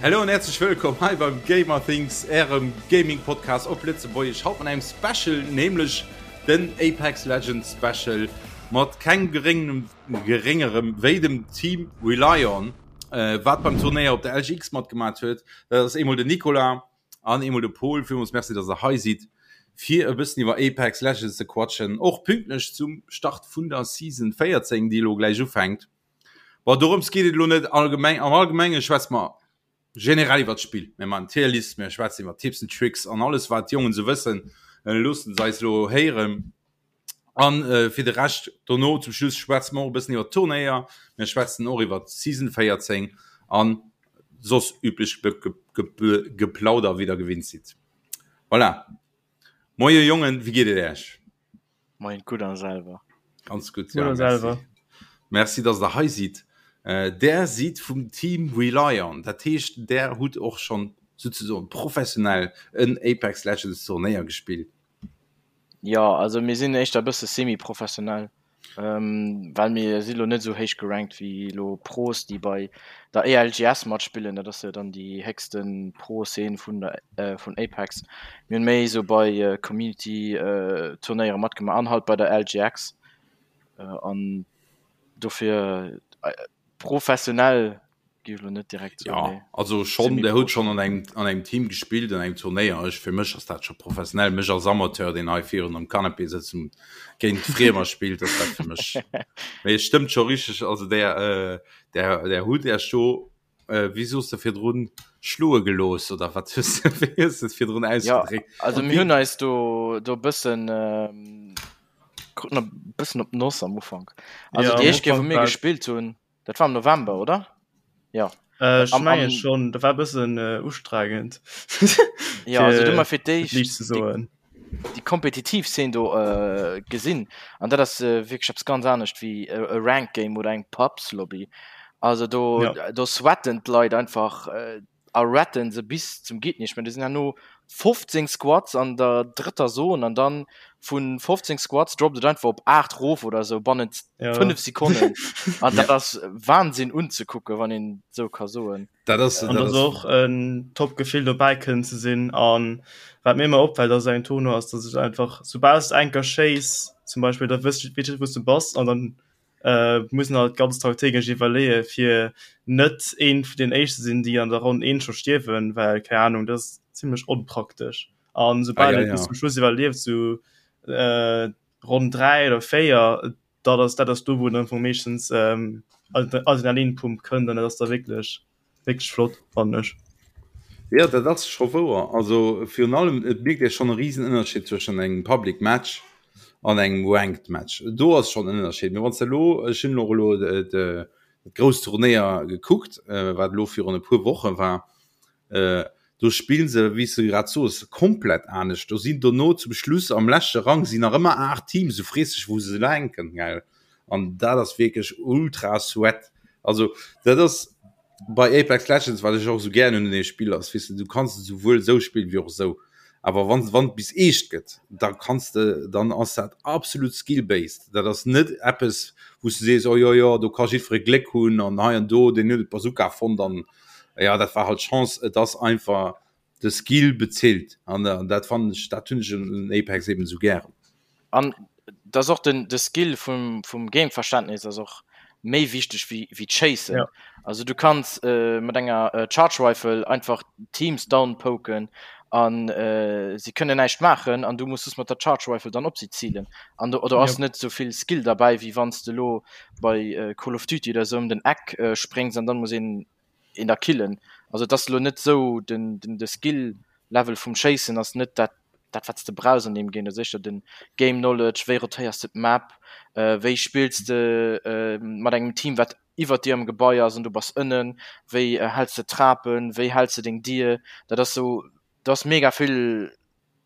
Hallo an herzlech wëllkomm hei beim Gamer Things, ärem Gaming Podcast op Lëtzebuergesch. Haut mat engem Special, nämlech den Apex Legends Special mat kengem geréngem geréngerem wéi dem Team Relion, äh, wat beim Turnéier op der LGX matgemaat huet. Dat ass eemol den Nicolas an eemol de Paul. Villmools Merci, dass der hei sidd, fir e bëssen iwwer Apex Legends ze quatschen, och pünktlech zum Start vun der Season 14, déi elo gläich ufänkt. Bon, dorëms geet et elo net allgemeng. Am Allgemenge schwätze mer generell iwwer d'Spill. Mir maachen Tierlist, mir schwätzen iwwer Tipps and Tricks an alles, wat d'Jongen esou wëssen, loosse se eis elo héieren. An äh, fir de Rescht dono zum Schluss schwätze mer och e bëssen iwwer d'Turnéier. Mir schwätzen och iwwer d'Season 14 an soss üblech Geplauder, wéi der gewinnt sidd. Voilà. Moie Jongen, wéi geet et Äech? Moien, gutt an selwer? Ganz gutt, ja, merci. Merci, dass der hei sidd. Äh, der sidd vum Team Relion, dat heescht, der hutt och schonn souzesoen professionell en Apex Legends Turnéier gespillt. Jo, also mir sinn éischter e bësse semi-professionell. Well mir si lo net esou héich gerankt wéi lo Pros, déi bei der ELGS matspillen. Dat ass jo dann déi héchste Pro-Szene vun der vun Apex. Mir hunn méi esou bei Community-Turnéiere matgemaach an halt bei der LGX. An dofir professionell Géif elo net direkt soen, Ja, nee. also schon, der huet schon an engem, an engem Team gespillt, an engem Turnéier. Ech, fir mech ass dat scho professionell. Mech als Amateur, deen hei virun am Canapé sëtzt und géint Friemer spillt, ass dat fir mech. Mee et stëmmt scho richteg, also der, äh, der, der hutt Äech do, äh, wéi soos de virdrun, schloe gelooss oder wat hues de, wéi hues de et virdrun Ja, ausgedréckt? also mir hunn eis do, do e bëssen, ähm, kruten e bëssen op d'Noss am Ufank. Also Ja, déi am éischt Kéier, wou Ufank mir war gespillt hunn, Dat war am November, oder? Ja. Äh, ech menge schon, dat war e bëssen äh, ustrengend. Ja, also du mar fir d'éischt déi, déi kompetitiv Szene do äh, gesinn. An dat ass äh, wierklech eppes ganz anescht wéi e, e Rank Game oder eng Pubs-Lobby. Also do, ja. do sweaten d'Leit einfach äh, a retten se bis zum geet nicht mehr. Do sinn herno 15 Squads an der drëtter Zone an dann vun 15 Squads droppt et einfach op 8 rof oder sou bannent Ja. 5 Sekonnen. An dat ass Wahnsinn unzekucken, wann een sou ka soen. Dat ass, An dat dat ass ass och en top Gefill dobäi kënnen ze sinn. An wat mir ëmmer opfält ass engem Tournoi ass, dass ech einfach soubal s de eng Kéier schéiss zum Beispill, da wëss weess ech wou s de bass an dann mussen halt ganz strategesch iwwerleeë fir net een vun den éischte sinn, déi an der Ronn 1 scho stierwen, well keng Ahnung, dat ass zimmlech onpraktesch. An soubal ah, ja, et bis ja. zum Schluss iwwerlieft, sou äh, Ronn 3 oder 4, dat ass dat ass do wou dann vum meeschtens ähm, Adrenalinpump kënnt an dat ass da wierklech Wierklech flott, fannen ech. Jo, dat ass scho wouer. Also virun allem, et mierkt ee schonn e risen Ënnerscheed zwëschen engem Public Match an engem Ranked Match. Do ass schonn en Ënnerscheed. Mee wann s de elo, ech hunn och elo dat grousst Turnéier gekuckt, wat elo virun e puer Woche war, do spillen se, wéi s de grad soos, komplett anescht. Do sinn dono zum Schluss am leschte Rang sinn nach ëmmer 8 Teams, du frees dech wou se hänken, gell. An dat ass wierklech ultra sweat. Also dat ass bei Apex Legends, wat ech och esou gären hunn un deem Spill ass, weess de, du kanns et esouwuel esou spillen wéi och esou. Awer wann wann et bis eescht gëtt, da kanns de, dann ass dat absolut skill-based. Dat ass net eppes, wou s du sees, oh jo jo, do ka jiddweree Gléck hunn an hei an do, deen huet d'Bazooka fonnt an jo, dat war halt Chance. Et ass einfach de Skill bezilt an dat fannen ech, dat hunn ech un Apex eben esou gären. An dass och den de Skill vum vum Gameverständnis ass och méi wichteg wéi wéi d'Schéissen. Ja. Also du kanns äh, mat enger äh, Charge Rifle einfach Teams downpoken an äh, si kënnen näischt maachen an du muss just mat der Charge Rifle dann op si zilen. An do oder ass Ja. net souvill Skill derbäi wéi wann s de lo bei äh, Call of Duty oder sou ëm den Eck äh, spréngs an dann muss een een da killen. Also et ass elo net esou, den, den, de Skill Level vum Schéissen ass net dat, dat wat s de brauchs an deem Game. Dat ass éischter den Game Knowledge, wéi rotéiers de d'Map, wéi spills de mat engem Team wat iwwert dir am Gebai ass an du bass ënnen, wéi häls de d'Trapen, wéi häls de deng Dier. Dat ass esou, do ass mega vill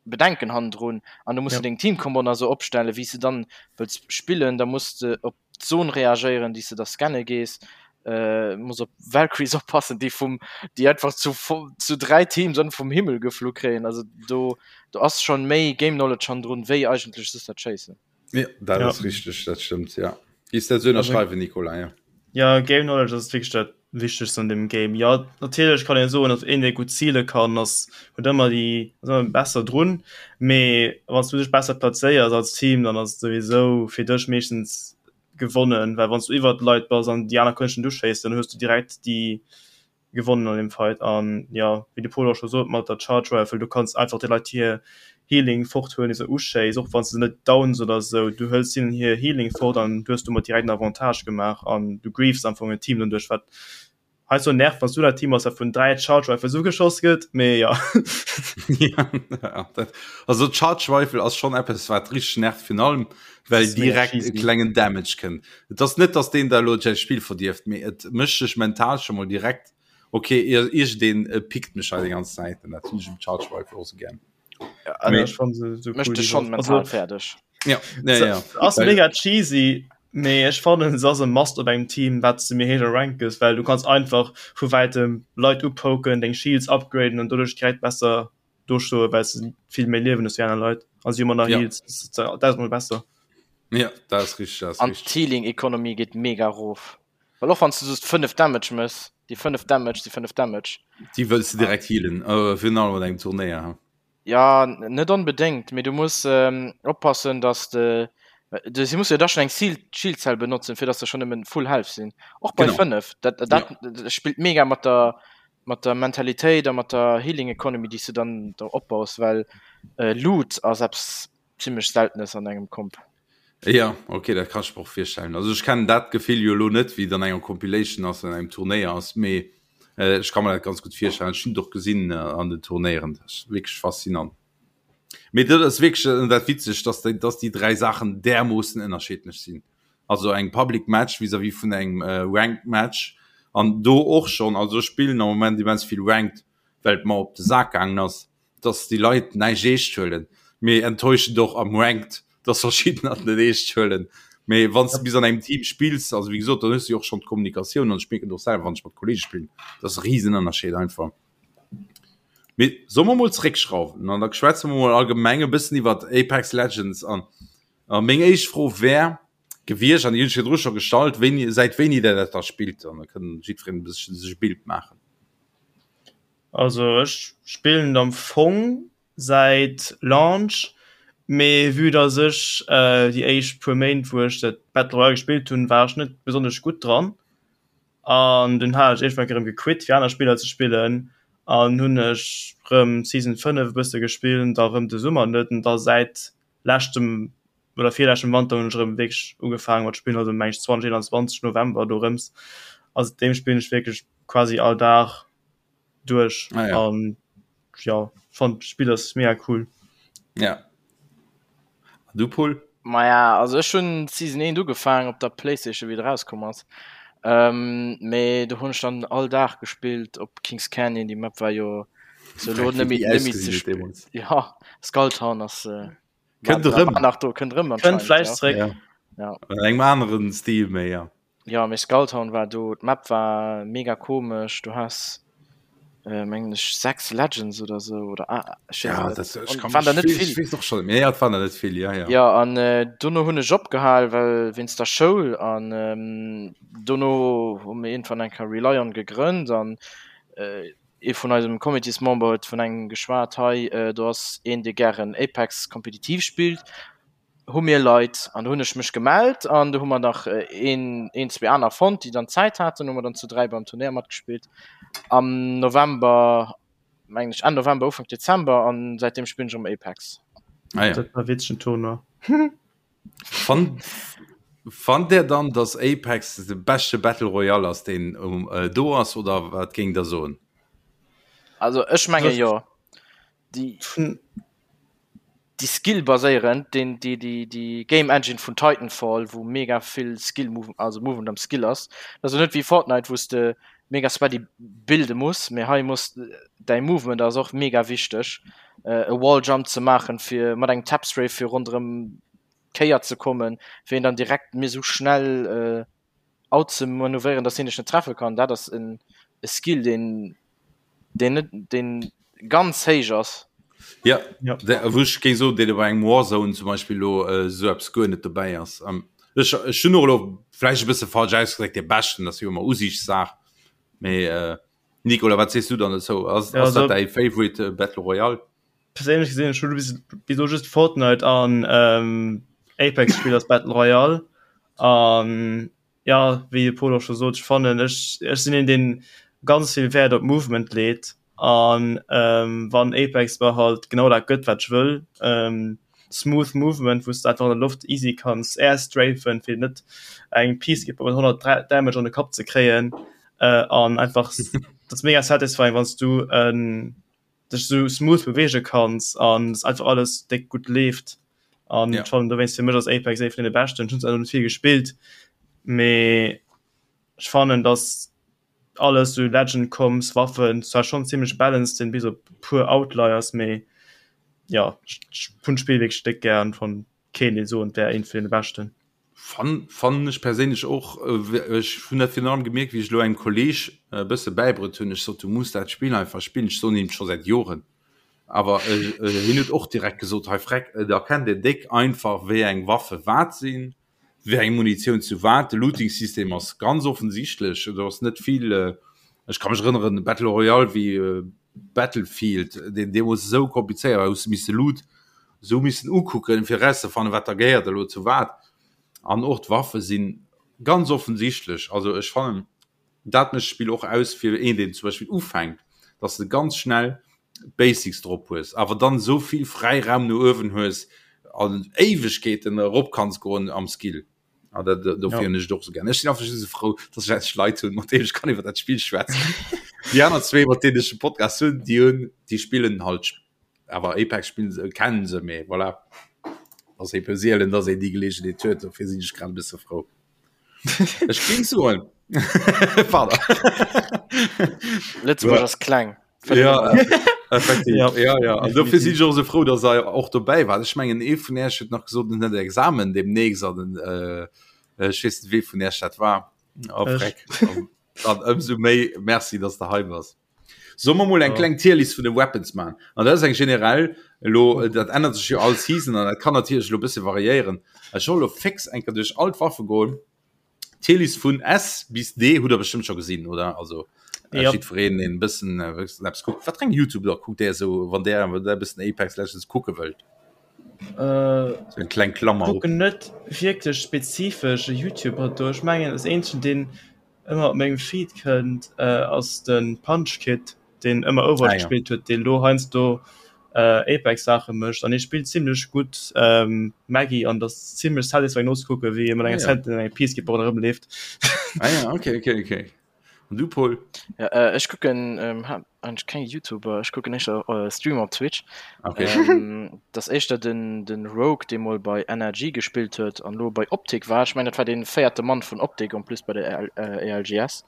Bedenken hannendrun an du muss Ja. de deng Teamcombo nach esou opstellen, wéi s de dann wëlls spillen. Da muss de op d'Zon reagéieren, déi s de da scanne gees. Äh, muss op Valkyries oppassen, déi vum, déi einfach zu, zu 3 Teams an vum Himmel geflu kréien. Also do, do ass schon méi Game Knowledge hannendrun, wéi eigentlech just dat Schéissen. Ja, dat Ja. ass richteg, dat stëmmt, ja. Giss dat esou ënnerschreiwen, Nicolas, ja? Ja, Game Knowledge ass wierklech dat Wichtegst an deem Game. Jo, natierlech kann een soen, datt een, dee gutt zile kann, ass huet ëmmer déi ass ëmmer besser drun. Mee wann s du dech besser plazéiers als Team, dann ass et souwisou fir dech meeschtens gewonnen, well wann s du iwwert d'Leit bass an déi aner kënnen dech net uschéissen, dann hues du direkt déi gewonnen an dem Fight an jo wéi de Pol och scho sot mat der Charge Rifle du kanns einfach de Leit hir Healing fort huelen déi se uschéiss och wann s de se net downs oder sou du hëls hinnen hir Healing fort an du hues domat direkt en Avantage gemaach an du griefs am Fong en Team doduerch wat heiansdo nervt wann s du dat Team bass wat vun 3 Charge Rifles ugeschoss gëtt mee jo. Also d'Charge Rifle ass schonn eppes wat richteg nervt virun allem well direkt e klengen Damage kënnt. Et ass net, dass deen der elo säi Spill verdierft, mee et mécht dech mental scho mol direkt, ok, iergendeen pickt mech hei déi ganz Zäit an dat hunn ech um Charge Rifle och sou gär. Ja, mee, ech fann se sou cool. Mécht dech schonn mental fäerdeg. Ja, ja, ja. Ass mega cheesy, mee ech fannen se ass e Must op engem Team, wat s de méi héich a Rank gëss, well du kanns einfach vu wäitem Leit upoken, deng Shields upgraden an doduerch direkt besser do stoe well se vill méi Liewen hues wéi aner Leit a si hu manner ja. Heals tausendmol besser. Ja, dat ass richtig, dat ass An d'Healing Economy geet mega erof. Well och wann s du just 5 Damage mëss, déi 5 Damage si 5 Damage. Déi wëlls du direkt healen, äh, virun allem an engem Turnéier. Ha. Ja, net onbedéngt, mee du muss ähm, oppassen, dass de du si muss jo da schon eng Shield Cell benotzen, fir dass se schon nëmmen full health sinn. Och bei 5. Dat, dat, ja. dat spillt mega mat der mat der Mentalitéit a mat der Healing Economy, déi s du dann do opbaus, well Loot ass eppes zimmlech Seltenes an engem Comp. Ja, okay, dat kann ech mer och virstellen. Also ech kennen dat Gefill jo elo net, wéi et an enger Compilation ass, an engem Turnéier ass, mee ech ka mer dat ganz gutt virstellen. Ech hunn et och gesinn an den Turnéieren, dat ass wierklech faszinant. Mee dat ass wierklech dat Witzegt, dass déi, dass déi 3 Saachen därmoossen ënnerschiddlech sinn. Also eng Public Match vis-à-vis vun engem Ranked Match an do och schonn, also ech spillen am Moment immens vill Ranked, well et mer op de Sak gaangen ass, dass déi Leit näischt eescht huelen. Mee enttäuschend och am Ranked, dass verschiddener et net eescht huelen. Mee wann s de bis an engem Team spills, also wéi gesot, dann hues de jo och schonn d'Kommunikatioun an ech mierken et och selwer, wann ech mat Kollege spillen, dat ass e Risenënnerscheed einfach. Mee solle mer mol zréckschrauwen an da schwätze mer mol allgemeng e bëssen iwwert Apex Legends an a meng éischt Fro wär gewiescht, an déi hunn ech virdru scho gestallt, wéini, säit wéini der dat da spillt an da kënn jiddwereen e bësschen sech e Bild maachen. Also ech spillen et am Fong säit Launch, mee vue dass ech déi éischt puer Méint wou ech dat Battle Royale gespillt hunn, war ech net besonnesch gutt dran. An dunn hat ech iergendwann erëm gequit fir aner Spiller ze spillen an hunn ech rëm Season 5 e bësse gespillt, da rëm de Summer net an da säit leschtem oder virleschtem Wanter hunn ech erëm wierklech ugefaange mat spillen, also meng ech 2021 November dorëms. A säitdeem spillen ech wierklech quasi all Dag duerch ah, ja. an ja fand d'Spill ass mega cool. Ja. Du Paul? Maja, also ech hunn Season 1 ugefaangen op der Playstation wéi et erauskomm ass. Ähm, mee do hunn ech dann all Dag gespillt op Kings Canyon, déi Map war jo so lo net méi net méi ze spillen. Ja, Skulltown ass äh, Kënnt erëm. War nach do, kënnt erëm Kënnt vläicht zréck. Ja. Ja. An engem aneren Stil méi, ja. Jo, mee Skulltown war do, d'Map war mega komesch, du has äh, mengen ech 6 Legends oder sou oder ah, ech weess Ja, et dat, net. ech An kann waren der mech, net ich vill. weess och schon, mee ja, et waren der net vill, ja, ja. Ja, an äh, dono hunn ech opgehal, well wéinst der Schoul an ähm, dono hu mir iergendwann eng Kéier Relion gegrënnt an äh, ee vun eisem Comitésmember huet vun engem geschwat, hei äh, do ass een, dee gären Apex kompetitiv spillt, hu mir Leit an do hunn ech mech gemellt an do hu mer nach een, een, zwee aner fonnt, déi dann Zäit haten, hu mer dann zu 3 beim Turnéier matgespillt am November, mengen ech, Enn November, Ufank Dezember an säitdeem spillen ech erëm Apex. Ah ja. Dat war witzegen Tournoi. Fannt, fannt der dann, dass Apex de beschte Battle Royale ass, deen um, äh, do ass, oder wat géingt der soen? Also ech menge jo. Déi. Déi Skill baséierend, deen déi déi déi Game Engine vun Titanfall, wou mega vill Skill Move, also Movement am Skill ass. Dat ass jo net wéi Fortnite, wou s de mega sweaty builde muss, mee hei muss däi Movement ass och mega wichteg, e Wall Jump ze maachen, fir mat engem Tap Strafe fir ronderëm d'Kéier ze kommen, fir een dann direkt mir sou schnell out ze manövréieren, dass hien dech net treffe kann. Dat ass en e Skill, deen deen net deen ganz héich ass. Ja, ja. wou ech géing soen, deen bei engem Warzone zum Beispill lo äh, sou eppes guer net dobäi ass. Ähm, Ech ech hunn och elo vläicht e bësse falsch ausgedréckt, dee beschten, dat ass jo ëmmer Usiichtssaach. Mee äh, Nicolas, wat sees du dann dozou? Ass, Ja, ass dat also däi Favorite äh, Battle Royale? perséinlech gesinn, ech hu bis, bis elo just Fortnite an ähm, Apex gespillt als Battle Royale. An ja, wéi de Pol och scho sot, ech fannen, ech, ech sinn een, deen ganz vill Wäert op Movement leet. An ähm, wann Apex mer halt genau dat gëtt, wat ech wëll, ähm, smooth Movement, wou s de einfach an der Loft easy kanns airstrafen, fir net eng Peacekeeper mat 100 Damage an de Kapp ze kréien, äh, an einfach, dat ass mega satisfying, wann s du en dech sou smooth beweege kanns an dass einfach alles déck gutt leeft. An Ja. ech fannen dowéinst fir mech ass Apex ee vun deene beschten. Ech hunn zwar net vill gespillt, mee ech fannen dass alles sou Legend Comps, Waffen zwar schonn zimmlech balanced sinn, bis op puer Outliers, mee jo ech ech hunn d'Spill wierklech déck gär an fannen kéint een soen et wär eent vun deene beschten. Fann fannen ech perséinlech och. Ech hunn dat virun allem gemierkt, wéi ech elo engem Kolleeg e bësse bäibruet hunn. Ech sot, du muss dat Spill einfach spillen. Ech soen him scho säit Joren, awer hien huet och direkt gesot, hei Freck, et erkennt een déck einfach, wéi eng Waffe wat sinn, wéi eng Munitioun zu wat. De Looting-System ass ganz offensichtlech, do ass net vill. Ech ka mech erënneren, Battle Royale wéi Battlefield, deen deemools esou komplizéiert war, hues de misse Loot esou missen ukucken, fir erauszefannen, wat da gehéiert elo zu wat. An och d'Waffe si ganz offensichtlech. Also ech fannen, dat mécht d'Spill och aus fir een, deen zum Beispill ufänkt, dass de ganz schnell d'Basics drop hues, awer dann esou vill Fräiraum no uewen hues an Éiwegkeeten erop kanns goen am Skill. Ah, dat, dofir hunn ech et och esou gär. Ech sinn einfach just esou frou, dass ech endlech Leit hunn, mat deenen ech kann iwwer dat Spill schwätzen. Déi aner zwee, mat deenen ech de Podcast hunn, déi hunn, déi spillen halt awer Apex spillen se, kennen se, mee voilà. Ass eebe sielen, dass een déi Geleegenheet huet, dofir sinn ech grad e bësse frou. Ech géing soen, pardon. Lëtzebuerg ass kleng. Ja, effektiv. Ja. Ja, ja. An dofir sinn ech och esou frou, dass der och dobäi waart. Ech mengen, ee vun Iech huet nach gesot, en hätt Examen demnächst an den, äh, ech weess net, wee vun Iech dat war. Oh, Ech. Freck. Dann ëmsou méi Merci, dass de hei bass. Solle mer mol eng Ja. kleng Tierlist vun de Weapons man? An dat ass eng generell, elo, dat ännert sech jo all Season an dat kann natierlech elo e bësse variéieren. Ech soll elo fix eng Kéier duerch all d'Waffe goen. D'Tierlist vun S bis D hutt der bestëmmt scho gesinn, oder? Also äh, Ja. jiddwereen, deen e bëssen äh, wëssen eppes kuckt. Wat fir eng YouTuber kuckt där esou, wann där, wann där e bëssen Apex Legends kucke wëllt? Äh, So eng kleng Klammer op. kucken net wierklech spezifesch e YouTuber do. Ech mengen, das eenzegen, deen ëmmer op mengem Feed kënnt, äh, ass de Punchkid, deen ëmmer Overwatch Ah, ja. gespillt huet, deen elo heiansdo äh, Apex-Saache mécht. An hie spillt zimmlech gutt ähm, Maggie an dat ass zimmlech satisfying nozekucken, wéi hie mat enger Ah, ja. Sentinel an enger Peacekeeper ronderëm leeft. Ah ja, okay, okay, okay. An du, Paul? Ja, äh, ech kucken ähm, ha eigentlech keng YouTuber, ech kucken éischter äh, Streamer op Twitch. Okay. Ähm, dat ass éischter den, den Rogue, dee mol bei NRG gespillt huet an lo bei Optic war. Ech mengen, dat war dee véierte Mann vun Optic en plus bei der EL, äh, ELGS.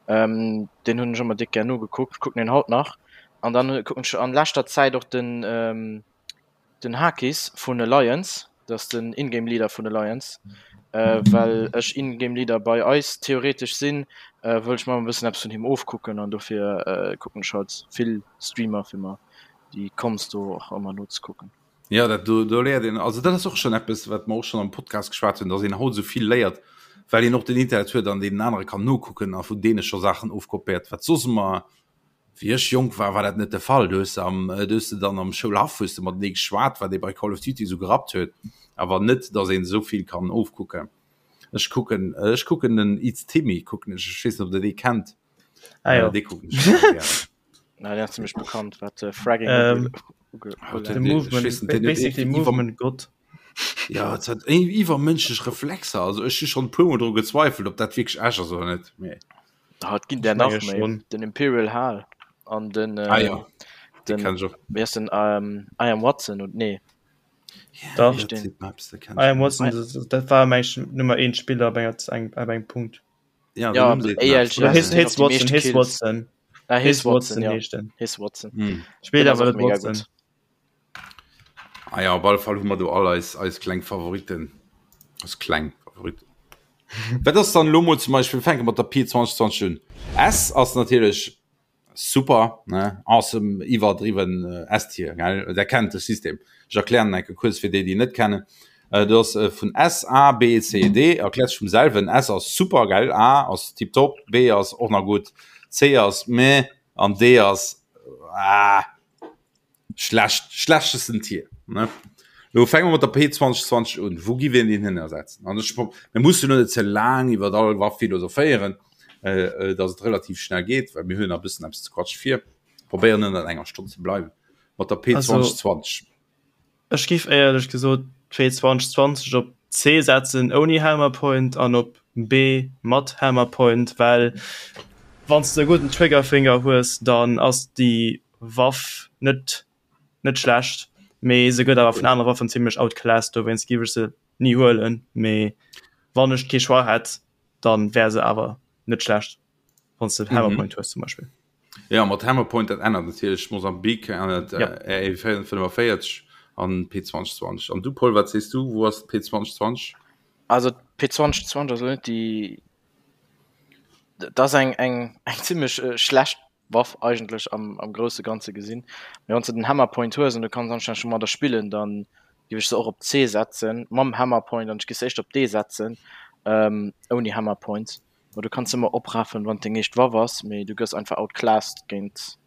Ähm, deen hunn ech ëmmer déck gär nogekuckt, kucken en haut nach. An dann kucken ech an leschter Zäit och den, ähm, den Hakis vun Alliance, dat ass den Ingame Leader vun Alliance. Äh, well ech Ingame Leader bei eis theoretesch sinn, äh, wëll ech mer e bëssen eppes vun him ofkucken an dofir äh, kucken ech halt vill Streamer fir mer déi Comms do och ëmmer nozekucken. Ja, dat do, do léiert een, also dat ass och schon eppes, wat mer och schon am Podcast geschwat hunn, dass een haut esou vill léiert, well een och den Internet huet an deenen anere kann nokucken a vun deene scho Saachen ofkopéiert, wat soss ëmmer, wéi ech jonk war, war dat net de Fall. Do hues de am, do hues de dann am Schoulhaff hues de matenee geschwat, wat ee bei Call of Duty esou gerappt huet, awer net, dass een esou vill kann ofkucken. Ech kucken, ech kucken den It's Timmy kucken ech, ech weess net, ob der dee kennt. Ah jo. Dee kucken ech ëmmer gären. Na, deen ass zimmlech bekannt, wat Fragging Ähm, uge- Oh, De den- den- Movement, ech weess net, den huet basically iwwer- Movement Gott. Ja, et hat iwwermënschlech Reflexer. Also ech hu schonn e puer Mol dru gezweifelt, ob dat wierklech echt ass oder net. Mee Ah, et ginn der Ech nach menge méi. schonn. Den Imperial Hal an den, ah äh, ja, dee den kenn ech och. wéi ass den ähm, I am Watson und nee Dach. Heescht den I am Watson, dat, dat war meng ech Nummer 1 Spiller op enger eng op engem Punkt. Ja, Ja, den Numm seet mir eppes. Oder ALGS His, sinn och His déi Watson, meescht His Kills. Watson. Ah, His His Watson, Watson ja. heescht den. His Watson. Hm. Spillt Den ass awer och net mega Watson. gutt. Ah ja, op alle Fall hu mer do all eis, eis kleng Favoriten. Eis kleng Favoriten. Wat ass dann elo mol zum Beispill, wir fänke mat der Pi 2020 un. S ass natierlech super, ne? Awesome, iwwerdriwwen äh, S-Tier, gell? Der kennt de System. Ech erklären enke kuerz fir déi, déi net kennen. Äh, du ass äh, vun S, A, B, C, D erkläert sech vum selwen. S ass super gell, A ass tiptop, B ass och nach gutt, C ass meh an D ass ah, schlecht, schlechtesten Tier. Ne? Lo fänke mer mat der P2020 un. Wou gi wir den hin ersetzen? An ech, mir mussen lo net ze laang iwwer all Waff philosophéieren, äh, äh, dass et relativ schnell geet, well mir hunn nach e bëssen eppes ze quatsche vir. Probéieren ënnert enger Stonn ze bleiwen mat der P2020. Ech giff éierlech gesot d'P2020 op C setzen ouni Hammerpoint an op B mat Hammerpoint, well wann s de e gudden Triggerfinger hues, dann ass déi Waff net net schlecht, mee se gëtt awer vun anere Waffen zimlech outclassed, dowéinst giff ech se ni huelen, mee wann ech kee Choix hätt, dann wär se awer net schlecht, wann s de Hammerpoint hues zum Beispill. Ja mat Hammerpoint dat ännert natierlech Mosambik ännert ja. äh, RE45 an P2020 an du Paul wat sees du wo ass P2020? Also P2020 ass net déi dat ass eng eng eng zimmlech äh, schlecht Waff eigentlech am, am grousse ganze gesinn. Mee wann s de den Hammerpoint hues an du kanns anstänneg domadder spillen, dann géif ech se och op C setzen mam Hammerpoint an ech géif se éischter op D setzen ähm, ouni Hammerpoint. Ma du kanns ëmmer oprafen wann deng éischt Waff ass, mee du gëss einfach outclassed géint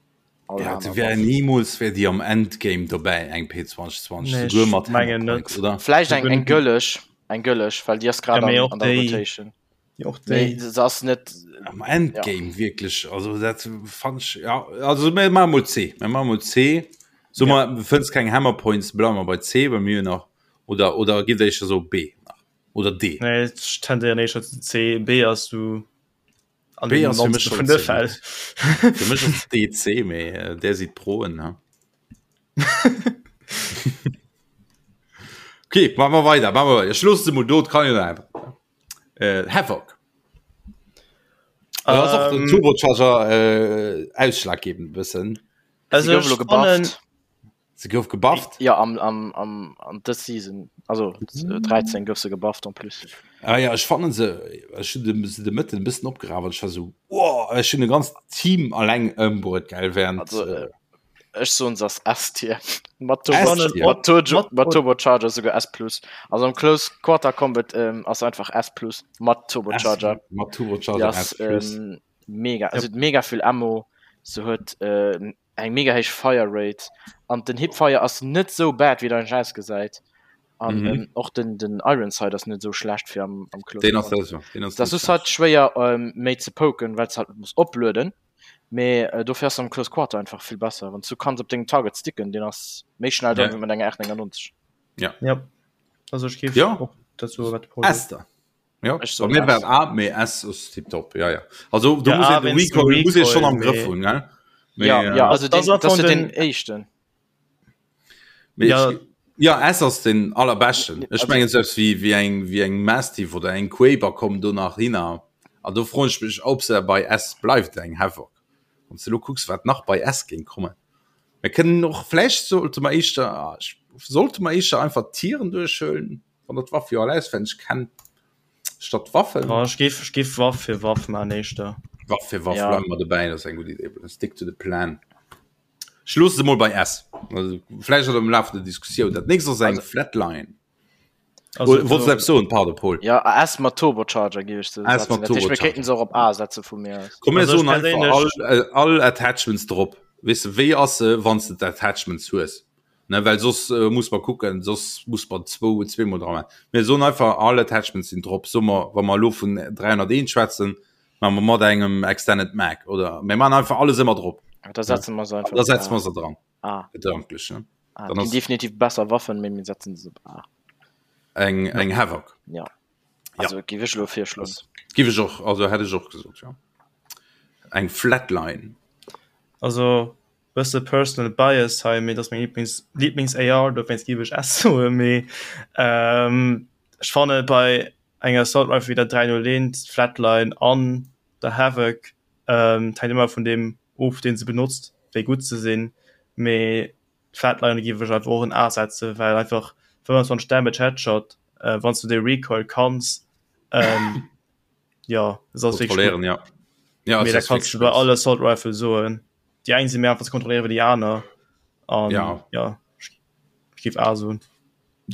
all Ja, aner wär Waff. niemals wär déi am Endgame dobäi eng P2020 Nee, souguer ech mat mengen Hammerpoint, net. oder? Vläicht eng eng gëlleg, eng gëlleg, well déi ass grad Ja, mee an, och an der déi, Rotation. och Mee déi. se ass net, Am ja. Endgame wierklech, also dat fand ech, ja, also mir maache mol C, mir maache mol C. So Ja. mer fënns keng Hammerpoints, bleiwe mer bei C, well mir hunn nach, oder oder gitt éischter so B nach. Oder D? Nee, ech tendéieren éischter zu C. B ass du an B ass fir mech schon vun de Fäll. Fir mech ass D C, mee äh, där sidd Proen, ha. Okay, machen wir weiter, machen wir weiter. Ich loosse se mol do, kann jo einfach. Äh, Havoc. Um, ass och den ähm. Turbocharger äh, ausschlaggebend bëssen. Also, gouf elo gebufft. Se gouf gebufft? Ja am, am, am, an dës Season, also 13 gouf se gebufft en plus. Ah ja, ech fannen se, ech hunn de, se de Mëtten e bëssen opgeraf an ech war sou, wow, ech hunn e ganzt Team alleng ëmbruet, gell, während. Also, äh, ech soen se ass S-Tier. Mat Turbo, S-Tier. mat Turbo, Mat- mat Turbocharger souguer S plus. Also am Close Quarter Combat ähm, ass einfach S plus mat Turbocharger. S, mat Turbocharger Die ass S plus. ähm, mega, also mega vill Ammo. Se huet äh, eng mega héich Fire Rate an den Hipfire ass net sou bad wéi et eigentlech ausgesäit an mhm. ähm, och den den Iron Sight ass net sou schlecht fir am, am Close den ass das, den ass das ist halt schwéier ähm, méi ze poken well halt muss oplueden mee äh, dofir ass am Close Quarter einfach vill besser wann du kanns op dengem Target sticken den ass méi schnell ja. mat enger R99 ja ja also ich gef ja. dazu Esther. Ja, Ech bei soen mir war S. A, mee S ass tiptop. Ja, ja. Also do Ja, muss A, een de wéinst dem Recoil muss ee schonn Recoil, am Grëff mee- hunn, gell? Mee, Ja, äh, ja, also Das den, ass das von ist den den- éischten. mee Ja. ech, ja, S ass den allerbeschten. Ech Also- mengen selbst wéi, wéi eng, wéi eng Mastiff oder eng Quaber kommen do nach hinner. An do froen ech mech, ob se bei S bleift, eng Havoc. Wann s de lo kucks, wat nach bei S géing kommen. Mir kënnen och, vläicht sollte mer éischter, ah, ech, sollte mer éischter einfach d'Tieren duerchhuelen? Wann der d'Waff jo all auswenneg kennt, statt Waffen. Oh, ech géif, ech géif Waff fir Waff man éischter. Waff fir Waff, Ja. bleiwe mer dobäi, dat ass eng gutt Idee. Stick to the plan. Ech loosse se mol bei S. Also, vläicht am Laf der Diskussioun. Dat nächst ass eng Flatline. Also, Oh, Wolltest du eppes soen? Pardon, Paul. Ja, S mat Turbocharger géif ech se S mat setzen. Dat heescht, mir Turbocharger. kéinten se och op A setze vu mir aus. Komm, mir Also, ech soen einfach perséinlech- all, äh, all Attachments drop. Weess de, wéi ass se, wann s de d'Attachments hues? Ne, well soss äh, muss mer kucken, soss muss mer zwou, zweemol dra maachen. Mir soen einfach, all Attachments sinn drop. Soe mer, wa mer elo vun 301 schwätzen, maache mer mat engem Extended Mag, oder mir maachen einfach alles ëmmer drop. Da setze mer se einfach Da op setze A. mer se dran, A. gedanklech, ne? A. Dann Ginn ass definitiv besser Waffen, mee mir setzen se op A. eng, eng Havoc. Ja. Also géif ech elo virschloen. Giff ech och, also hätt ech och gesot, ja. Eng Flatline. Also bësse personal bias hei, mee dat ass meng Lieblings Lieblings AR, dowéinst géif ech S soen, mee ähm, ech fanne bei enger Assault Rifle wéi der 301, Flatline an der Havoc, ähm, et hänkt ëmmer vun deem of, deen se benotzt, wéi gutt se sinn, mee d'Flatline géif ech einfach och en A setzen, well einfach 25 Damage Headshot, äh, wann s du dee Recoil kanns, ähm, ja, es ass wierklech gutt. Kontrolléieren, ja. Ja, Mee es dat ass kanns du wierklech bei alle Assault Rifle soen. Déi eng si méi einfach ze kontrolléieren wéi déi aner. An Ja. ja, ech géif A soen.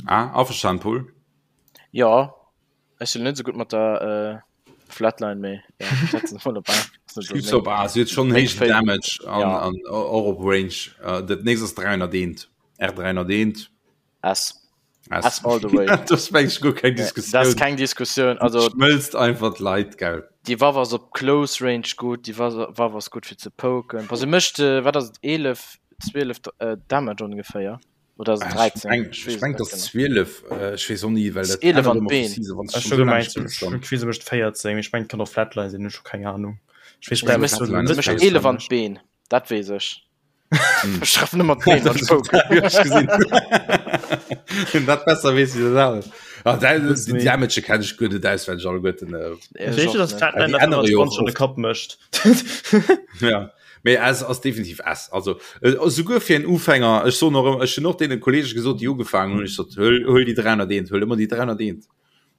Ah, averstanen, Paul? Jo, ech sinn net esou gutt mat der Flatline, mee jo, ech setzen se mol op A. Ass net esou Gib's op meng A, se huet schonn meng héijen Favorite. Damage an, Ja. an och op Range. Dat nächst ass 301, R301. S. S. S all the way. Dat ass meng ech guer keng Nee, dat ass Diskussioun. keng Diskussioun. Also Schmëlzt einfach d'Leit, gell. déi Waff ass op Close Range gutt, déi Waff ass gutt fir ze poken. Bon, se mécht, wat ass et, 11, 12 Damage ongeféier. Oder ass et 13? Ech meng, ech meng, dass 12, ech weess och ni, well dat 11 ännert an ëmmer vu d'Been. Season, wann s du Ech schonn hu esou laang gemengt, spills, dann. ech weess, se mécht 14, mee ech mengt, kann och Flatline sinn, ech hu keng Ahnung. Ech weess Se bleiwen mécht, zu Flatline se ass mécht besser. 11 an d'Been, dat weess ech. Ech treffen ëmmer d'Been, wann ech Dat poken. hu ech gesinn. Wien dat besser weess wéi dat anert. Ah, dat, Wëss déi méi. Damage kenn ech guer net auswenneg alleguerten. Ech Ech weess, och dass net. Flatline Déi der ännere jo och 25 an de oft. Kapp mécht. Ja. Mee S ass definitiv S. Also äh, souguer fir en Ufänger, ech soen och ëmmer, ech hunn och deene Kollege gesot, déi ugefaangen hunn, ech sot, huel, huel déi 301, huel ëmmer déi 301.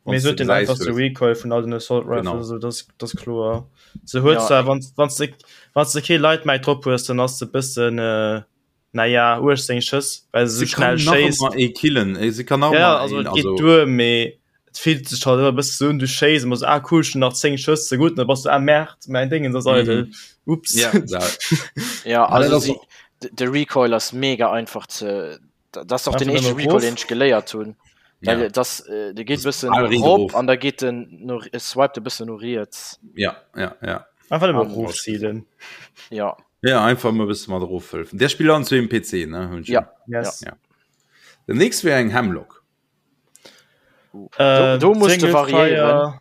Mee se huet den einfachste Recoil vun all den Assault Rifles, Genau. also das, das ass kloer. Se huet Ja. zwar, wann, wann du, wann du kee Light Mag drop hues, dann ass se bëssen, äh, naja, 18 Schëss, well se Se sou schnell kann nach schéisst. ëmmer ee killen, eh, se kann nach Ja, ëmmer also een, et geet also duer, mee et fillt sech halt ëmmer e bësse sou un, du schéiss an bass ah cool, ech hunn nach 10 Schëss, ze gutt, an da bass du ah Merde, mäin Déngens ass eidel, ups. Ja, dat, Ja, Ah, dat also ass si, och- de de Recoil ass mega einfach ze, dat ass och den Einfach éischte nëmme Recoil, erof. deen ech geléiert hunn. ja. Well das, äh, de geet Das bëssen bal riit rop erof. an da geet den no, swiped e bëssen no riets. Ja, ja, ja. Einfach nëmme An- erofzilen. Ja, Ja, einfach mal bësse mat erofhëlfen. Der spillt an zu dem PC, ne? Hunn ech ja. Yes. Ja. Den nächst wär eng Hemlock. Äh, Do, do musst du Single variéieren. Fire,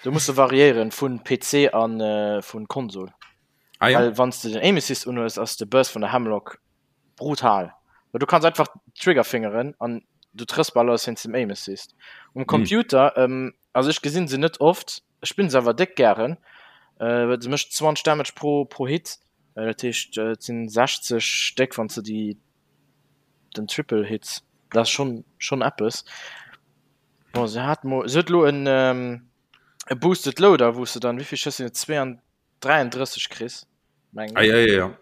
Do musst du variéieren vun PC an äh, vun Konsol. Ah ja. Well wann s du den Aim Assist unhues, ass de Burst vun der Hemlock brutal. Well du kanns einfach Triggerfingeren an du trëffs bal alles wéinst dem Aim Assist. Um Computer, ähm, also ech gesinn se net oft, ech spillen se awer déck gären, äh, well se mécht 20 Damage pro, pro Hit, äh, dat heescht äh, et sinn 60 Stéck wann s du déi den Triple hits, dat ass schonn schonn eppes. Bon, se hat mo, se huet elo en ähm, e Boosted Loader, wou s de dann, wéi vill Schëss sinn et, 32 33 kriss, mengen Ah, ech. ja, ja, ja.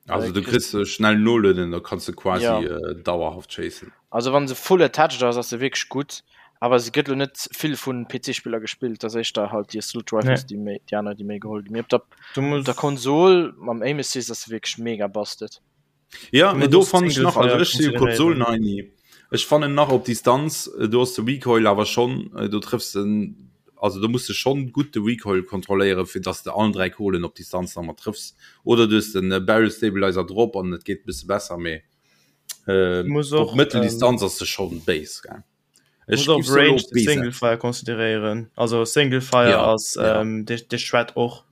Also Äh, du kriss, kriss äh, schnell nolueden, da kannst du quasi ja. äh, dauerhaft chasen. Also wann se full attached ass, ass se wierklech gutt, awer se gëtt lo net vill vun PC-Spiller gespillt, dat ass éischter halt déi Assault nee. Rifles, déi méi, déi aner, déi méi geholl ginn. Mee op der, Du op der muss, Konsol mam Aim Assist ass se wierklech mega busted. Ja, du mee muss do och fannen ech Single nach, also Fire ech si jo consideréieren. Konsolen-Heini. Ech fannen nach op Distanz, äh, do ass de Recoil awer schonn, äh, do trëffs de, also do muss de schonn gutt de Recoil kontrolléieren, fir dass de allen 3 Kugelen op Distanz nach mat trëffs. Oder du hues den äh, Barrel Stabilizer drop an et geet e bësse besser, mee äh, Du muss op och, ähm, Mëtteldistanz ass se schonn béis, gell. Du Ech muss och giff se elo Range op B Single setzen. Fire consideréieren. Also Single Fire Ja, ass ja. ähm, de, de Shred och.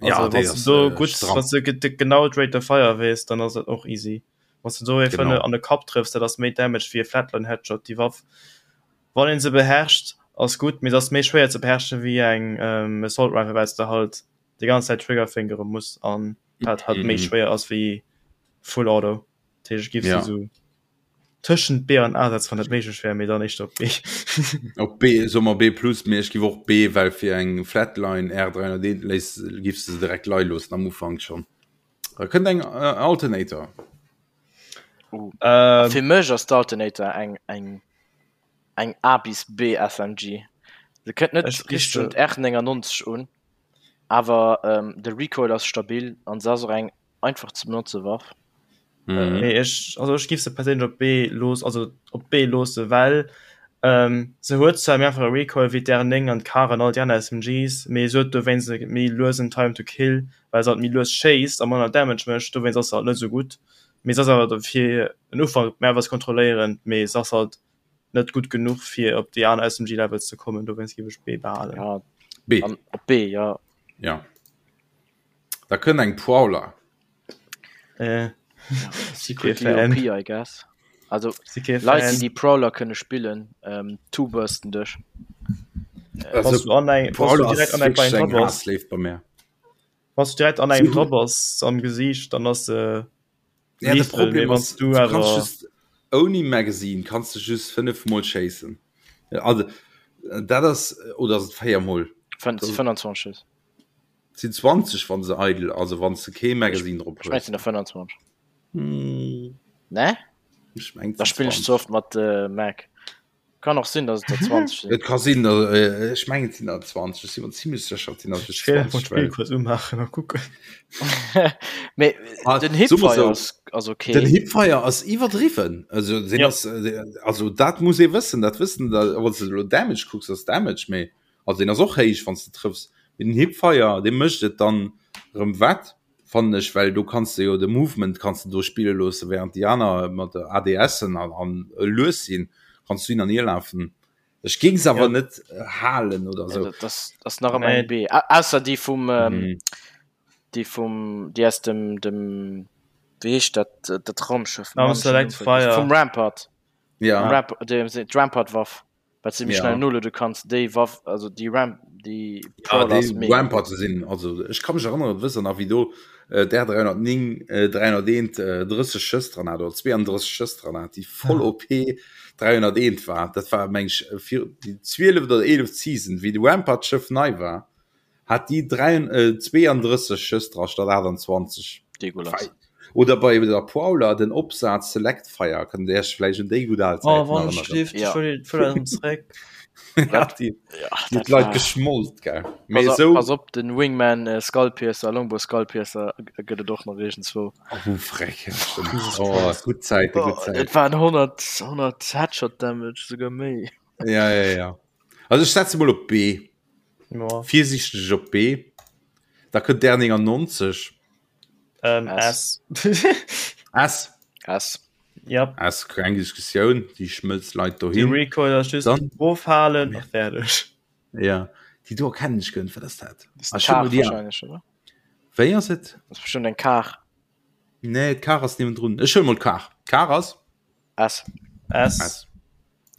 Ja, Also déi wann du ass do äh, gutt, stramm. wann du ge- genau d'Rate of Fire weess, dann ass dat och easy. Wann du do ee Genau. fënne an de Kapp trëffs, dat ass méi Damage wéi e Flatline Headshot. Déi Waff, wann een se beherrscht, ass gutt, mee se ass méi schwéier ze beherrschen wéi eng ähm, Assault Rifle, well s de halt déi ganz Zäit Triggerfingere muss an dat halt méi Mhm. schwéier ass wéi Full Auto. Dat heescht, ech giff se Ja. sou tëschent B an A setzen, wann dat méiglech wär, mee dann éischter op B. Op B, soe mer B plus, mee ech giff och B, well fir eng Flatline R301 léiss, giffs de se direkt leie loossen am Ufank schonn. Da kënnt eng äh, Alternator. Uh. Ähm, Fir mech ass d'Alternator eng, eng, eng A bis B SMG. Se kënnt net Ech giff richteg se un d'R99 un, awer ähm, de Recoil ass stabil an se ass och eng einfach ze benotze Waff. Mhm. Nee, ech, also ech giff se perséinlech op B looss, also op B loosse, well ähm, se huet zwar méi einfache Recoil wéi d'R9 an d'Kar an all déi aner SMGs, mee se huet dowéinst e méi luesen Time to Kill, well se halt méi lues schéisst a manner Damage mécht, dowéinst ass se halt net esou gutt. Mee se ass awer fir en Ufank méi einfach ze kontrolléieren, mee se ass halt net gutt genuch fir op déi aner SMG Levels ze kommen, dowéinst giff ech B behalen. Ja, B. an op B, ja. Ja. Da kënnt eng Prowler. Äh, Secretly OP, I guess. Also Leit, déi die Prowler kënne spillen, ähm, two-bursten dech. Also, Wann du an eng, wann du Prowler direkt ass an eng wierklech bei eng dra bass, Haassléift bei mir. wann du direkt an engem Si dra hunn bass am Gesiicht, dann ass se Ja, de lethal, mee Problem wann ass, du du kannst awer just ouni Magazine kannst du just 5 mol schéissen. Also dat ass oder ass et 4 mol? 25 Schëss. Sinn 20 wann se eidel, also wann s de kee Magazine drop Ech mengen hues. et sinn der 25. Hm. Ne? Ech mengen et Da sinn spillen ech 20. ze oft mat äh, Mag. Kann och sinn, dass et der 20 sinn. Et ka sinn, äh, ech mengen et sinn der 20, ech si mer zimmlech sécher, et sinn der just 20. Ech kuerz umaachen a kucken. Mee ah, den Hipfire so, ass, ass okay. Den Hipfire ass iwwerdriwwen. Also, den ja. ass, äh, also dat muss ee wëssen, dat wëssen, da, wann du lo Damage kucks, ass Damage méi. Also den ass och héich, wann du trëffs. Mee den Hipfire, dee mécht et dann rëm wett. Fannen ech, well do kanns de jo de Movement kanns de do spille loosse während déi aner mat der ADSen an, an lues sinn, kanns du hin an hier lafen. Ech géing se awer net halen oder sou. Ja, dat ass nach ëmmer eng B. Ausser déi vum ähm, déi vum déi aus dem dem wéi heescht dat dat Raumschëff? Vum Rampart. Ja. Ramp, d'Rampart-Waff. Wat se méi schnell noluede kanns, déi Waff, also déi Ramp, déi ja, déi Rampart sinn, also ech ka mech erënneren, wëss der nach wéi do äh, der 309 äh, 301 äh, 30 Schëss dran hat oder 32 Schëss dran hat, déi voll OP 301 war. Dat war meng ech fir déi 12 oder 11 Season, wéi de Rampart Schëff nei war, hat déi 32 Schëss dra statt 28. Degulas. Oder bei der Prowler den Opsaz Select Fire, kënnt Dir Iech vläicht un déi gutt al Zäiten oh, wann ech ja. zréck. ja, déi, ja, déi Leit geschmolt gell. Mee pass, so, pass op den Wingman äh, Skullpiercer, Longbow Skullpiercer gëtt et och nach iergendzwou. Oh, frech. Oh, gutt Zäite, gutt oh, Zäiten. Et waren 100, 100 Headshot Damage, souguer méi. Ja, ja, ja. Also ech setze mol op B. Ja. Virsiichteg op B. Da kënnt der 99. Ähm, S. S. S. Ja. S, keng Diskussioun, déi schmëlzt Leit dohin. Die Recoil ass just Dann, ofhalen a fäerdeg. Ja, déi do erkennen ech guer net, wat ass dat? Das ist eng Kar wahrscheinlech, oder? Wéi ass et? Das ist bestimmt eng Kar. Nee, d'Kar ass niewendrun. Ech huele mol d'Kar. D'Kar ass? S. S. S.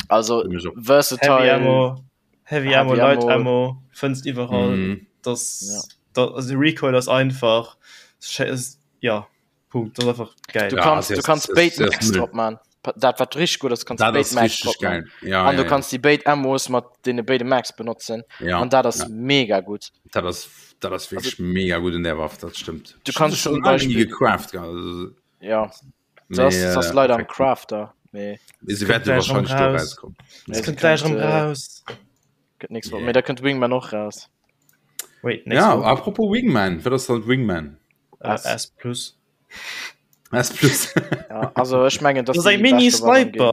Also versatile. Heavy Ammo, Heavy Ammo, Light Ammo, fënns iwwerall. Mm. Das, ja. das, also Recoil ass einfach. Ja, Punkt. Das einfach geil. Du kannst, ja, du kannst béid Mags drop man. Dat wat richtig gut ass, kannst béid Mags drop man. Ja, an du ja, kannst die béid Ammos mat deene béide Mags benotzen. Ja, an dat ass ja. mega gut. Dat ass, dat ass wirklich also, mega gut in der Waff, dat stimmt. Du kannst schon Beispiel gecraft. Also, ja. Das, Mee, das ass äh, leider am Crafter. Mee se wäerte wahrscheinlich do rauskommen. Es kënnt gleich erëm raus. Gëtt nächst Woch. Mee da kënnt Wingman och raus. Wait, nächst Ja, Woch? apropos Wingman, wat ass dann Wingman? Äh, S plus. S plus. Ja, also ech mengen, dass dass Das ass eng déi beschte Waff am Mini-Sniper. Game.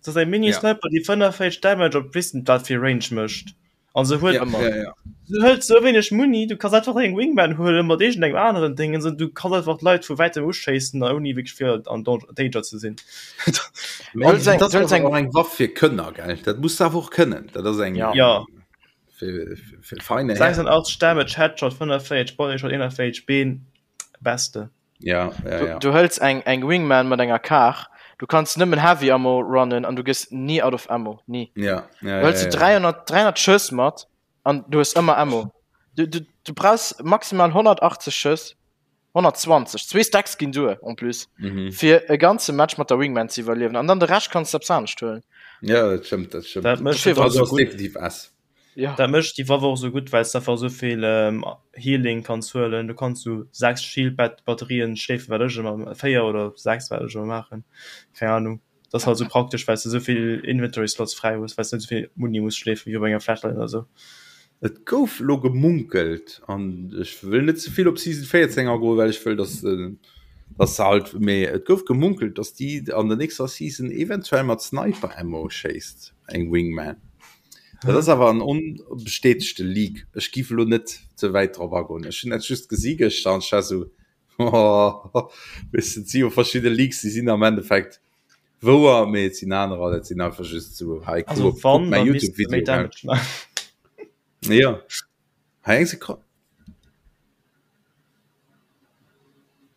Dat ass eng Mini-Sniper, déi 45 Damage op weess net wat fir Range mécht. An se huet Ja, ja, ja. se hëlt sou wéineg Muni, du kanns einfach eng Wingman huelen mat iergendengem aneren Ding, an du kanns einfach d'Leit vu wäitem uschéissen, ouni wierklech fir an Danger ze sinn. Mee Huel dat eng, ass eng, awer och eng Waff fir Kënner, gell? Dat muss de awer och kënnen. Dat ass eng Ja. Ja. fir, fir feine Hären. 86 Damage, Headshot, 45 Bodyshot, 41 Been, beste. Ja, ja, Du, ja. du hëls eng, eng Wingman mat enger Kar, du kanns nëmmen Heavy Ammo runnen an du gëss ni out of Ammo, ni. Ja, ja, Du hëls ja, du ja. 300, 300 Schëss mat an du hues ëmmer Ammo. Du, du, du brauchs maximal 180 Schëss, 120, zwee Stacks ginn duer en plus, Mhm. fir e ganze Match mat der Wingman ze iwwerliewen. An dann de Rescht kanns du eppes anescht huelen. Ja, dat stëmmt, dat stëmmt. Dat mécht Dofir et war och Also sou ass gutt. definitiv S. Ja. Dat mécht déi Waff och sou gutt, well s de einfach sou vill Healing kanns huelen. Du kanns sou 6 Shield-Batterien schleefen, wat ech ëmmer, 4 oder 6, wat ech ëmmer maachen, keng Ahnung. Dat ass halt sou praktesch, well s de sou vill Inventory Slots fräi hues, well s de net sou vill Muni muss schleefen wéi op enger Flatline oder sou. Et gouf elo gemunkelt, an ech wëll net ze vill op Season 14 agoen, well ech wëll, dass dass se halt, mee et gouf gemunkelt, dass déi an der nächster Season eventuell mat Sniper Ammo schéisst, eng Wingman. Dat ass awer en onbestätegte Leak. Ech giff elo net ze wäit drop agoen. Ech hunn dat just gesi gëschter an ech war sou, oh, weess de, et si jo verschidde Leaks, déi sinn am Endeffekt wouer, mee et sinn anerer, dat sinn einfach just sou, hei, kuck Also op, kuck wann, mäi da misst se méi YouTube-Video, gell. Damage maachen. Jo, hei eng Sekonn.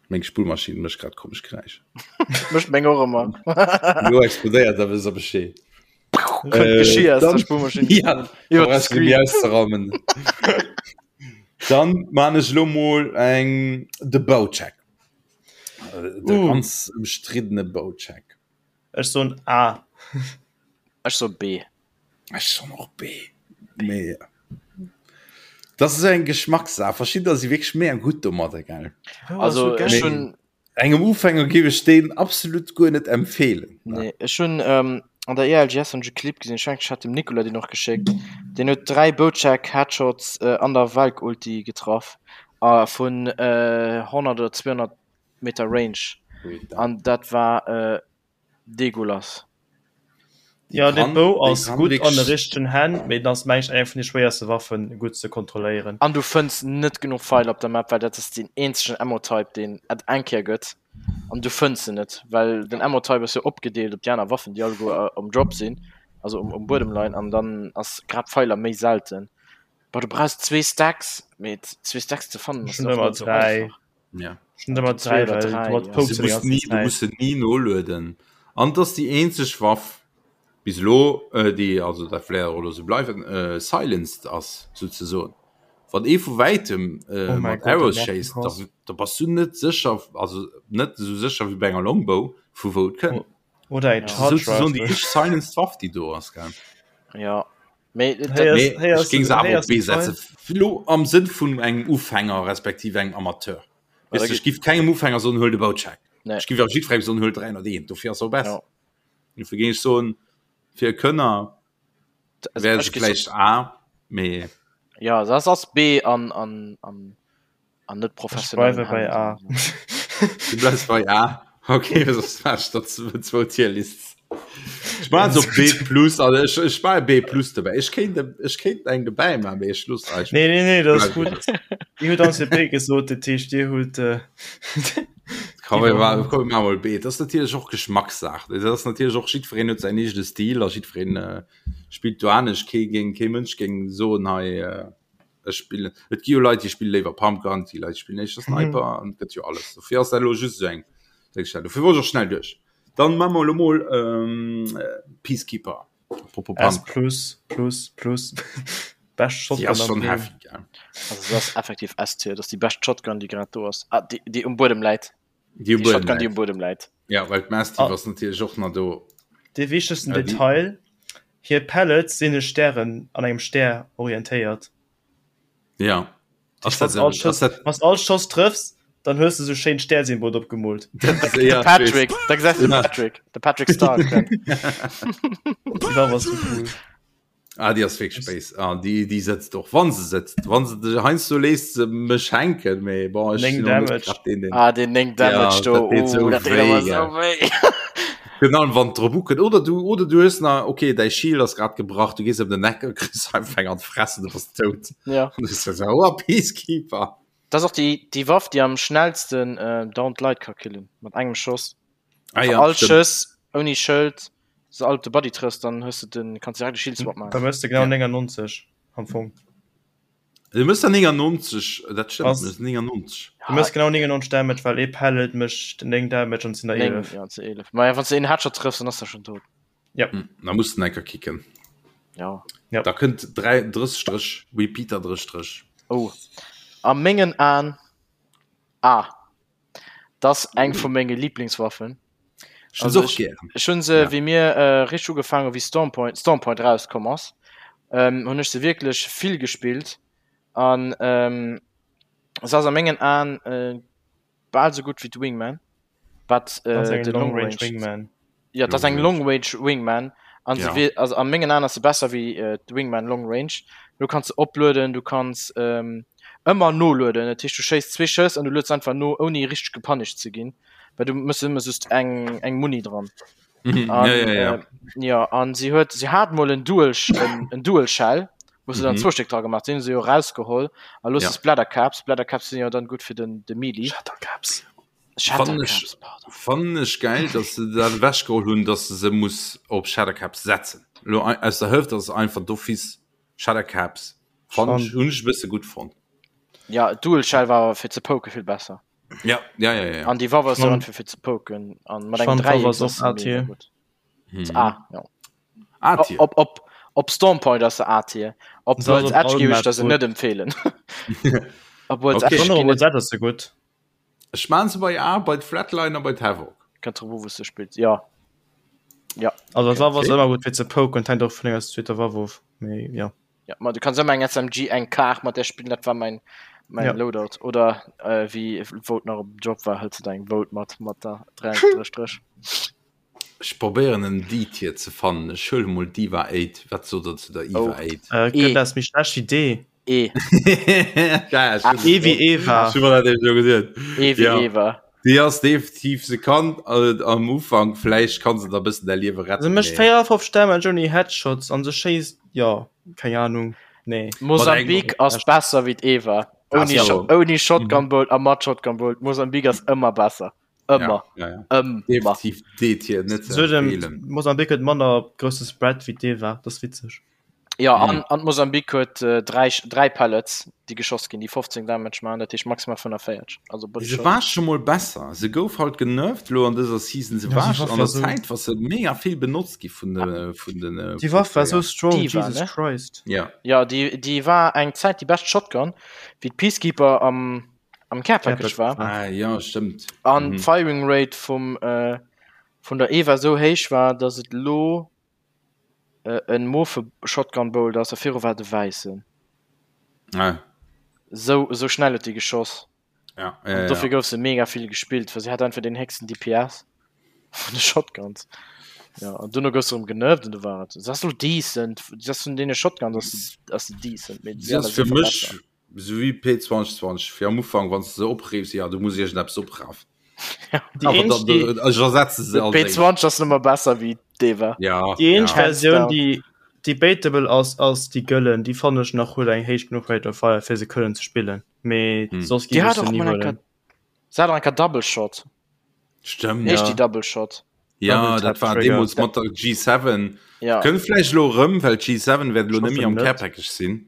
Meng Spullmaschinn mécht grad komesch Geräischer. Mécht meng och ëmmer. Lo explodéiert, da wësst der Bescheed. Kënnt Geschir aus der Spullmaschinn. Ja, Iwwer de brauchst du Screen. méi auszeraumen. Dann man ech lo mol eng de Baucheck. De Uh. ganz ëmstriddene Baucheck. Ech soen A. Ech soe B. Ech soen och B. Mee das ist eng Geschmackssaach. Verschiddener si wierklech mega gutt domadder, gell? Also ech Mee hunn engem Ufänger géif ech deen absolut guer net empfeelen. Nee, ech hunn ähm, an der ELGS hunn ech e Clip gesinn, ech mengen ech hat dem Nicolas deen och geschéckt, deen huet 3 Bocek Headshots äh, an der Valk Ulti getraff a vun äh, 100 oder 200 Meter Range an dat war äh, degulas. Ja de Bou ass gutt an de richtegen Hänn, mee den ass mengen ech eng vun de schwéierste Waffen gutt ze kontrolléieren. An du fënns net genuch Feil op der Map, well dat ass deen eenzegen Ammo-Type deen et eng Kéier gëtt an du fënns se net, well den Ammo-Type ass jo opgedeelt op déi aner Waffen déi alleguer um Drop sinn, also um um Buedem leien an dann ass grad Feiler méi selten. Boah du brauchs zwee Stacks, mee zwee Stacks ze fannen ass och net esou einfach. Ja. Du muss nie nolueden. An dass die eenzeg Waff bis lo äh, déi also dat vläicht och elo sou bleiwen äh, silenced ass souzesoen. Wann ee vu wäitem äh, oh mat Arrows schéisst, da, da bass du net sécher, also net sou sécher wéi bei enger Longbow vu wou et kënnt. Oh. Oder eng Charge Rifle. Déi eenzeg silenced Waff déi do ass gell. Ja. Mee, dat, nee, ech géing se awer op B setzen. Lo am Sënn vun engem Ufänger respektiv engem Amateur. Weißt du, ech giff kengem Ufänger soen, huel de Boucheck. Nee. Ech giff awer jiddwerengem soen, huel 301, dofir ass se och besser. Ja. Dofir géing ech soen, fir e Könner wär se vläicht A, mee. Ja, das ass B an, an, an an net professionell. Ech bleiwe bei A. Du bleifs bei A? Okay, soss war ech der zwou Tierlists. Ech maachen se op B plus, also ech, ech maache B plus dobäi. Ech kéint, ech kéint eng dobäi maachen, mee ech looss eis. Nee, nee, nee, dat ass gutt. Dir hutt ons jo B gesot, dat heescht Dir hutt. Komm, mir maachen, komm, mir maache mol B. Dat ass natierlech och Geschmackssaach. Dat ass natierlech och, jiddwereen huet säin eegene Stil a jiddwereen spillt do anescht. Kee géing, kee Mënsch géing soen, hei, Ech spillen, et gi jo Leit, déi spille léiwer Pumpgun, et gi Leit, déi spillen éischter Sniper mhm. an gëtt jo alles. Dofir ass dat elo just esou eng Déngstell. Dofir wollt ech och schnell duerch. Dann maache mer elo mol ähm, Peacekeeper. Apropos S Pumpgun. plus plus plus Best Shotgun ass schon heavy, gell? Also das ass effektiv S-Tier, das ass déi bescht Shotgun, déi grad do ass. Ah, déi, déi um Buedem läit. Déi um Buedem Shotgun, déi um Buedem läit. Ja, well d'Mastiff ah. ass natierlech och nach do. De wichtegsten ja, Detail, hir Pellets sinn e Stären an engem Stär orientéiert. Ja. Ass dat, all Schoss, dat... Wann all Schoss trëffs, dann hues du so schéin Stärsymbol opgemoolt. De Patrick, da gesäis du de Patrick, de Patrick Star. Déi war was so cool. Ah, déi ass wierklech béis. Ah, déi, déi sëtzt och, wann se sëtzt. Wann se dech heiansdo léisst se mech hänken, mee bon, ech 9 sinn och net Damage. grad deen, deen. Ah, deen 9 Damage Ja, do, dat deet oh, sou dat deet wéi, awer sou gell. wéi. Virun allem wann et drop ukënnt. Oder du, oder du hues nach, okay, däi Shield ass grad gebrach, du gees ëm den Eck a kriss einfach eng an d'Fress an du bass dout. Ja. An du sou, oh, Peacekeeper. Dat ass och déi, déi Waff, déi am schnellsten äh, downed Leit ka killen, mat engem Schoss. Ah ja, All stimmt. Schëss, ouni Schëld, se all op de Body trëffs, dann hues de den, kanns direkt e Shield Swap Da maachen. mëss de genau 99 am Fong. Du mëss der 99, dat stëmmt, Ass- du mëss 99. Du mëss genau 99 Damage, well ee Pellet mécht 9 Damage an et sinn der 9, 11. ja, zu 11. Ma ja, wann s de een Headshot trëffs, dann ass der schon tot. Ja. Hm, da muss den enker kicken. Ja. Ja. Da kënnt 3, 30 Stréch, Repeater 30 Stréch. Oh. A mengen Aen, A. Dat ass eng vu menge Lieblingswaffen. Ech hunn se och gären. Ech hunn se, wéi mir richteg ugefaangen hu wéi Stormpoint, Stormpoint erauskomm ass, hunn ech se wierklech vill gespillt an se ass a mengen Aen bal sou gutt wéi d'Wingman, wat de Long Range Wingman. Jo, dat ass eng Long Range Wingman an se wier, also a mengen Aen ass se besser wéi d'Wingman Long Range. Du kanns se oplueden, du kanns ëmmer nolueden, dat heescht du schéiss zwee Schëss an du lueds einfach no ouni richteg gepanischt ze ginn, well du mëss ëmmer just eng eng Muni dran. Mhm, An, ja, ja, ja. Äh, ja an si huet si hat mol en Dual en, en Dual Shell, wou se dann Mhm. zwou Stéck dra gemaach, déi hunn se jo rausgeholl a lo Ja. se Splattercaps, Splattercaps sinn jo dann gutt fir den de Melee. Shattercaps. Fannen ech, Shattercaps, pardon. fannen ech geil, dass se dat ewechgeholl hunn, dass de se muss op Shattercaps setzen. Lo aus der Hëft ass es einfach d'office Shattercaps. Fannen ech, hunn ech e bësse gutt fonnt. Ja, Dual Shell war awer fir ze poke vill besser. Ja, ja, ja, ja. An déi Waff ass jo Schon. einfach fir ze poken an mat Ech engem fand d'Waff Dräieck ass ass och se mega A-Tier. gutt. Mhm. A, ja. A-Tier. Op, op, op Stormpoint ass se A-Tier. Op Se ass World's op Edge all géif ech Map der se gutt. net empfehlen. Op World's Okay. Edge Schon ginn op et World's Edge ass se gutt. Ech maan se bei A, bei d'Flatliner, bei d'Havoc. Kënnt drop u wou s de spills, jo. Ja. Also d'Waff ass Okay. ëmmer gutt fir ze poken, hänkt och vun denger zweeter Waff of, mee jo. Ja, ma du kanns ëmmer eng SMG, eng Kar mat där spillen, dat war mäin mäin Ja. Loadout. Oder äh, wéi Vote nach op Job war, hëls de deng Vote mat mat der 3 Stréch. Ech probéieren en D-Tier ze fannen. Ech huele mol d'Iva 8. Wat sot der zu der Iva Oh. 8? Äh, E. gëtt ass méi schlecht wéi D. E. Ja, ech hun- E wéi Eva. ech hu mer dat eben scho geduet. E wéi Ja. Eva. Déi ass definitiv, se kann äh, am Ufank, vläicht kann se der bëssen däi Liewe Se retten. mécht mee- 54 Damage ouni Headshots an se schéisst, jo, keng Ahnung, nee. Mosambik ass besser wéi d'Eva. Ouni, Ass Sho so. ouni Shotgun Bolt a mat Shotgun Bolt. Mosambik ass ëmmer besser. Ëmmer. Ja, ja, ja. Ëmmer. Definitiv D-Tier, net ze Sou dem empfehlen. Mosambik huet manner grousse Spread wéi d'Eva, dat ass witzeg. Ja, an, an Mosambik huet äh, dräi, dräi Pellets, déi geschoss ginn, déi 15 Damage machen, dat heescht maximal 45. Also Body Se Shot. war scho mol besser. Se gouf halt genervt lo an dëser Season. Se Ja, war déi Waff an der war so- Zäit war se mega vill benotzt gi vun de vun den äh, Déi Waff war sou strong, Déi war, Jesus ne? Christ. Ja. Ja, déi, déi war eng Zäit déi bescht Shotgun, wéi d'Peacekeeper am, am Care Package war. Ah, ja, stëmmt. An Mhm. d'Firing Rate vum, äh, vun der Eva sou héich war, dass et lo äh, en mofe Shotgun Bolt ass, a viru war et e wäissen. Ah, Sou, sou schnell huet déi geschoss. ja, An ja, dofir ja. gouf se mega vill gespillt, well se hat einfach den héchsten DPS vun de Shotguns. Ja, an duerno gouf se erëm genervt an du war et. Se ass lo decent, se ass vun deene Shotguns ass se, ass se decent, mee Si déi ass aner fir si mech verbessert. Sou wéi P2020 fir am Ufank wann s de se opreefs, jo du muss iergendeppes oprafen. Déi eenzeg déi Ech ersetze se als éischt. P20 ass nëmmer besser wéi d'Eva. Ja, déi eenzeg ja. Hands Versioun down. déi debatable ass ass déi gëllen. Déi fannen ech nach huet eng héich genuch Rate of Fire fir se kënnen ze spillen, mee Hm. soss Déi géif ech hat se och ni mol eng huelen. Kéier, se hat och eng Kéier Double Shot. Stëmmt. Heescht Ja. déi Double Shot? Ja, Double dat Tap war Trigger. deemools mat der G7. Ja. Kënnt vläicht elo erëm, well d'G7 wäert elo Ech net méi hoffen am net. Care Package sinn.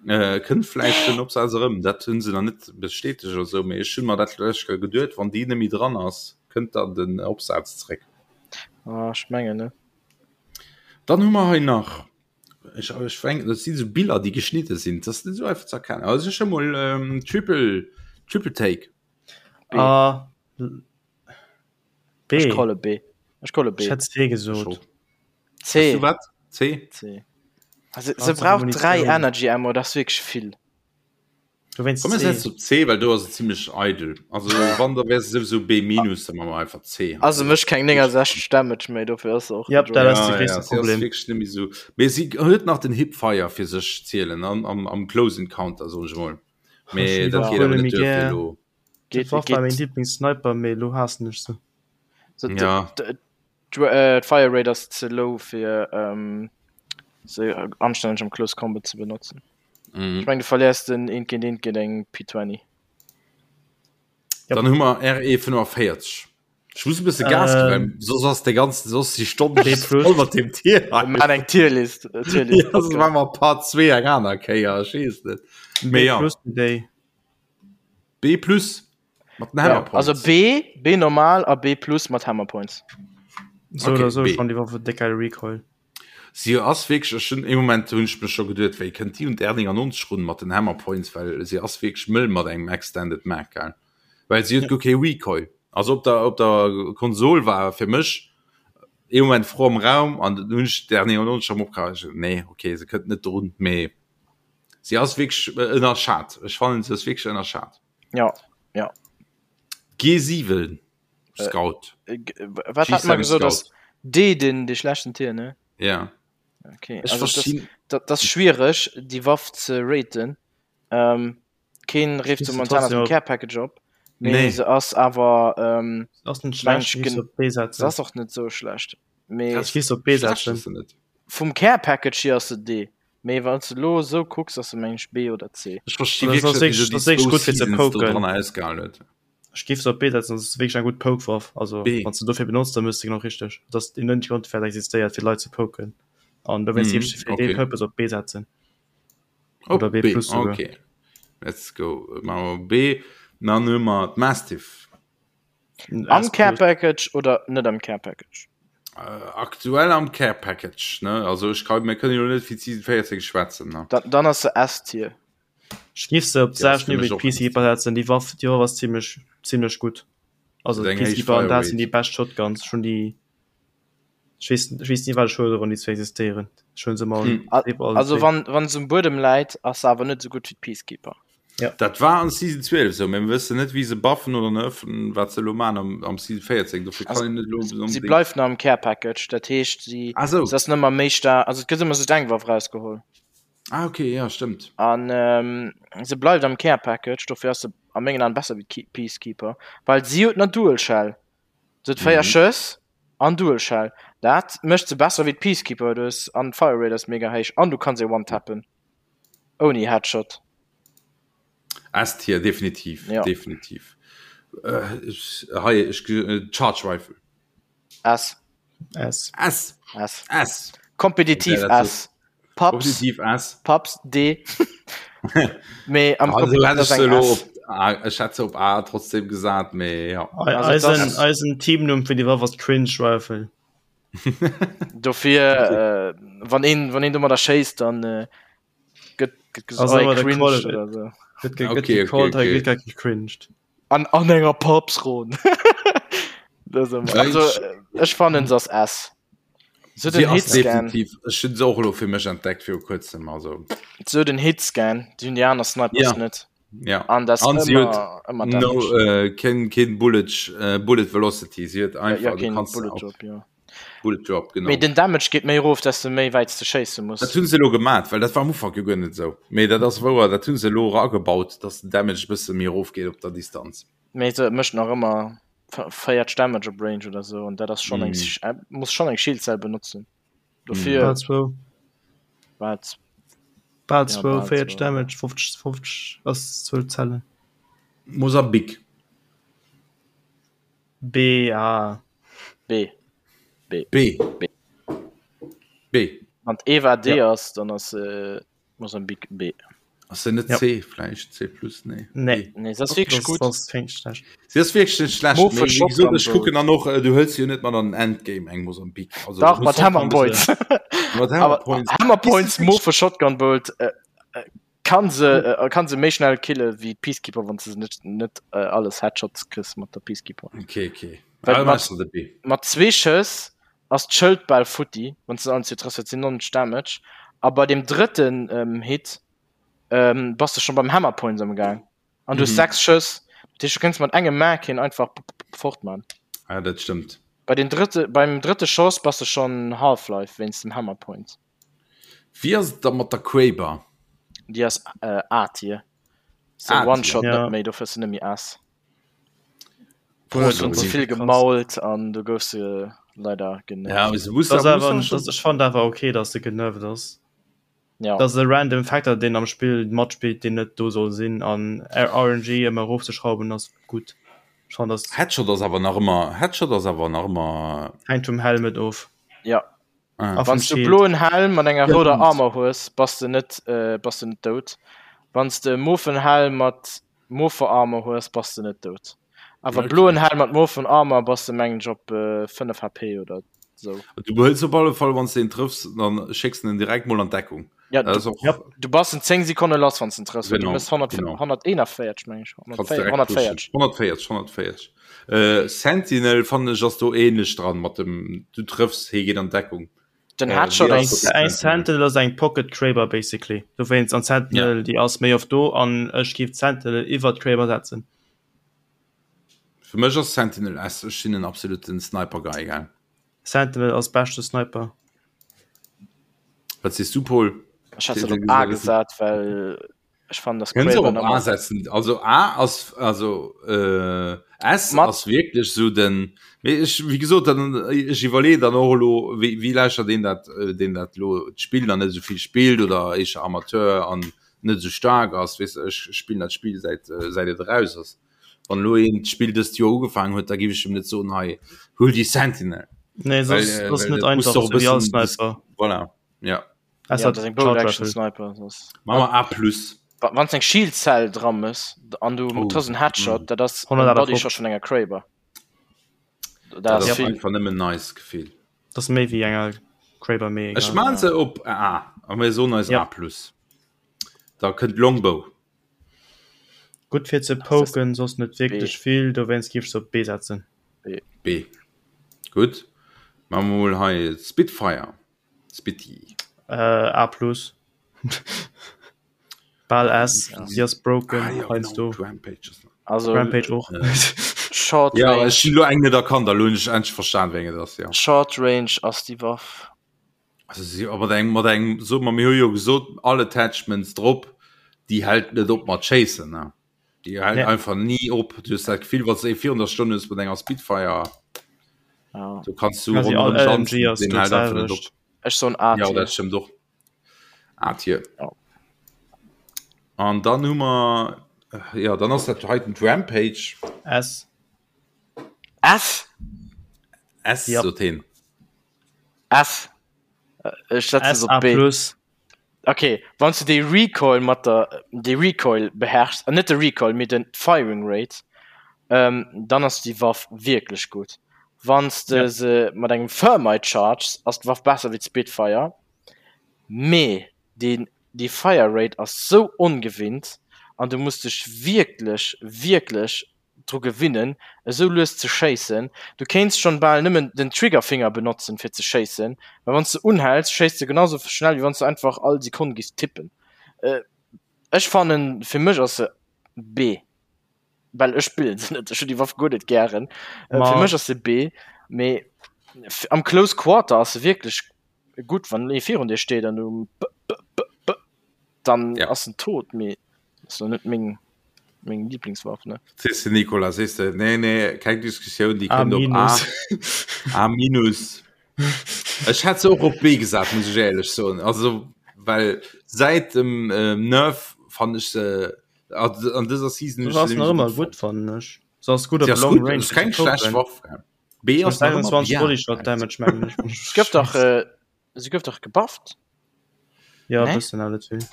Äh, kënnt vläicht den Opsaz erëm. Dat hunn se nach net bestätegt oder sou, mee ech hunn mer dat lech geduet, wann déi net méi dran ass, kënnt dann den Opsaz zréck. Ah, ech mengen net. Dann hu mer hei nach, ech, ech fänken, dat si sou Biller, déi geschnidde sinn, dat ass net sou einfach ze erkennen. Also ech hu mol ähm, Triple, Triple Take. B. A B. Ech calle B. Ech calle B. Ech hätt C gesot. C. Du wat? C? C. Also, se brauch 3 Energy Ammo, dat ass wierklech vill. Dowéinst Komm, mir C. setzen op C, well do ass et zimmlech eidel. Also wann, da wär se souwisou B minus, da maache mer einfach C. Also mécht keng 69 Damage méi, dofir ass se och Yep, dat ass de Ja, gréisste ja, si ass Problem. wierklech net méi sou. Mee si huet nach den Hipfire fir sech zielen an am, am Close Encounter, soen ech emol. Mee Ech dat geet awer huele net méi duer fir gär. elo. Geet, Dat war geet. mäin Lieblingssniper, mee elo haassen ech se. So, Ja. D'Fire Rate ass ze low fir ähm, se anstänneg am Close Combat ze benotzen. Mhm. Ech meng du verléiers den eent géint eent géint eng P20. Yep. Dann hu mer RE 45. Ech muss e bësse Gas ginn, well Ähm, soss ass de ganzen, soss déi Stonn B plus. voll mat deem Tier hei. Mir maachen eng Tierlist. äh, Tierlist Ja, soss maache mer Part 2 eng aner Kéier, ech weess net. B Mee ja, plus déi. B plus mat den Ja, Hammer Points. also B, B normal a B plus mat Hammer Points. So Okay, oder so B. schon die Waffe déck geil Recoil. Si ass wierklech, ech hunn ee Moment hunn ech mech scho geduet, wéi kënnt déi un d'R99 run mat den Hammer Points, well si ass wierklech mëll mat engem Extended Mag, gell? Well si huet guer kee Recoil. Also op der, op der Konsol war fir mech ee Moment d'Fro am Raum an dann hunn ech d'R99 erëm opgehaang, ech nee, okay, se kënnt net drun, mee si ass wierklech ënnerschat. Ech fannen se ass wierklech ënnerschat. Ja, ja. G7 Scout. Äh, wat hat man G7 gesot Scout. ass D den de schlechten Tier ne? Ja. Okay. Ech Also, das, verstinn. dat, das schwierig die Waff ze raten. Ähm, keen rieft Schließt ze momentan aus trotzdem dem op. Care Package op. Nee. Nee se ass awer ähm, Ass net Mensch, schlecht, gehst gen- op B se setzen. ass och net so schlecht. Mee Ech géif se op B Schlecht setzen. ass se net. vum Care Package hier ass se D. Mee wann s de lo esou kucks, ass se meng ech B oder C. Ech versti Das wierklech ass net, wéi wierklech- se das déi ass wierklech zwou gutt fir ze Seasons do poken. dran ausgehalen huet. Ech géif se op B setzen, das ass wierklech eng gutt Pokewaff. Also B. wann s de dofir benotzt, dann mëss de genau richteg. Dat ass een net Grond fir existéiert fir Leit ze poken. An dowéinst Mhm, géif ech se fir dee okay. Purpose op B setzen. Op Oder B B, plus souguer. okay. Let's go. Maache mer B. Dann hu mer d'Mastiff. Am Care Package oder net am Care Package? Äh, aktuell am Care Package, ne? Also ech kann, mir kënnen jo net fir d'Season 14 schwätzen, ne? Dann, dann ass se S-Tier. Ech géif se op Ja, ass d'selwecht fir Niveau mech wéi och d'Peacekeeper setzen. Déi Waff, déi Waff ass zimmlech, zimmlech gutt. Also Huet eng héich d'Peacekeeper an Fire dat sinn Rate. déi bescht Shotguns. Ech hunn déi, ech weess, ech weess ni wat ech huelen, wann déi zwee existéieren. Ech huelen se ëmmer Hm. allen, allen Also zwee. wann, wann se um Buedem läit, ass se awer net esou gutt wéi d'Peacekeeper. Ja. Dat war an Season 12 sou, mä mir wëssen net wéi se buffen oder nerfen, wat se elo man am, am Season 14. Dofir kann Also, een net elo si unbedingt. bleift nach am Care Package, dat heescht si Ah sou. se ass net méi méi staark, also et gëtt ëmmer sou eng Waff rausgeholl. Ah okay, ja stëmmt. An ähm, se bleift am Care Package, dofir ass se a mengen Aen besser wéi d'Ke Peacekeeper, well si huet nach Dual Shell. Se huet 4 Mhm. Schëss an Dual Shell. Dat mécht se besser wéi d'Peacekeeper, du hues an d'Fire Rate ass mega héich an du kanns se one-tappen. Ouni Headshot. S-Tier, definitiv. Ja. Definitiv. Äh, ich, hei, ich, äh, Charge Rifle. S. S. S. S. S. Kompetitiv Ja, das S. Paps. Kompetitiv S. Paps D. Mee am Also, hätt Kompetitiv ich ass se eng elo S. op A, ich hätt se op A trotzdem gesat, mee ja. Also, Eisen, das- eisen Teamnumm fir déi Waff ass Cringe Rifle. Dofir äh, wann een wann een domadder schéisst, dann äh, gëtt gëtt gesot Also oh, ëmmer der cringe Quality. oder so. Gëtt ge- Okay, gëtt okay, gecallt, hei okay. gëtt gar gecringed. An an enger Papsron. Das ëmmer. Ja, Also ich- äh, ech fannen se ass S. So Sie den ass Hitscan, definitiv, ech hunn se och elo fir mech entdeckt viru kuerzem, also so den Hitscan, déi hunn déi aner Snipers Ja. net. ja. An das An sie ëmmer huet ëmmer No, Damage. äh, keen, keen Bullet, äh, Bullet Velocity, sie huet Ja, einfach, ja, du keen kannst Bullet auf Drop, ja. Bullet Drop, genau. Mee den Damage geet méi erof, dass du méi wäit s du schéisse muss. Dat hunn se elo gemat, well dat war am Ufank jo guer net esou. Mee dat ass wouer, dat hunn se elo eragebaut, dass den Damage e bësse méi erof geet op der Distanz. Mee se mécht nach ëmmer 40 Damage op Range oder sou an dat ass schonn eng Mm. muss schonn eng Schildcell benotzen. Dofir Bal zwou. wat Bal Ja, zwou, bal 40 zwou. Damage, 50, 50 ass 12 Zellen. Mosambik. B, A. B. B. B. B. B. Wann d'Eva D Ja. ass, dann ass äh, Mosambik B. Ass se net Ja. C vläicht? C plus? Nee. Nee. B. Nee, se ass wierklech Das, gutt. das fängt schlecht. Si ass wierklech net schlecht. Mo Mee wéi verschockt gesot, am ech kucken Boot. dann och, äh, du hëls jo net mat an den Endgame eng Mosambik. Also, Dach, du mat muss Hammer Points. Mat Hammer Awer Points. Hammer Points, Mo für Shotgun Bolt äh, äh, kann se äh, kann se méi schnell kille wéi Peacekeeper, wann se net net äh, alles Headshots kriss mat der Peacekeeper. Okay, okay. Well Ah, mat- machst du de B. Mat zwee Schëss ass d'Schëld bal futti, wann se allen zwee trëffs, dat sinn 90 Damage. A bei dem drëtten ähm, Hit ähm, bass de schon beim Hammer Points am Gaang. An du hues Mhm. 6 Schëss. Dat heescht, du kënns mat engem Mag hien einfach fort man. Ah, dat stëmmt. Bei den drëtte, beim drëtte Schoss bass de schon Half-Life wéinst dem Hammer Point. Wéi ass et da mat der Kraber? Déi ass äh, A-Tier. Se A-Tier. One-Shot Ja. net méi, dofir ass se net méi S. Bullet Du hues Drop ze vill krass. gemault an du goufs se leider genervt. Ja, aber se muss, Das muss awer, dann schon- das, ich fand awer okay, dass se genervt ass. Ja. Das ass e random Factor, deen am Spill matspillt, deen net do soll sinn an RNG ëmmer erofzeschrauwen ass gutt. Ich fand das Headshot ass awer nach ëmmer, Headshot ass awer nach ëmmer. hänkt vum Helmet of. Ja. Ah. A vum Wann du Shield. bloen Helm mat enger Ja, rouder stimmt. Armor hues, bass du net äh, bass du net dout. Wann du e mofen Helm mat mofer Armor hues, bass du net dout. Awer Okay. bloen Helm mat mofen Armor bass du mengen ech op äh, 5 HP oder sou. Du behëls op alle Fall, wann du den trëffs, dann schécks du den direkt mol an Deckung. Ja, Das du, ist auch, Ja. du bass in 10 Sekonne lass, wann du en trëffs. Du Genau, mëss 100, genau. 141 meng ech. Kannst 140. direkt 140. pushen. 140, 140. Äh, Sentinel fand ich ass do ähnlich dran mat dem du trëffs, hie geet an Deckung. Den Äh, Headshot wie Eng, ass ass eng Sentinel ass eng Pocket Kraber basically. Dowéinst an Sentinel déi ass méi oft do an ech géif d'Sentinel iwwer d'Kraber setzen. Fir mech ass Sentinel S, ech sinn en absoluten Sniper Guy, gell. Sentinel ass beschte Sniper. Wat sees du Paul? Ech hat se op A gesat, well ech fannen dass Kënns och Kraber op A nëmmer setzen. Also A ass also äh, S Mat- ass wierklech sou den mee ech wéi gesot dann ech iwwerleeën dann och elo wéi wéi lauschtert een dat äh, deen dat elo d'Spill dann net esou vill spillt oder éischer Amateur an net esou staark ass weess de ech spillen dat Spill säit äh, säit et eraus ass. Wann elo een d'Spill dëst Joer ugefaangen huet, da géif ech em net soen hei huel déi Sentinel. Nee, Well, soss äh, ass well net dat muss einfach doch e sou wéi all bëssen Sniper. voilà ja. Es Ja, hat dat ass eng Charge Bolt Action Rifle. Sniper. Das. Machen wir A plus. Wa- Wann eng Shield Cell dran ass an du Oh. trëffs en Headshot, Mm. dat ass en 158. Body Shot vun enger Kraber. Dat Dat ass ass vill. einfach nëmmen nice Gefill. Das ass méi wéi enger Kraber méi Ech egal. man se op A a mir soen eis Ja. A plus. Da kënnt Longbow. Gutt fir ze Das ist poken, soss net wierklech B. vill, dowéinst géif ech se op B setzen. B. B. Gutt. Maache mer mol hei Spitfire. Spitty. Äh, A plus. Bal S, si ass broken ah, ja, heiansdo. Rampage ass Also Rampage och. Short Ja, Range, ech hunn lo eng net erkannt, a lo hunn ech endlech verstan, wéi eng et ass, ja. Short Range ass déi Waff. Also si mat engem mat engem so mer mir hu jo gesot all Attachments drop, déi hält net op mat schéissen ne. Déi hält Ja. einfach ni op. Du hues dat Gefill, wann s de virun der Stonn hues mat enger Spitfire, Ja. du kanns du Quasi all ronderëm LMG tanzen, ass deen do hält einfach net op. d'selwecht. Ech soen A Ja, Tier. dat stëmmt och. A Tier. Ja. An dann hu mer ja, dann ass dat heiten d'Rampage. S. S? S Ja. sot heen. S. Ech setzen S se A op B. plus. Okay, wann du de Recoil mat der de Recoil beherrschs, äh, net de Recoil, mee den Firing Rate, ähm, dann ass déi Waff wierklech gutt. Wann s de Ja. se mat engem Thermite charges, ass d'Waff besser wéi d'Spitfire, mee deen déi Fire Rate ass sou ongewinnt an du muss dech wierklech, wierklech dru gewinnen esou lues ze schéissen. Du kéints schonn bal nëmmen den Triggerfinger benotzen fir ze schéissen, well wanns de unhäls schéiss de genau sou schnell wéi wanns de einfach all Sekonn giffs tippen. Ech fannen fir mech ass se B, well ech spillen se net, ech hunn déi Waff guer net gären. Fir mech ass se B, mee am Close Quarter ass se wierklech gutt, wann ee virun dir steet an du b b b b dann Ja. ass en tot, mee ass lo net meng meng Lieblingswaff ne. Sees de Nicolas, sees de, nee nee, keng Diskussioun, déi A kënnt op A. minus. A minus. Ech hätt se och op B gesat, muss ech éierlech soen. Also well säit dem ähm, Nerf fannen ech se an an dëser Season hunn Se ech ass se nach nämlech ëmmer gutt gutt fonnt. fannen ech. Se ass gutt Si op ass Long gutt, Range ass fir ze keng schlecht copen. Waff. Gell. B Se ass huet nach ëmmer 21 bien. Bodyshot Damage mengen ech, wann ech Se gouf dach schätz. äh, se gouf dach gebufft. Ja, Nee? bëssen awer net vill.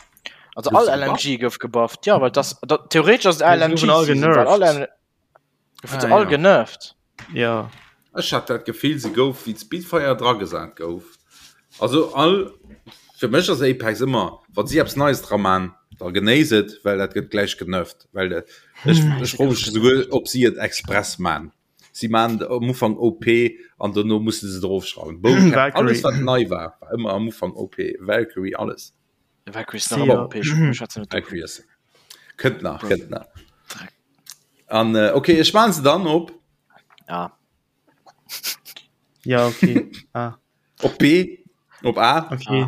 Also Gouf all se LMG gebufft? gouf gebufft. Ja, well das dat, theoretisch ass et Nee, se goufen all LMG Season, well all genervt. L goufen se Ah, all ja. genervt. Ja. Ech hat dat Gefill, se gouf wéi d'Spitfire dragesat gouf. Also all fir mech ass Apex ëmmer, wann si eppes Neies dra man, da genéiss et, well dat gëtt gläich genervt. Well ech Hm, ech se froe gouf mech esouguer, genervt. ob si et express man. Si man am Ufank OP an dono musse se et erofschrauwen. Bow Cap, alles Valkyrie. wat nei war, war ëmmer am Ufank OP. Valkyrie, alles. Valkyrie ass nach ëmmer Sia. OP, ech ech schwätzen net dovun. Valkyrie ass kënnt nach, Bro, kënnt nach. Dreck. An äh, okay, ech man se dann op Ja. Ja, okay. Ah, op B, op A, okay.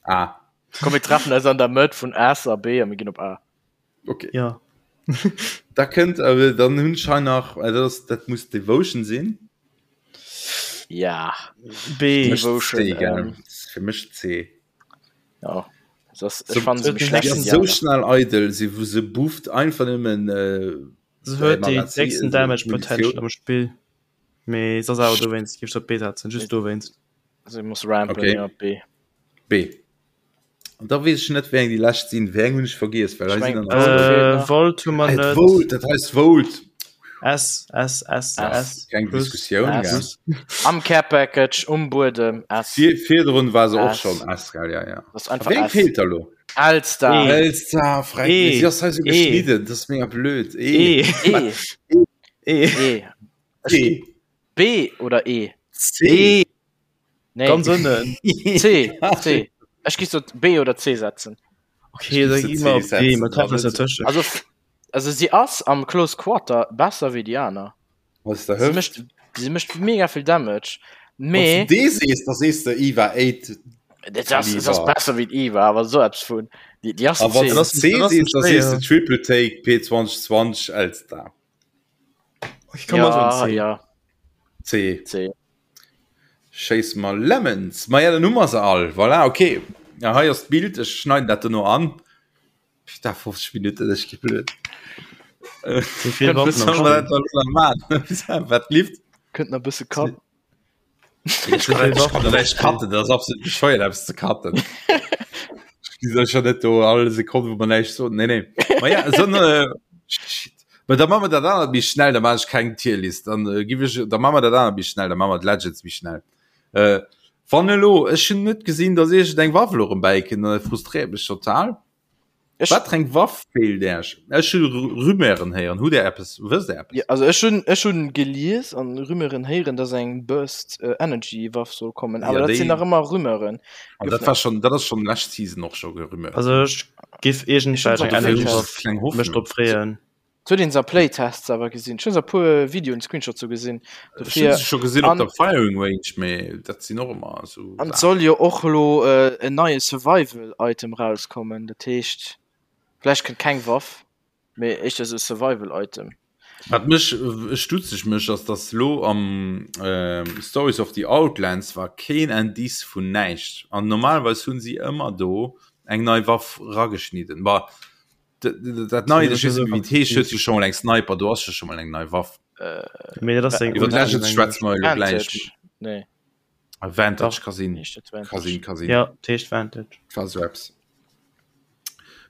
A. A. Komm, mir treffen eis an der Mëtt vun S a B a mir ginn op A. Okay. Ja. Da kënnt awer dann hunn ech hei nach äh, dat ass dat muss Devotion sinn. Ja. B. Fir mech Devotion, C, gell? ähm, Fir mech C. Ja. Das, So, ech fand se huet méi den schlecht Si wéi ass déi sou aner. schnell eidel, si se bufft einfach nëmmen äh, Se huet déi Magazin, décksten also Damage Munitioun. Potential am Spill. Mee se ass awer dowéinst, géif ech op B setzen, just dowéinst. Se muss rampen, Okay. ja, B. B. An da weess ech net, wéi eng déi lescht sinn. Wéi eng hunn ech vergiess, well Ech hei sinn meng, der nach Volt zwou. feelt Äh, nach. Volt hu mer Ah, net. Volt, dat heisst Volt. S, S, S, S. S. Keng Plus. Diskussioun, gell? S. Am Care Package, um Buedem, S. Vir, virdrun war se och S. schonn S, gell? Ja, ja. Das ist A einfach wéi eng S. feelt da lo? L-Star. E. L-Star, freck E. mich. Si ass hei sou E. geschnidden, dat ass mega blöd. E. E. E. E. E. Ech E. B oder E? C. E. Nee. Ganz ënnen. C. C. Ech gi so B oder C setzen. Okay, da Ech gi géif mer se op C B, mer setzen, treffen eis also. dertëschent. Also, also si ass am Close Quarter besser wéi déi aner. Was der Si Hëft? mécht, si mécht mega vill Damage. Wann Mee du D sees, da sees de Eva 8 dat ass, dat ass Kaliber. besser wéi d'Eva, awer sou eppes vun. Déi, déi ass A wann C. du Das C das sees, da sees de schwéier. Triple Take P2020 L-Star. Ich kann mal Ja, so C. ja, C. C. Schéiss mer Lemons. Ma ja, dann hu mer se all. Voilà, okay. Ja, hei ass d'Bild, ech schneiden dat dono an. Putain, 50 Minuten, ech gi blöd. So vill Kënnt Waffen Was am soll man Spill. dat dann nach machen? Wat lieft? Kënnt nach e bësse Cut. Ich So kann, vill ich Waffen kann am näischt Spill. cutten, dat ass absolut bescheuert, eppes ze cutten. Ich gi schon net do all Sekonne, wou man näischt soen. Nee, nee. Ma ja, so, äh, shit. Ma da machen wir dat anert méi schnell, da mach ich keng Tierlist. Dann äh, gif ich, da machen wir dat anert méi schnell, da machen wir d'Legends méi schnell. Äh, wann elo, ech hun net gesinn, dass iergend eng Waff elo erëm bäikënnt, an dat frustréiert mech total. Ech, Wat fir eng Waff feelt Äech? Ech hu Rumeuren héieren. Hutt Där eppes? Wësst Där eppes? Ja, also ech hunn ech hunn gelies an Rumeuren héieren, dass eng Burst äh, Energy Waff soll kommen, awer Ja, dat sinn déi nach ëmmer Rumeuren. An Gouf dat war schon, dat ass schon lescht Season och scho gerumeuert Also ginn. ech giff Ech hunn iergendwelch se eng op Dofir Energy hunn ech Waff kleng mech Hoffnung. drop freeën. Huet een se a Playtests awer gesinn. Ech hunn se a puer Videoen, Screenshots sou gesinn. Ech hunn Dofir se scho gesinn op an der Firing Range, mee dat sinn och ëmmer esou an et Saachen. soll jo och elo äh, en neie Survival Item rauskommen. Dat heescht, vläicht kënnt keng Waff, mee éischter esou e Survival Item. Wat mech stutzeg mécht, ass dass lo am Stories of the Outlands war keen Indice vun näischt an normalerweis hunn si ëmmer do eng nei Waff rageschnidden. Bah dat neit, ech weess net méi wéi et heescht, huet jo scho mol eng Sniper, do ass jo scho mol eng nei Waff. Mee dat ass eng Iwwer d'Legends schwätze mer elo gläich. Vantage, nee. Vantage ka sinn, Heescht dat ka sinn, Vantage? ka sinn. Ja, et heescht Vantage. War sou eppes.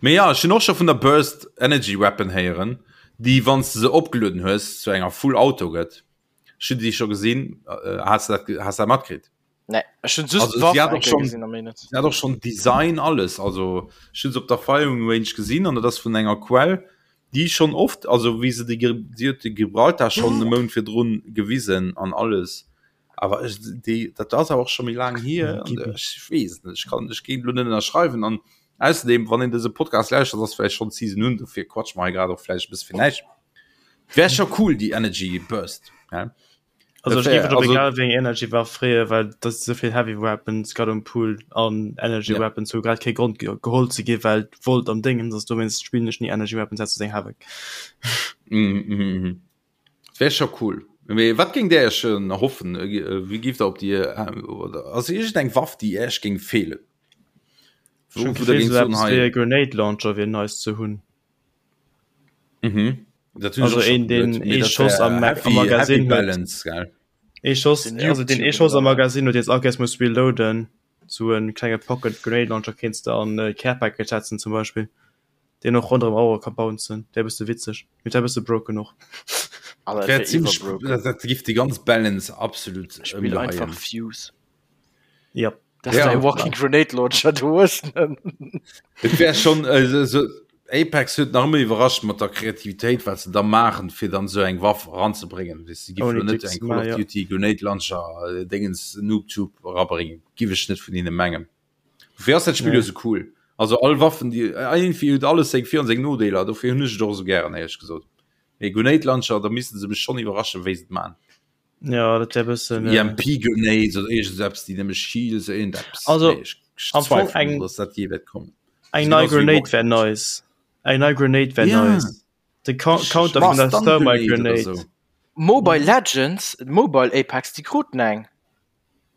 Mee ja, ech hunn och scho vun der Burst Energy Weapon héieren, déi wann s de se opgelueden hues zu enger Full Auto gëtt. Ech hunn déi scho gesinn. Has de dat, has de dat matkritt? Nee, ech hunn just Also d'Waff si hat eng och Kéier schon, gesinn a méi net. si hat och schon Design alles. Also ech hunn se op der Firing Range gesinn an dat ass vun enger Quell, déi schonn oft, also wéi se déi, si huet de Gibraltar schonn e Mount virdrun gewisen an alles. Awer ech, déi, dat ass awer och scho méi laang hier an ech weess et net. Ech kann, ech géing elo net ënnerschreiwen an ausserdem, wann een dëse Podcast lauschtert, ass vläicht schonn d'Season un, dofir quatsche mer hei grad och vläicht e bësse fir näischt. Wär scho cool, déi Energy Burst, hä? Also Dat ech wär, géif mech op also egal wéi eng Energy Waff freeë, well et ass esou vill Heavy Weapons grad um Pool an Energy ja. Weapons hu grad kee Grond ge geholl ze gi well d'Volt am Déngens ass, dowéinst spillen ech ni Energy Weapons ausser seng Havoc. Mhm, mhm, mhm. Wär scho cool. Mee wat géingt Där Iech erhoffen? Wéi géift Der op déi, oder ass iergendeng Waff, déi Iech géing feelen? Ech hunn Wou, wou Der d'Gefill, géingt esou soen, eppes wéi hei. e Grenade Launcher wier nice ze hunn. Mhm. Dat hunn ech Also och scho een, deen geduet, mee ee dat Schoss wär am Mag am heavy, heavy Magasin huet. balance, gell? Ee Schoss, Den also deen ee Noob-Tube Schoss oder am wat? Magasin huet, deen s all Kéiers muss reloaden. Sou e klenge Pocket Grenade Launcher kéints de an e Care Package setzen zum Beispill. Deen och ronderëm Auere ka bouncen, wär bësse witzeg, mee wär bësse broken och. Alter, Dat wär dat wär zimmlech, iwwerbroken. dat dat giff déi ganz Balance absolut Spill einfach ëmgeheien. Fuse. Yep. Dat ass Ja. däi Walking Grenade Launcher, du hues en. Et wär schon äh, so, Apex huet nach ëmmer iwwerrascht mat der Kreativitéit, wat se da maachen, fir dann esou eng Waff eranzebréngen. Weess de, giff Ouni lo net Dicks eng Call ma of ja. Duty Grenade Launcher äh, Dingens Noob Tube erabréngen. Giff ech net vun hinne mengen. Dofir ass dat Spill jo Nee. esou cool. Also all Waffen déi iergendwéi huet alles seng Vir an seng Nodeeler, dofir hunn ech et och esou gären éierlech gesot. Mee Grenade Launcher, da misste se mech schonn iwwerraschen, wéi se et man. Ja, dat wär bëssen äh, EMP Grenades oder iergend eppes, déi nëmme Shields, iergend eppes. Also, Nee, ech, ech am Fong zweifelen eng un, dass dat jee wäert kommen. eng Ass nei genauso wéi Grenade Rocket wär Launcher. nice. Eng nei Grenade wär Ja, nice. De Coun richtig. Counter vun Ma der Stun Thermite Grenade oder Grenade. sou. Mobile Legends, Mobile Apex, déi kruten eng.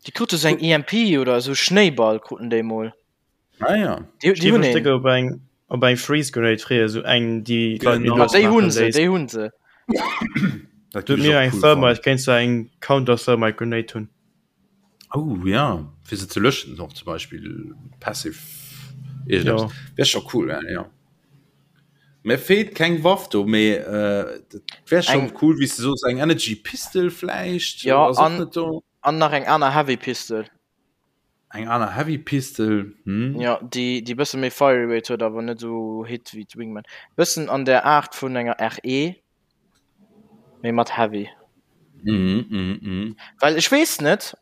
Déi krute sou eng EMP oder esou Schnéiball kruten déi mol. Ah ja. Déi, Ech déi géif hunn mech een. déck op eng op eng Freeze Grenade freeën, sou eng déi d'Leit méi Genau. Ah, lues déi hunn maachen se, léisst. déi hunn se. Dat Du géif ech mir och eng cool Thermite fannen. kéints du eng Counter Thermite Grenade hunn. Oh ja, fir se ze löschen och zum Beispill passive iergendeppes. Jo. Wär scho cool, ja, ja. Mir feelt keng Waff do, mee äh, dat wär schon Eng, cool, wéi s de soos, eng Energy Pistol vläicht, ja, ass och an, net do. an nach eng aner Heavy Pistol. Eng aner Heavy Pistol, hm. Ja, déi, déi bësse méi Fire Rate huet, awer net esou Hit wéi d'Wingman. Bëssen an der Aart vun enger RE, mee mat Heavy. Mhm, mhm, mhm. Well ech weess net,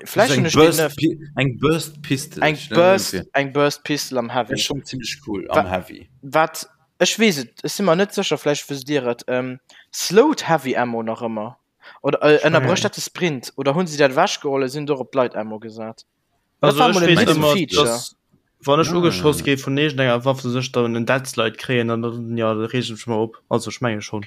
vläicht Eng hunn ech deen Burst, net. Pi eng Burst Pistol, Eng ech nennen Burst, se. eng Burst Pistol am Wär Heavy. schon zimmlech cool Wa am Heavy. wat, ech weess et, ech si mer net sécher, vläicht wësst Dir et, ähm, slowed Heavy Ammo nach ëmmer? Oder äh, ënnerbrécht dat de Sprint? Oder hunn si dat ewechgeholl a sinn do op d'Light Ammo gesat? Dat Also war ech mol en weess hidden ëmmer, Feature. dass wann ech Ah. ugeschoss gi vun iergendenger Waff, dass ech dann en Dead Slide kréien an dann ja, da reeg ech mech mol op. Also ech menge schonn.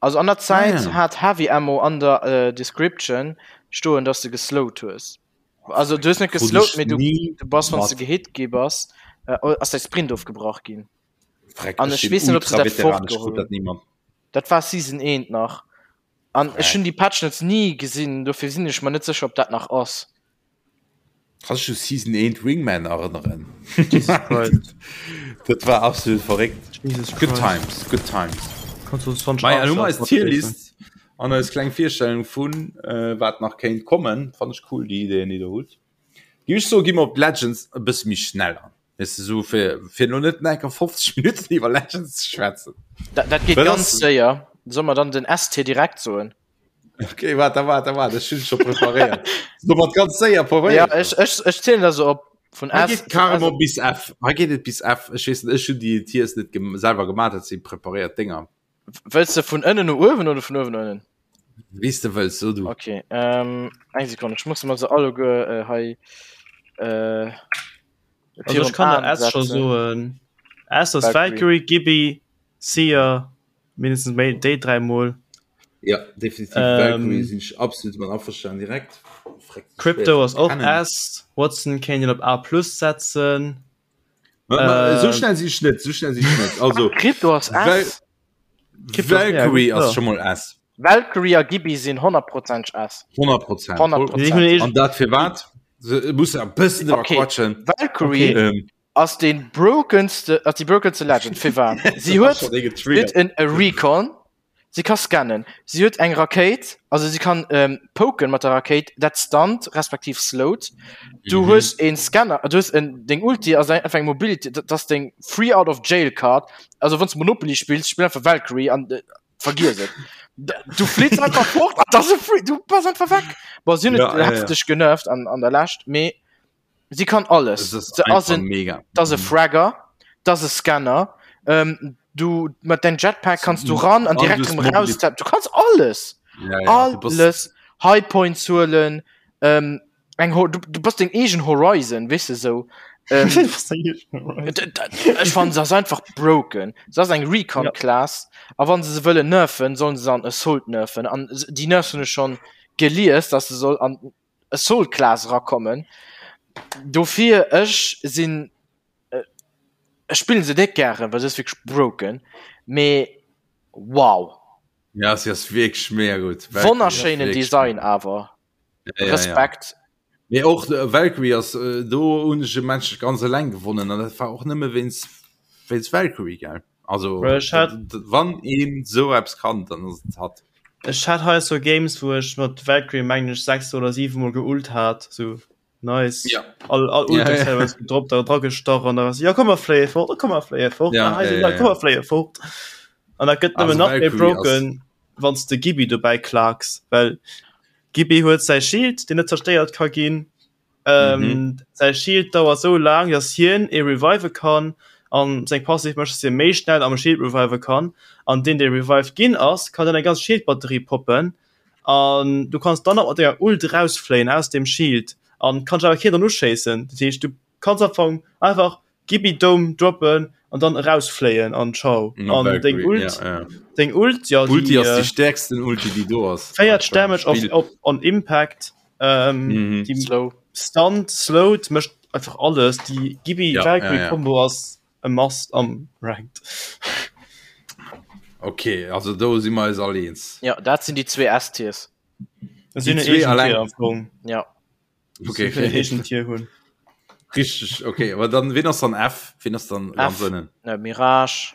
Also an der Zäit Ah, ja. hat Heavy Ammo an der äh, Description stoen, dass de geslowt hues. Also du hues net Krut geslowt, ech mee du, ni du bass, wann s du mat. gehit gi bass, äh, ass däi Sprint ofgebrach ginn. Freck, An ech ech sinn weess net, ob se dat Ultra-Veteran, ech krut fortgeholl dat hunn. ni mat. Dat war Season 1 nach. An ech hunn déi Patch Notes ni gesinn, dofir sinn ech mer net sécher, ob dat nach ass. Kanns dech u Season 1 Wingman erënneren? Jesus Christ. Dat war absolut verréckt. Jesus Good Christ. times, good times. Kannst du 20 Mei, an hu mer eis Archer Tierlist an eis kleng Virstellung vun äh, wat nach kéint kommen. Fannt ech cool, déi Ideen, déi der hutt. Géif ech soen, gi mer op d'Legends e bësse méi schnell an. Weess de, sou fir, fir lo net enker 50 Minutten iwwer Legends ze schwätzen. Dat, dat geet ganz séier. Soll mer dann den ST direkt soen? Okay, warte, warte, warte, ech hunn scho preparéiert. So mat ganz séier preparéiert. Ja, ech, ech, ech zielen da so op vun S. Geet carrément bis F. Hei geet et bis F. Ech weess net, ech hunn déi Tiers net gem selwer gemaach, dat si preparéiert Dénger. Wëlls de vun ënnen no uewen oder vun uewen no ënnen? Wéi s de wëlls, so du. Okay, ähm, eng Sekonn, ech muss mer se alleguer äh, hei äh, Also ech kann der S scho soen. S ass Valkyrie, Gibby, Seer, mindestens méi déi 3 mol. Ja, definitiv ähm, Valkyrie sinn ech absolut mat averstanen direkt. Crypto ass och S, Watson kéint een op A plus setzen. Ma, ma, äh, so schnell si ich net, so schnell si ich net. Also Crypto ass S. Valkyrie ass schon mal S. Valkyrie a Gibi sinn 100% S. 100%. 100%. An dat fir wat? Muss e bëssen drüber okay. quatschen. Valkyrie okay. ähm. ass den brokenste ass die brokenste Legend fir wat? Sie huet en Recon Si ka scannen, si huet eng Rakéit, also si kann ähm, poken mat der Rakéit, dat stunt respektiv slowt. Du mhm. hues een Scanner, du hues en deng Ulti ass einfach eng Mobility, dat ass deng Free out of Jail Card. Also wann du Monopoly spills, spill einfach Valkyrie an äh, vergiss et. Du flitzt einfach fort, das ist free, du bass einfach weg. Bon, si hunn ja, ja, heftig ja. genervt an, an der Lescht, mee Si kann alles. Se ass en mega. Dat ass e Fragger, dat ass e Scanner. Ähm, du mat dein Jetpack kannst du ran an direkt rem raus. Du kannst alles. Ja, ja, alles. High Points huelen. Ähm, eng du, du bass deng eegen Horizon, weess de sou. Ähm, ech fannen se ass einfach broken. Se ass eng Recon Class a wann se se wëllen nerfen, sollen se an Assault nerfen. An déi Nerfs hunn ech schonn gelies, dass se soll an Assault Class erakommen. Dofir ech sinn ech spillen se net gären, well se ass wierklech broken, mee wow. Ja si ass wierklech mega gutt. Wonnerschéinen Design awer. Ja, ja, Respekt. Ja. Mee och äh, Valkyrie ass äh, do hunn ech e Match ganz eleng gewonnen an dat war och nëmme wéinst wéinst Valkyrie gell. Also Ech hat wann een sou eppes kann, dann ass et hatt. Ech hat hei sou Games wou ech mat Valkyrie mengen ech 6 oder 7 mol geult hat sou nice ja. all all ja, ja. ja. gedroppt da dra gestach an da ja komm mer fléie fort komm mer fléie fort ja, ja, ja, ja. komm mer fléie fort an da gëtt nëmmen nach méi broken wann s de Gibi dobäi klaaks well Gibi huet säi Shield deen net zerstéiert ka ginn Ähm, mhm. Säi Shield dauert sou laang, dass hien ee revive kann an seng Passiv mécht, dass hie méi schnell am Shield revive kann. An deen, dee revived ginn ass, kann dann eng ganz Shieldbatterie poppen. An du kanns dann nach mat denger Ult rausfléien aus dem Shield an kann awer keen dann uschéissen. Dat heescht, du kanns am Fong einfach Gibi Dome droppen an dann erausfléien an ciao. No, an deng Ult, ja, ja. deng Ult, ja, Ulti die, ass äh, die stärksten Ulti, die do ass. 40 Damage auf, auf, on Impact. Ähm, Mhm. die Slow. Stunt, slowed, mécht einfach alles. Die Gibi Ja, Valkyrie ja, ja. Combo ass e Must am Ranked. Okay, also do si mer eis all eens. Ja, dat sinn déi zwee S-Tiers. Das Die sinn zwee allein. allein. Am Fong. Ja. Okay, Okay, okay. Tier hunn. Richtig, okay, aber dann wen ass dann F? Wen ass dann ganz ënnen? Äh, Mirage.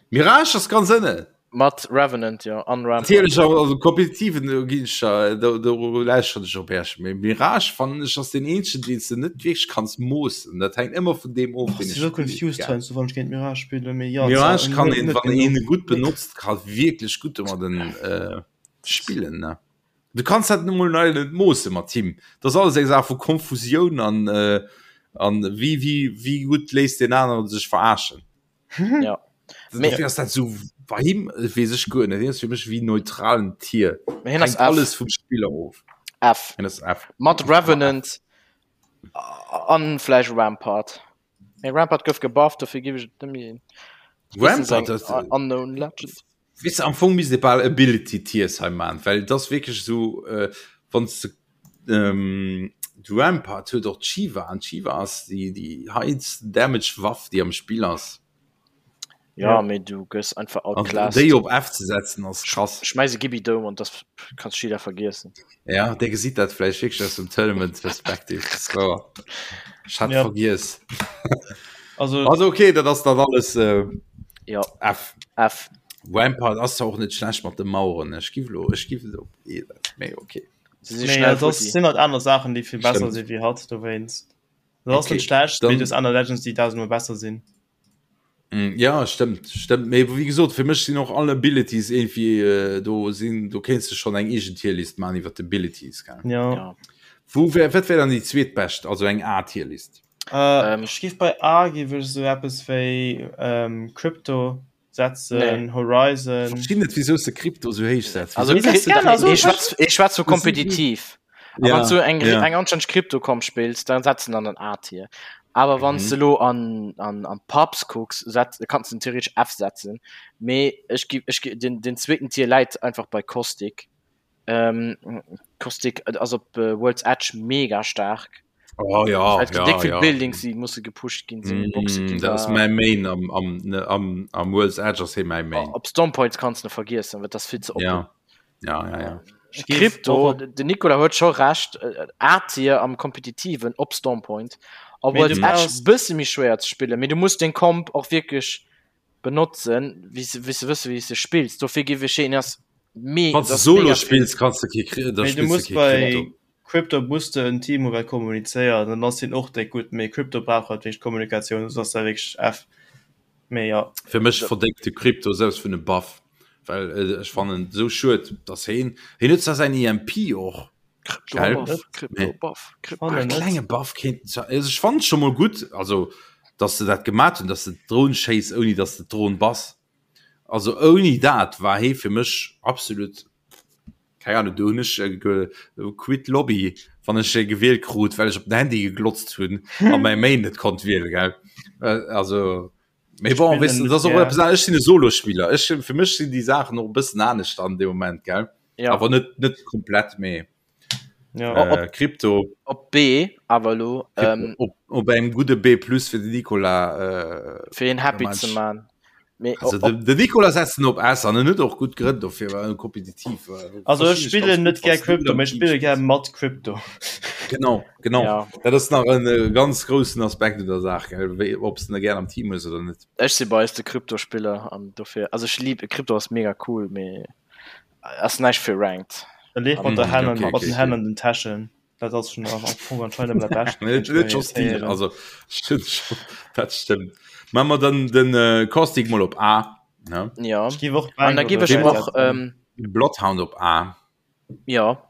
Mirage ass ganz ënnen. Mat Revenant, ja, an Rampart. Natierlech awer also kompetitiven do ginn ech der do do lauschteren ech op Äerch. Mee Mirage fannen ech ass deen eenzegen deen s de net wierklech kanns moossen. Dat hänkt ëmmer vun deem of Oh, deen si ech so spillen, confused gell. heiansdo wann ech géint Mirage spillen, mee ja, Mirage zwar kann net een net wann een genuch. e gutt benotzt ka wierklech gutt domadden äh spillen ne. Du kanns dat nu mol leider net moosse mat him. Dat ass alles eng Saach vu Konfusioun an äh an wéi wéi wéi gutt léisst deen aneren sech verarschen. Ja. Dofir ass dat sou bei him weess ech guer net. Hien ass fir mech wéi neutralen Tier. Mee hien ass Hänkt F. alles vum Spiller of. F. Hien ass F. Mat Revenant an vläicht Rampart. Mee Rampart gouf gebufft, dofir giff ech et net méi. Rampart, dat Unknown Legend. Weess de, am Fong misst ee bal Ability Tiers hei man, well et ass wierklech esou, wann s de de Rampart huet och d'Shiva an d'Shiva ass déi déi highest damage Waff déi am Spill ass. Ja, mee du gëss einfach An outclassed. déi op F ze setzen ass krass. Schmäiss e Gibi doum an das kanns Shida vergiessen. Ja, dee gesitt dat vläicht wierklech aus dem Tournament Perspective, dat ass wouer. Ech hat Ja. vergiess. Also, Also okay, dat ass dann alles äh, Ja, F. F. Rampart ass zwar och net schlecht mat de Maueren, ech giff lo, ech giff et op E setzen, mee okay. Se si nee, schnell das futti. sinn halt aner Saachen, déi vill besser Stimmt. si wéi hatt dowéinst. Dat ass net schlecht, mee du hues aner Legends, déi dausendmol besser sinn. Mm, ja stëmmt stëmmt mee wéi gesot fir mech sinn och all Abilities irgendwie äh, do sinn do kéinst du schon eng eegen Tierlist man iwwer d'Abilities gell? Ja. ja. Wou wär wat wär dann déi zweetbescht also eng A Tierlist? Äh, ähm. Ech giff bei A giff ech sou eppes wéi ähm, Crypto setzen nee. Horizon. Verstinn net wieso de Krypto so héich setzt. Also, ich schwätz so kompetitiv. Ja, wann du eng ja. eng anständig Krypto komm spillst, dann setzen an den A-Tier. Aber wann mhm. du lo an, an, an Pubs gucks, setz, kannst du theoretisch F setzen. Me ich geb, ich geb, den, den zweiten Tier läit einfach bei Caustic. Ähm, Caustic also op äh, World's Edge mega stark. Oh, ja, halt ja, dick vill ja. Buildings die musse gepusht ginn sinn Boxe mm, ginn dat ass da. mäi Main am, am, ne, am, am World's Edge ass hee mäi Main. Op Stormpoints kannst du vergiessen, well das vill ze oppen. Ja. Ja, ja, ja. Ich geh Crypto, och op- den Nicolas huet scho recht, äh, A-Tier am kompetitiven op Stormpoint. Op Mee World's du Edge brauchst- bësse méi schwéier ze spillen, mee du muss den Comp och wierklech benotzen, wéi se wéi se wësse wéi se spills. Dofir géif ech een ass me Wann du ass Solo mega vill. spills kanns du kee Kri- da Mee du spills du muss kee bei Crypto. Crypto muss de en Team hu wat kommunizéiert, dann ass hien och déck gutt, mee Crypto brauch halt wierklech Kommunikatioun, soss ass dat wierklech F. Mee jo. Fir mech verdéngt de Crypto selbst vun e Buff, well äh, ech fannen sou schued, dass heen heen huet zwar säin EMP och Crypto gell? Buff, Crypto Mee Buff, Crypto Fannen e net. klenge Buff kéinten zwar also ech fannen scho mol gutt, also dass se dat gemat hunn, dass de d'Dron schéiss ouni dass de d'Dron bass. Also ouni dat war hee fir mech absolut keng Ahnung, do hunn ech äh, quit Lobby, wann ech e gewielt krut, well ech op den Handy geglotzt hunn a mäi Main net konnt wiele gell. Äh, also Mee bon, Spillen weißt du, net das ass och gär. eppes anescht. Ech sinn e Solospiller. Ech, fir mech sinn déi Saachen och e bëssen anescht an deem Moment, gell? Ja. Awer net, net komplett, mee Ja. Op- äh, Krypto, Op B awer elo Krypto ähm, op, op engem gudde B plus fir den Nicolas. Äh, fir een happy Mensch. ze man. Mee also op, de, de Nicolas setzen op S an en huet och gutt Grënn dofir, well en kompetitiv. Äh, Also ech verstinn spillen ganz net gutt, gär wanns du Crypto, am mee ech Team spille gär spills. mat Crypto. Genau, genau. Ja. Dat ass nach en äh, ganz groussen Aspekt un der Saach, gell? Wéi, ob s du gär am Team hues oder net. ech si bei eis de Kryptospiller an dofir also ech lieb Krypto ass mega cool, mee ass näischt fir Ranked. E leeft mat der Mm, Hänn an okay, mat okay, den Hänn okay. an den Täschen. Dat ass schon am Fong anscheinend ëmmer dat Bescht. Net net scho Stil, also stimmt schon, dat stimmt. Machen wir dann den äh, Caustic mal op A, ne? Ja. Ech géif och An da Bang géif oder ech Red och setzen. ähm, Bloodhound op A. ja.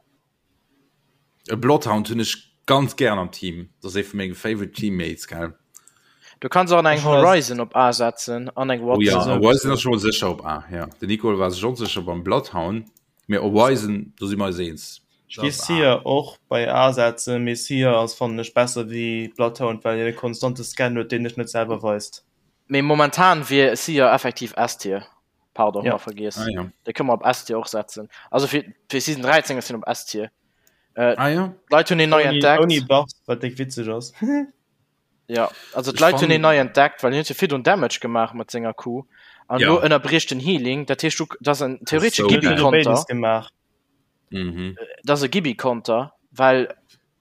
E Bloodhound hunn ech ganz gern am Team. Dat ass ee vu menge favorite Teammates, gell? Du kanns och an eng Ech hun als- Horizon op A setzen an eng Oh ja, Watson. Horizon ass schon sécher op A, ja. Den Nicole war sech onsécher beim Bloodhound, mee Horizon, do si mer eis eens. Ech géif Seer och bei A setzen, mee Seer ass fannen ech besser wéi Bloodhound, well hien e konstante Scan huet, deen dech net selwer weist. Mee momentan wier Seer effektiv S-Tier. Pardon, Ja. ja. vergiess. Ah, ja. Dee kënne mer op S-Tier och setzen. Also fir, fir Season 13 ass hien op S-Tier. Äh, Ah, ja. D'Leit hunn hien nei Ouni, entdeckt. ouni Buffs, wat déck witzeg ass. Ja, also Ech d'Leit hunn fannen- hien nei entdeckt, well hien huet jo virdrun Damage gemaach mat senger Q. An Ja. elo ënnerbricht den Healing. Dat heescht, du, dat ass en theoretesche so Hien huet geil. jo Gibi-Konter. béides gemaach. Mhm. Dat ass e Gibi-Konter, well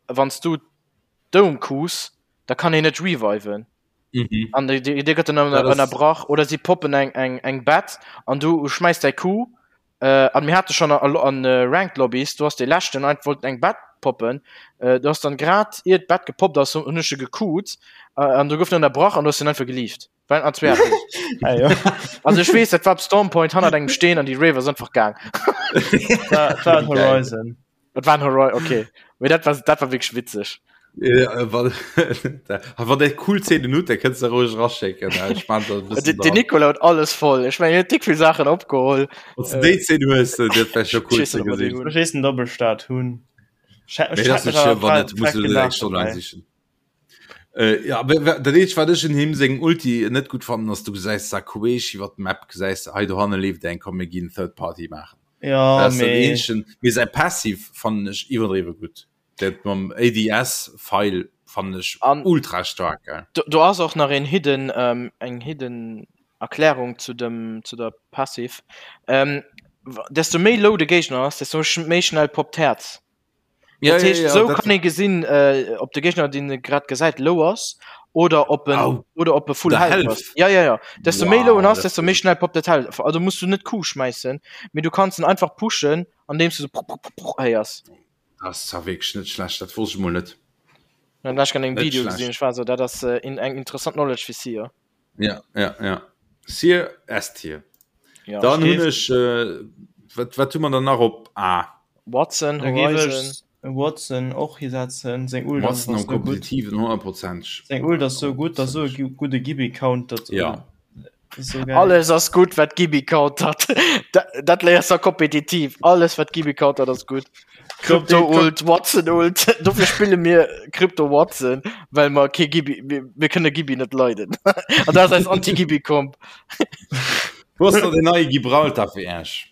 wann s du Dome Qs, da kann hien net reviven. Mhm. An déi, déi, déi gëtt dann Dat ass- ënnerbrach oder si poppen eng, eng, eng Bett an du schmäiss däi Q. Äh, an mir hate schon an, an äh, Ranked Lobbys, du hast de leschten einfach wollten eng Bett poppen. Äh, du hast dann grad ier d'Bett gepoppt ass, hunn ech se gequt äh, an du gouf ënnerbrach an du hast den einfach gelieft. Well an zwee Ah, jo. Also ech weess, dat war op Stormpoint hannert engem Steen an déi Rave ass einfach gaang. Dat war en Geil. Horizon. Dat war en Horizon, okay. Mee dat war, dat war wierklech witzeg. Ja, wann wann der cool Szenen hutt, da kënns de roueg raschécken. Ech man da e bëssen Den, den dran. Nicolas huet alles voll. Ech mengen, hien huet dick vill Saachen opgeholl. Wann du déi Szene hues, dat wär scho cool Ech weess ze net, ob mer déi gesinn. hunn. Ech weess den Doppelstart hunn. Ech hätt Mee dat ass mech net awer schlëmm, wann net, muss frech du net eng gelaacht Stonn laang dobäi. sichen. Äh, ja, aber wa- dat eenzegt, wat ech un him sengem Ulti net gutt fannen, ass, du gesäis da queesch iwwer d'Map, gesäis de, hei dohanne leeft eng, komm mir ginn Third Party maachen. Ja, Dat ass dat mee eenzegen. Mee säi Passive fannen ech iwwerdriwwe gutt. Dat mam ADS-File fannen ech An ultra staark, gell. do, do ass och nach een hidden, ähm, eng hidden Erklärung zu dem, zu der Passive. Ähm, wa- desto méi low de Géigner ass, desto sch méi schnell poppt d'Häerz. Ja, Dat ja, heescht, ja, sou dat kann ee gesinn, äh, ob de Géigner, deen e grad gesäit, low ass oder ob en, Au, oder ob e full der health Health. ass. Ja, ja, ja. Desto méi low en Wow, ass, dat desto méi schnell poppt dat Health. Also muss du net Q schmäissen, mee du kanns en einfach pushen, andeems du so prr, prr, prr, prr héiers. Das ass zwar wierklech net schlecht, dat wosst ech mol net. Dann ech an engem Video gesinn, ech war so dat ass äh, in, eng interessant Knowledge fir Seer. Ja, ja, ja. Seer S-Tier. Ja. Dann hunn ech äh, wat, wat hu man dann nach op A? Watson, Horizon. Watson och hisetzen seng Ult ass Watson am kompetitiven 100%. Seng Ult ass sou gutt, ass sou e gudde Gibi countert. Ja. So geil. Alles ass gutt wat Gibi countert. Dat léiers du kompetitiv. Alles wat Gibi countert ass gutt. Crypto Ult, Watson Ult. Dofir spille mir Crypto Watson, well mer kee Gibi mir, mir kënne Gibi net leiden. An dat ass eis Anti-Gibi Comp. Wou ass da den neie Gibraltar fir Äech?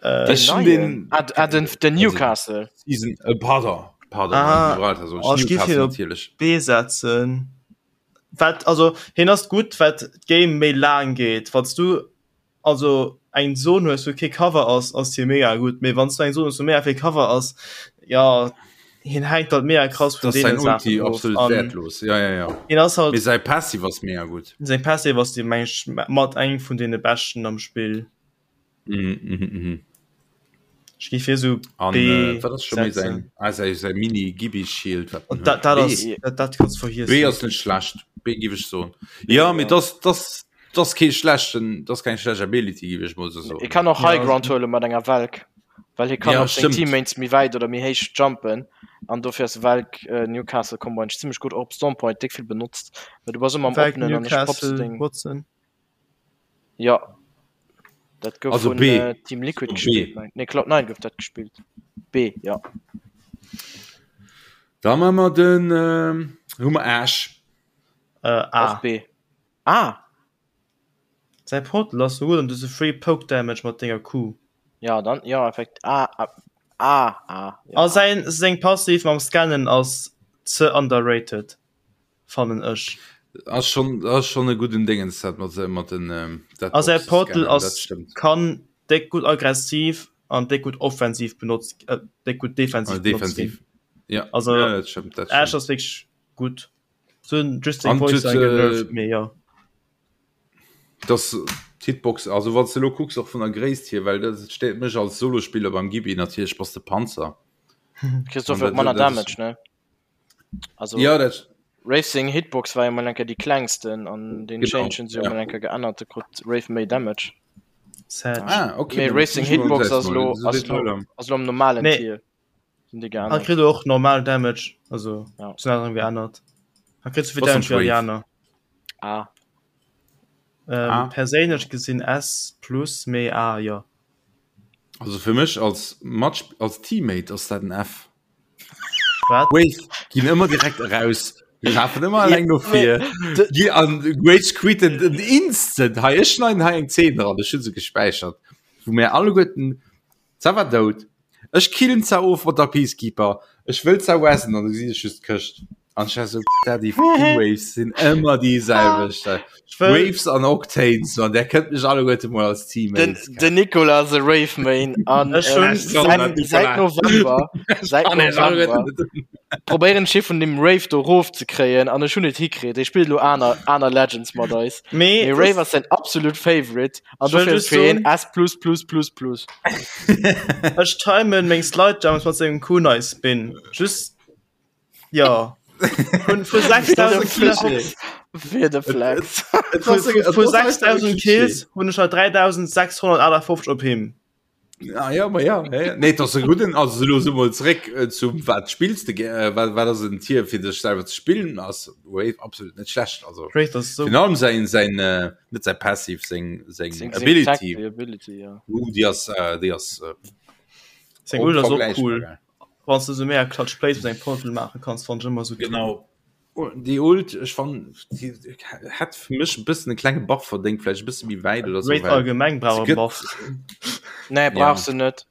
Äh, den, neien? Ah, ah, den, den Newcastle. Season, äh, pardon, pardon, ah, Gibraltar, so, oh, Newcastle natierlech. B setzen. Wat, also hien ass gutt wat d'Game méi laang geet. Wann s du also eng Zon hues wou kee Cover ass, ass hie mega gutt, mee wann s du eng Zon hues wou mega vill Cover ass, ja hien hänkt halt mega krass vun Das sein deene Saachen Ulti of. absolut An wertlos. Ja, ja, ja. hien ass halt Mee säi Passive ass mega gutt. seng Passive ass déi meng ech mat eng vun deene beschten am Spill. Mhm, mhm, mhm. Ech géif hie sou An B äh, wat ass scho méi setzen. säin ah, säi, säi Mini Gibi Shield wat en Und dat, huet. dat B. ass dat, dat kanns B vergiessen. ass net schlecht. B giff ech soen. B, Ja, mee ja. das das das kee schlechten das keng schlecht Ability giff ech mol sou E soen. kann och Ja, High Ground huele mat enger Valk, well hie kann Ja, op seng stëmmt. Teammates méi wäit oder méi héich jumpen an dofir ass Valk äh, Newcastle Combo eigentlech zimmlech gutt, och op Stormpoint déck vill benotzt, well du bass ëmmer am Valk Oppenen an ech pops Newcastle deng. Watson. Ja dat gouf Also vun B. äh, Team Liquid B. gespillt meng nee Cloud 9 gouf dat gespillt B ja. Da man mer den ähm, hu mer Ash. Äh, A. Och B. Ah Säi Portal ass sou gutt an du hues e free Poke Damage mat denger Q. ja dann ja effekt A A A A ja, A A. säin seng Passiv mam Scannen ass ze underrated. fannen ech. Ass schon ass schon e gudden Dingens dat mat mat den ähm, dat A säi Boxen Portal scannen, dat ass stëmmt. kann déck gutt aggressiv an déck gutt offensiv benotzt äh, déck gutt defensiv Ah, benotzt ginn. defensiv. Ja, Also ja, dat stëmmt, dat Ash stëmmt. ass wierklech gutt. So just seng An Voice huet, line genervt äh, mee jo. das d'Hitbox, also wann s de lo kucks och vun der Gréisst hier, well dat stéiert mech als Solospiller beim Gibi natierlech bass de Panzer. Kriss An dofir och dat, manner dat ass Damage ne? Also ja, dat Racing Hitbox war jo mol enker déi klengsten an den genau, Change hunn se jo ja. mol enker geännert, da krut Wraith méi Damage. Sad. Ah, okay, Mee dann Racing muss ich mal Hitbox selbst ass mal lo so ass lo Detailer. ass lo am normalen Nee. Tier sinn déi Hat geännert. kritt och normal Damage, also Ja. sinn aner geännert. Hat kritt souvill Was Damage am wéi Wraith? Ariana. Ah. Ähm, Ah. perséinlech gesinn S plus mee A jo. Also fir mech als Match als Teammate ass dat en F. Wat? Wave ginn ëmmer direkt eraus. Die lafen ëmmer alleng no vir. De- Gi an Rage quitten den Instant. Hei ech schneiden hei eng Szene dran, ech hunn se gespäichert. Wou mir alleguerten Za war dout. Ech killen za of mat der Peacekeeper. Ech wëll za wessen an du gesinn ech just d'Këscht. An ech war so Daddy fucking Waves sinn ëmmer déi selwecht. Ech wëll Waves an Octanes, man, der kënnt mech alleguerte mol als Den, Teammates. den Nicolas the Rave Main an Ech hun- äh, säit, säit November säit November probéieren ech hie vun dem Rave do rof ze kréien an ech hunn et hikritt. Hie spillt elo aner aner Legends mat eis. mee Mee Rave ass säin absolut Favorite an Ech wëll dofir just fir hien soen- S plus plus plus plus. ech timen meng Slide Jumps mat sengem Kunai Spin. Just Ja vun vu 6000 Kills Fir de Flex. vu 6000 Kills hunn ech 3658 op him. Ah, ja, ma ja, ja, ja. Nee, das e guten also lo so mal zréck äh, zum wat spillst du äh, wat wat ass en Tier fir dech selwer ze spillen ass Wave absolut net schlecht also Wraith ass so Virun allem sein sein äh, net sein passiv seng seng Seng- seng Ability Tactical Ability, ja. uh, déi ass äh, déi ass äh, seng Ult ass och unvergleichbar cool. geil. Wann du so mega Clutch Plays mit engem Portal maache kanns, fand ech ëmmer so Genau. Déi Ult, ech fand, déi hätt fir mech e bëssen e klenge Buff verdéngt, vläicht e bësse méi wäit oder so. Wraith well allgemeng brauch se e gëtt- Buff. Nee, brauchst du net.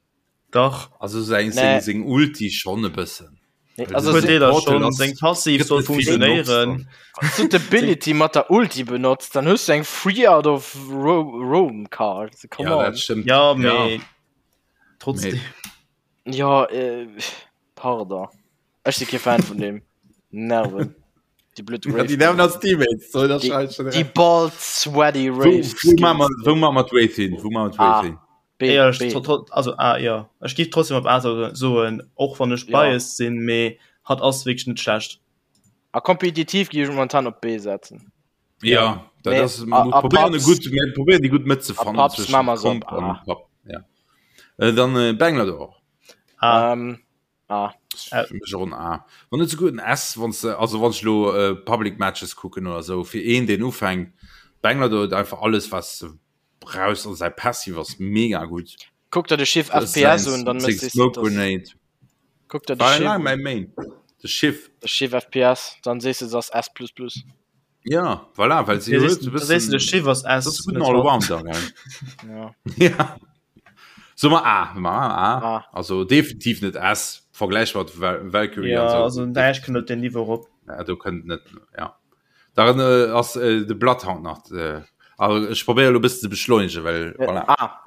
Dach. Also seng, Nee. seng, seng Ulti schon e bëssen. Nee, Well also se- Huet Deeler Portal schon, ass- seng Passiv gëtt soll net vill benotzt funktionéieren. Wann du d'Ability mat der Ulti benotzt, dann hues du eng Free out of Ro Roam Card. Come Ja, on. dat stëmmt. Ja, mee trotzdem. Ja, äh, pardon. Ech si kee Fan vun deem. Nerven. Déi blöd Ja, Wraith. déi nerven als Teammates. So, das Déi- schalt schon Déi recht. bald sweaty Wo, Wraith. wo machen wir, wo machen wir d'Wraith hin? Wo machen wir d'Wraith Ah. hin? B, Ja, ech, B. tro- tro- also ah, ja. Ech géif trotzdem op A so- soen, och wann ech Ja. biased sinn, mee. Hatt ass wierklech net schlecht. A kompetitiv gi ech momentan op B setzen. Ja, dat ass probieren gutt probieren déi gutt Mëtt ze fannen zwëschen Komp an Pub. Ja. Äh, dann äh, Banglador. A. Ähm, A. Für mech och en A. Wann net souguer en S, wann se also wann ech lo äh, Public Matches kucken oder sou fir een deen ufänkt. Banglador huet einfach alles was se brauchst an säi Passive ass mega gutt. Kuck der de Schiff FPS un, dann mëss Smoke Grenade. Kuck der de Schiff. War mäi Main. De Schiff. De Schiff FPS, dann sees de ass S plus plus. Ja, voilà, well si huet e bëssen. De Schiff ass S. Dat ass e gudden Allrounder, gell? Ja. Ja. So mer A, ma A. A. Also definitiv net S, Vergläich mat Valkyrie ja, an sou. Also näischt kënnt op den Niveau rop. Ja, do kënnt net, ja. Dann äh, ass äh, de Bloodhound nach. Äh, also ech probéiere lo bëssen ze beschleunegen, well äh, voilà. A.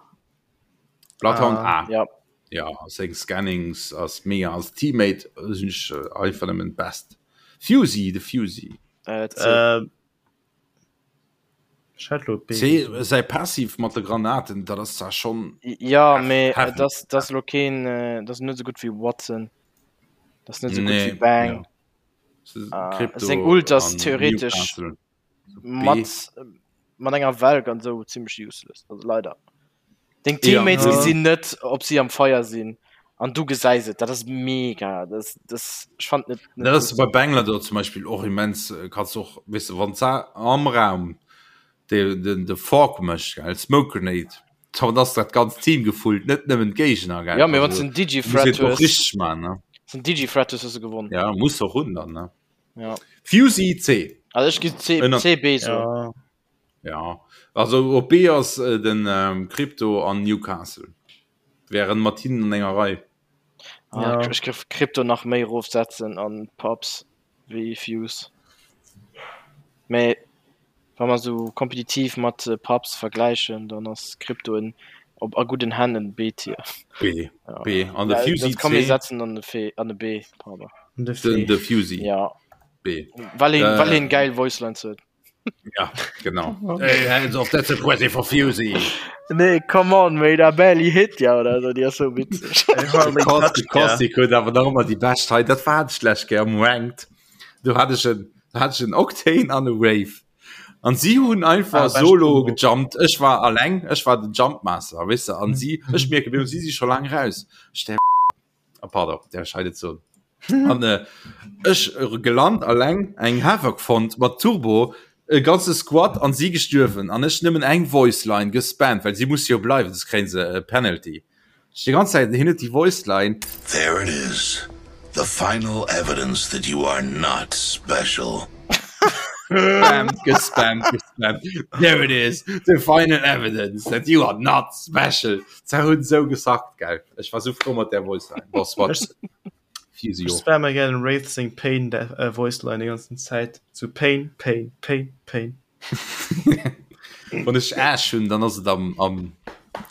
Bloodhound A. Ah. Ja. Ja, seng Scannings ass mega als Teammate sinn ech äh, einfach nëmmen best. Fusey, de Fusey. Äh, C. Äh, ech hätt lo B. C, säi Passiv mat de Granaten, dat ass zwar schon Ja, mee heavy. das das lo keen äh, das net so gut wéi Watson. Das net so gut Nee, wéi Bang. ja. Ah, seng Ult ass theoretesch mat mat enger Welk an sou zimmlech useless, also leider. Deng Teammates Ja. gesinn net, ob si am Feier sinn an du gesäis et. Dat ass mega. Das, das, ech fand net, net Dat ass gutt. bei Bangladesch zum Beispiel och immens äh, kannst du och weißt du, wann am Raum de, den de Fork mécht gell Smoke Grenade dann ass dat ganzt Team gefullt net nëmmen d'Géigner gell Ja, mee wann den Digi-Threat hues hues, richtig man ne den Digi-Threat hues, hues du gewonnen. ja muss och hunn dann ne Ja. Fusey C Also ech gi C, Ënner- C, B so. Ja. ja also op B ass äh, den ähm, Crypto an Newcastle wären mat hinnen an enger Rei Ah, Ja. Ech géif Crypto nach méi erofsetzen an Pubs wéi Fuse. Mee wa mer sou kompetitiv mat Pubs vergläichen, dann ass Crypto en op a gudden Hänn en B-Tier. B Ja. B an de Ja, Fusey dat kann mir C setzen an de F an de B, pardon. An de den F. de Fusey Ja. B Well een, well Äh. een geil Voice Lines huet. Ja, genau. Hey, hands off, that's a present for Fusey. Nee, come on, mate, I barely hit ya oder so, déi ass sou witzeg. Hardly touched ya. Caustic huet awer nach ëmmer déi bescht hei. Dat war ech lech gär am Ranked. Do hat ech en, do hat ech en Octane an e Wraith. An si hunn einfach Ah, bescht solo Combo. gejumpt. Ech war alleng, ech war den Jumpmaster, weess de. An si, ech mierke, mir si si scho laang raus. Ech der Ah, pardon, der scheidet so. An äh, ech äh, gelant alleng eng Havoc fonnt mat Turbo, e ganze Squad an si gestuerwen an ech nëmmen eng Voice Line gespammt, well si muss jo bleiwen, soss kréien se e Penalty. Ech déi ganz Zäit hin huet déi Voice Line. There it is, the final evidence that you are not special. Gespammt, gespammt, gespammt. There it is, the final evidence that you are not special. Se hunn sou gesackt, gell. Ech war sou frou mat där Voice Line. Boss, wat? Ech Fusey och. spamme gär Wraith seng Pain Voice Line déi ganzen Zäit. Sou Pain, Pain, Pain, Pain. Wann ech Ash hunn, dann ass et am, am,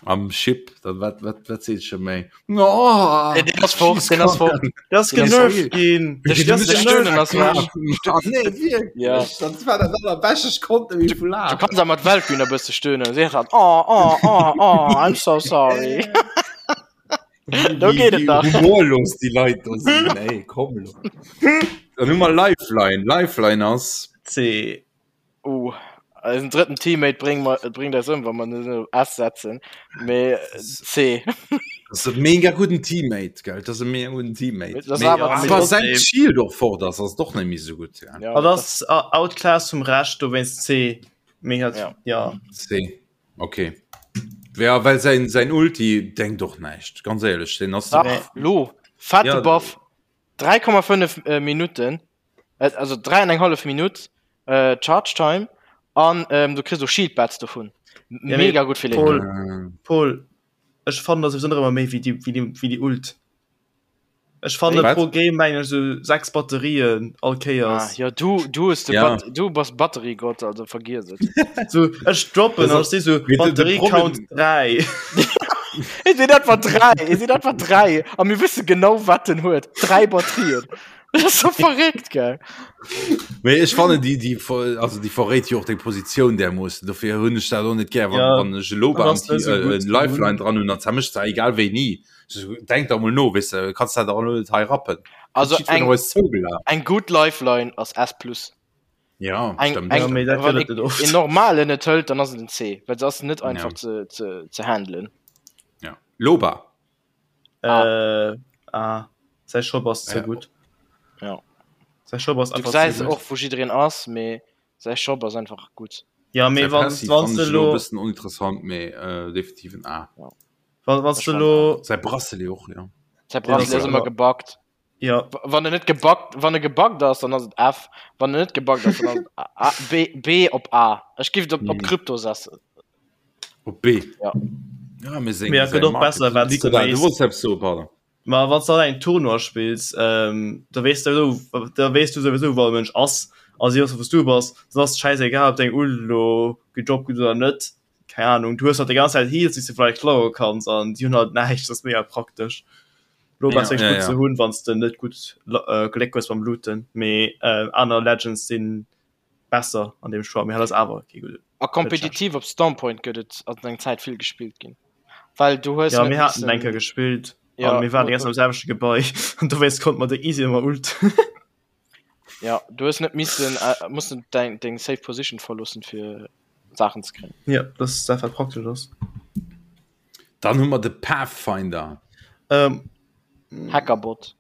am Ship. Dann wat, wat, wat seet scho méi? Oh, Nee, deen ass fort, deen ass fort. Der ass genervt ginn. De Der ass de Stöhnen ass weg. Ah, nee, wierklech. Ja. Dat war dat allerbescht, ech konnt net méi vu Du laachen. kanns awer mat Valkyrie e bësse stöhnen. Si hat oh, oh, oh, oh, I'm so sorry. Do geet et nach. Wéi humorlos déi Leit do sinn, ey, komm lo. Dann hu mer Lifeline. Lifeline ass. C. Uh, eisen drëtten Teammate bréngt mer, bréngt eis ëm, wa mer en op S setzen. Mee C. Dat ass e mega gudden Teammate, gell? Dat ass e mega gudden Teammate. Dat ass Mee awer wa C. säin Shield och fort ass, ass et och net méi esou gutt. Ja. Ja, Dat dat ass outclass vum Rescht, dowéinst C. Mee hat, Ja. ja. C. Okay. Ja, well säin, säin Ulti denkt och näischt, ganz éierlech. Deen ass. Dach, lo, fette Ja. Buff, 3,5 Minutten. also 3 an eng hallef Minutt äh, Charge Time an ähm, du kriss och Shield Bats dovun. Ja, Mega gutt fir Paul, Lane. Paul, ech fannen dat sowieso nach ëmmer méi wéi déi, wéi déi, wéi déi Ult. Ech fanne Wat? pro Game mengen ech sou 6 Batterien all Ah, Kéiers. ja, du, du, hues de Ja. Bat du bass Batteriegott, also vergiess et. So, ech droppen Das an ech si sou Mee de- de Batterie Problem- Count 3. Et sinn etwa 3, et sinn etwa 3 a mir wësse genau wat en huet. 3 Batterien. Dat ass so verréckt, gell? Mee ech fannen déi déi also déi verréit jo och deng Positioun därmoossen. Dofir hunn ech dat och net gär, wann, Ja, wann ech elo dat beim ass net sou äh, gutt. Lifeline dran hunn, dann zermëscht se egal wéini. Denk der mol no, weess de, kanns dat och elo net hei rappen. Also eng, eng gutt Lifeline ass S plus. Ja, eng, stimmt. Eng, ja, mee dat wann gëtt et net oft. een normalen net hëlt, dann ass et en C, well se ass net einfach Ja. ze, ze, ze handelen. Ja. Loba. Ah. Äh, ah. Säi Shop ass ze Ja. gutt. Ja. Säi Shop ass Du einfach gesäis ze gutt. och wou jiddereen ass, mee säi Shop ass einfach gutt. Ja, mee Säi wann, Passiv wann fannen du ech elo e lo, bëssen oninteressant, mee äh, definitiv en A. wann, wann Ech du fannen lo, Säi Bracelet och, ja. Säi Den ass Bracelet ass och ëmmer ëmmer- gebuggt. ja, Wann en net gebuggt, wann e gebuggt ass, dann ass et F. Wann en net gebuggt ass, dann ass et A, A, B, B op A. Ech giff et op, op Mhm. Krypto setzen. Op B. Ja. Ja, mee seng, Mee et säi gëtt och Market. besser, wat Nicolas, du du méis. wollts eppes soen, pardon. Ma wann du dann eng Tournoi spills, ähm, da weess du sowieso, da weess du sowieso, wou e Mënsch ass a si wëssen, wou s du bass. Dann ass et schäisegal, ob deng Ult elo gedroppt gëtt oder net. Keng Ahnung, du hues halt déi ganz Zäit Heals, déi s du vläicht klaue kanns an déi hunn halt näischt. Dat ass mega praktesch. Lo Ja, ass wierklech ja, gutt ja. ze hunn, wann s de net gutt Gléck hues beim Looten. Mee aner Legends si besser an deem Choix, mee hat ass awer kee gudde. A kompetitiv op Stormpoint gëtt et an eng Zäit vill gespillt ginn, well du hues Ja, net mir haten missen eng Kéier gespillt ja, an mir waren déi ganz Zäit am selwechte Gebai an dowéinst konnte mer déi easy ëmmer ulten. Ja, du hues net missen äh, mussen deng deng safe Position verloossen fir Saachen ze kréien. Ja, dat ass dat wat praktesch ass. Dann hu mer de Pathfinder. Ähm, Hackerbot.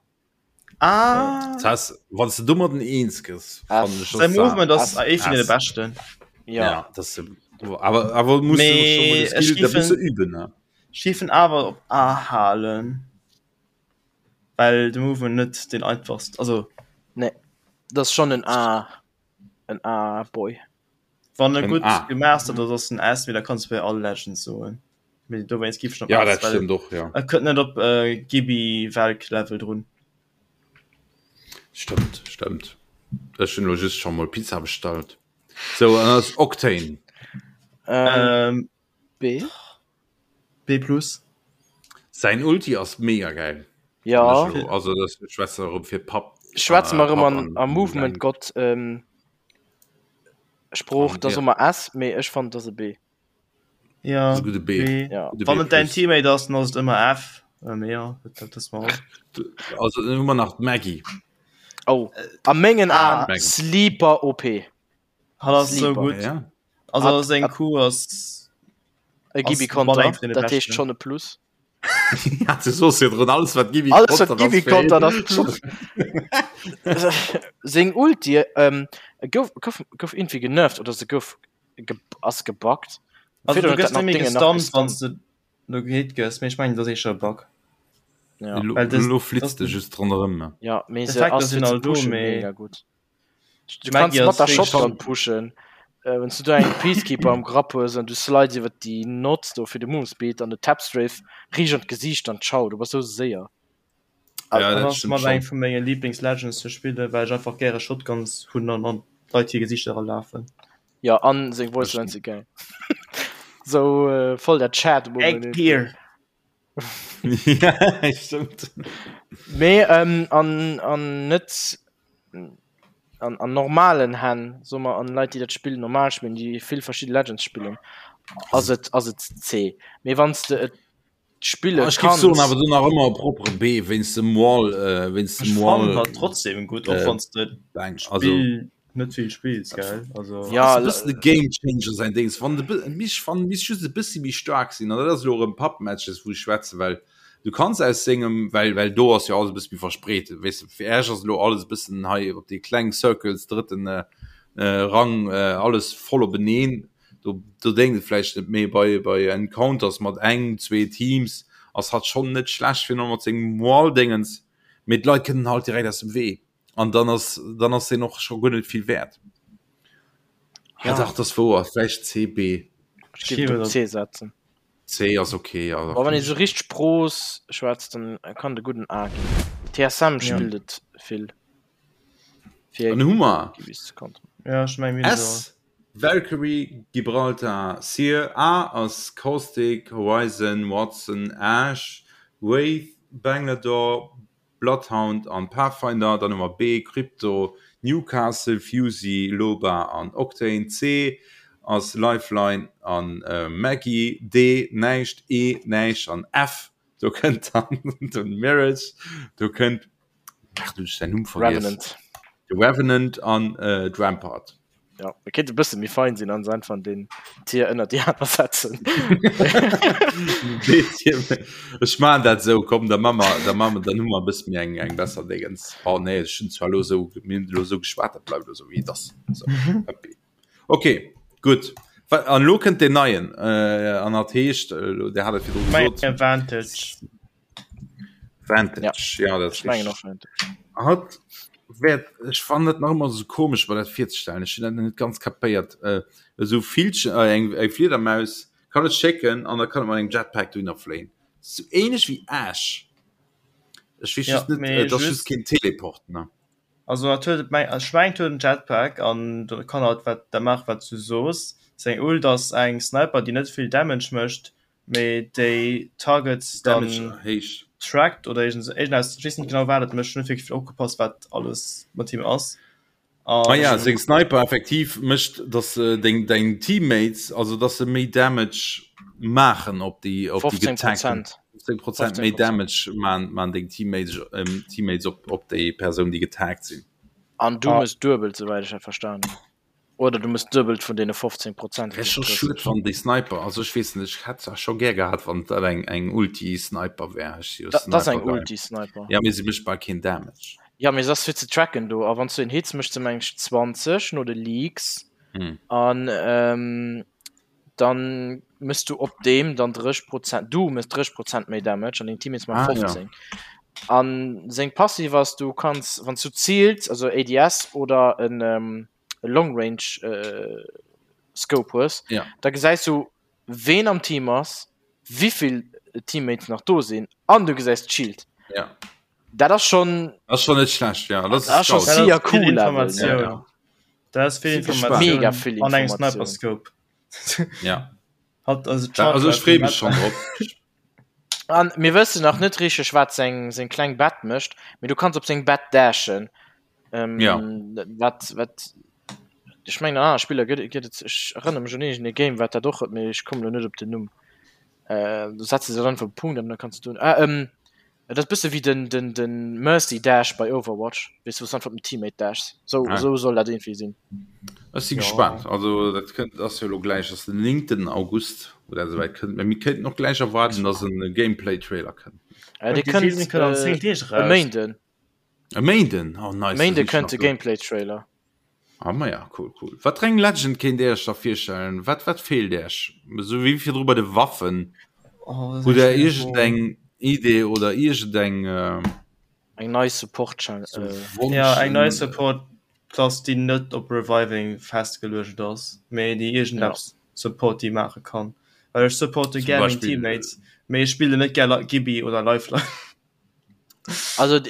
Ah. Das heißt, wann du domadden eens gëss, fannen ech Säi das Movement ass Ass- ee vun deene Ass. beschten. Ja. Ja, das awer awer muss Mee du schon ech mal de Skill, da géif muss du en- üben ne? Ech géif en awer op A halen, well de Movement net deen einfachst, also Nee, dat ass schonn en A, en A-Boy. Wann e En gutt A. gemastert ass, ass en S, mee da kanns du bei all Legend soen. Mee dowéinst giff ech en op Ja, S, dat well stëmmt och, ja. e kënnt net op äh, Gibi Valk Level drun. Stëmmt, stëmmt. Ech hunn elo just scho mol Pizza bestallt. Sou, an ass Octane. Ähm, Ähm, B? B plus. Säin Ulti ass mega gäil. Ja. Also das schwätze erëm fir Papp. Schwätze mer erëm Papp an an a Movement Gott ähm, Sprooch, An, da ja. soe mer S, mee ech fannen et ass e B. Ja, Ass e gudde B. B. Ja. Gudde Wann B et däin plus. Teammate ass, dann ass et ëmmer F. Äh, mee ja, dat dat wësse mer all. Also dann hu mer nach d'Maggie. Oh, a mengen Ah. Aen Maggie. Sleeper OP. Hat ass sou Sleeper. gutt. Ja. Also Hat- seng hat- Q ass E Ass Gibi mat Konter, eng vun de dat heescht beschten. schonn e Plus. Ja, du soos virdrun, alles wat Gibi Alles wat kontert ass Gibi fir kontert een ass Plus. Seng Ulti ähm, gouf, gouf, gouf irgendwie genervt oder se gouf ge, ass gebuggt. Also Virdrun du huet gëss dat nach net méi Dinge nach gestunt, wann gestunt. s du no gehit gëss, mee ech mengen dat ass éischter e Bug. Ja. Elo, Well das- elo flitzt das- de just ronderëm. Ja, mee se D'Effekter ass sinn fir ze all do, pushen mee- mega gutt. Du Maggie kanns mat ass der wéi Shotgun pushen. Äh, wenn du do eng Peacekeeper am Grapp hues an du slides iwwer déi Nots do fir de Move Speed an de Tap Strafe riicht an d'Gesiicht an ciao, du bass sou séier. Ja, Dat dat ass stimmt mat eng schon. vu menge Lieblings-Legends ze spillen, well ech einfach gäre Shotguns hunn an an d'Leit hir Gesichter erlafen. Ja, an seng Voice Lines si geil. Sou äh, voll der Chat Egg Gear! Ja, stimmt. Mee ähm, an, an net an, an normalen Hänn, soe mer, an Leit, déi dat Spill normal spillen, déi vill verschidde Legends spillen, ass et, ass et C. Mee wann s de et spille Ah, Ech géif soen kanns, awer do nach ëmmer e propere B wéinst dem Wall, äh, wéinst Ech dem fannen Wall hat trotzdem gutt, och äh, wann s de Bang. Also Spill net vill spills, gell? Also ja, ass e bëssen de Game Changer säin Dings. Wann de bë- mich wann misst just e bëssi méi staark sinn, an dat ass elo erëm Pub-Matches, wou ech schwätzen, well du kanns aus sengem, well well do ass jo alles e bësse méi verspreet, weess de, fir Äech ass elo alles e bëssen hei op déi kleng Circles, drëtten äh, äh, Rang, äh, alles voll openeen. Do do déngt et vläicht net méi bei bei Encounters mat eng, zwee Teams ass hatt schonn net schlecht fir no mat sengem Wall-Dingens, mee d'Leit kënnen halt direkt aus dem Wee. An dann ass dann ass deen och scho guer net vill wäert. Ja. Ja. Dach das wouer, vläicht C, B. ech géif et op C setzen. C ass okay, ja. Boah, wann ee sou richteg Pros schwätzt, dann kann de gudden A ginn. TSM spillt et vill. Fir Dann hu mer Gibis ze konteren. Ja, ech meng mir hunn se S, Valkyrie, Gibraltar, Seer, A ass Caustic, Horizon, Watson, Ash, Wraith, Bangalore, Bloodhound an Pathfinder, dann hu mer B, Crypto, Newcastle, Fusee, Loba an Octane, C ass Lifeline an Maggie, D näischt, E näischt an F. Do kënnt dann den Mirage, do kënnt ach du ech säin Numm vergiess. Revenant. De Revenant an äh, d'Rampart. Ja, e kéint e bësse méi fein sinn an se einfach den Tier ënner déi aner setzen. Ech man dat sou, komm da ma mer, da ma mer, dann hu mer e bësse méi eng eng besser Déngens. Oh nee, ech hunn zwar lo sou, mir hunn lo sou geschwat, dat bleift lo sou wéi et ass. So, happy. Ok, gutt. An elo kënnt deen neien, an dat heescht, Dir hat et virdru gesot. Vantage. Vantage, ja, dat ass richteg. Hatt wäert, ech fannen dat nach ëmmer esou komesch, mer dat virzestellen, ech hunn dat nach net ganz kapéiert, esou Villchen, eng Fliedermaus kann et schécken an da kann et mat engem Jetpack dohinner fléien. Sou ähnlech wéi Ash. Ech weess just net, et ass just keen Teleport, ne? Also hat huet meng ech mengen et huet en Jetpack an do kann halt wat da maache wat s du soos. Seng Ult ass eng Sniper déi net vill Damage mécht, mee déi Targets dann Damage héich. trackt oder iergend sou iergendeppes, ech weess net genau wat et mécht, ech hunn net wierklech vill opgepasst wat alles mat him ass. Ah ja, An seng Sniper effektiv mécht dass deng deng Teammates, also dass se méi Damage maachen op déi op déi 15 getagten. Prozent. 15 Prozent méi Damage man man deng Teammates ähm, Teammates op op déi Persoun déi getaggt sinn. An du mëss duebelt, souwäit ech dat verstan hunn. Oder du mëss duebelt vun deene 15 Prozent. Wär scho schued wann déi Sniper, also ech weess net, ech hätt zwar scho gär gehat wann dat eng eng Ulti Sniper wär, ech si jo Dat ass eng Sniper Guy. Ulti Sniper. Ja mee se mécht bal keen Damage. Ja mee se ass fir ze tracken do a wann s du een hits mécht se meng ech 20 no de Leaks Hm. an ähm, dann mëss du op deem dann 30 Prozent, du mëss 30 Prozent méi Damage an deng Teammates maachen Ah, ja. 15. An seng Passiv ass, du kanns, wann s du ziils, also ADS oder en ähm, e Long Range äh, Scope hues, Ja. da gesäis du ween am Team ass, wéivill Teammates nach do sinn an du gesäis d'Shield. Ja. Dat ass schon Das ist schon net schlecht, ja. Das Das ist ass schon scout. sicher Dat ass vill cool, Level, ne? Informatioun. Ja, ja. Dat ass vill Super Informatioun Mega vill an engem Informatioun. Sniper Scope. Ja. Hat also Ja, also ech freeë mech schon drop. An mir wëssen nach net richteg wat seng seng kleng Bett mécht, mee du kanns op seng Bett dashen. Ähm, Ja. Wat wat ech mengen an aner Spiller gëtt gëtt et ech erënnere mech un iergend e Game wat dat och huet, mee ech kommen elo net op den Numm. Äh, du setz se dann einfach op Punkt an dann kanns du doen. Ah, ähm, Et ass bësse wéi den, den, den Mercy Dash bei Overwatch, weess du, wou s du einfach op den Teammate dashs. Sou, Ah. sou soll dat iergendwéi sinn. Ech si Ja. gespaant. Also dat kënnt ass jo elo gläich, ass den 9. August, wou dat esouwäit kënnt. Mä mir kéinten och gläich erwaarden, datt en Gameplay-Trailer kënnt. Äh, dee Déi kënnt Season kënnt an äh, 10 Deeg e eraus. Méinden. E Méinden? Oh nice, da Méinde sinn ech kënnt nach de do. Gameplay-Trailer. Ah ma ja, cool, cool. Wat fir eng Legend kéint Dir Iech da virstellen? Wat, wat feelt Iech? Esou wéi virdru bei de Waffen. Oh, dat ass Hutt eng Der schwiereg Fro. iergendeng Idee oder iergendeng äh, Eng nei Support Chal so äh, Wonsch? Ja, eng nei Support Klass, déi net op Reviving festgeluecht ass, mee déi ja. iergendeppes Support déi maache kann. Well ech supporte Zum gär meng Beispill Teammates, mee ech spillen net gär Gibby oder Lifeline. Also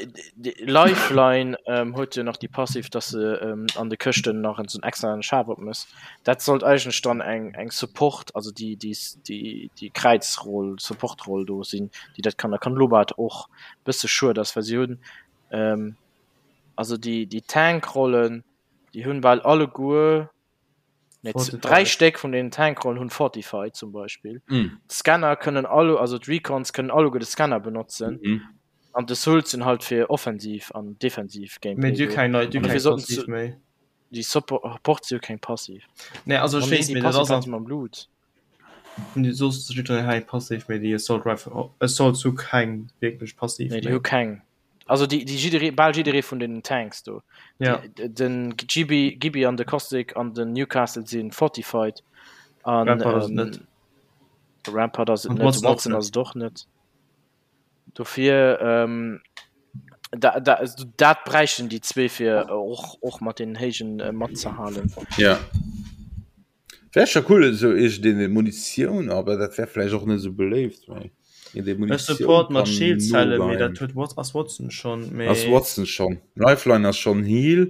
Lifeline ähm, huet jo nach déi Passiv, dass se ähm, an de Këschten nach en extra Schaf op mëss. Dat sollt eigentlech dann eng eng Support, also déi déi déi déi Kräizroll, Supportroll do sinn, déi dat kann. Da kann Lobat och bësse schued ass, well si hunn ähm, also déi déi Tankrollen, déi hunn bal alleguer Nee, 3 Stéck vun den Tankrollen hunn Fortify zum Beispill. Mm. D'Scanner kënnen alle, also d'Recons kënnen alleguer de Scanner benotzen. Mm. An de Souls sinn halt fir offensiv an defensiv Gameplay. Mee du keng nei, du An keng dofir sollten Passiv se méi. déi Support si jo keng Passiv. Nee, also ech Oh nee, weess, déi mee dat Passiv ass hat an se mam Blut. Déi soss jiddwereen hei Passiv, mee déi Assault Rifle, Assault hu keng wierklech Passiv Nee, déi méi. hu keng. Also déi, déi jidderee, bal jidderee vun den Tanks do. Ja. Déi, den Gibby, Gibby an de Caustic an den Newcastle sinn fortified. An, Rampart ass et ähm, net. Rampart ass et An net, Watson och Watson net. ass et och net. Dofir, ähm, da, da, dat bräichten déi zwee fir och, och mat den Héijen äh, matzehalen. Ja. Wär scho cool esou iergendeen Munitioun, awer dat wär vläicht och net esou beléift, mee een dee Ech Munitioun support mat kann Schildzellen, mee nogeien. dat huet Wat ass Watson schonn, Ass mee Watson schonn. Lifeline ass schonn Heal,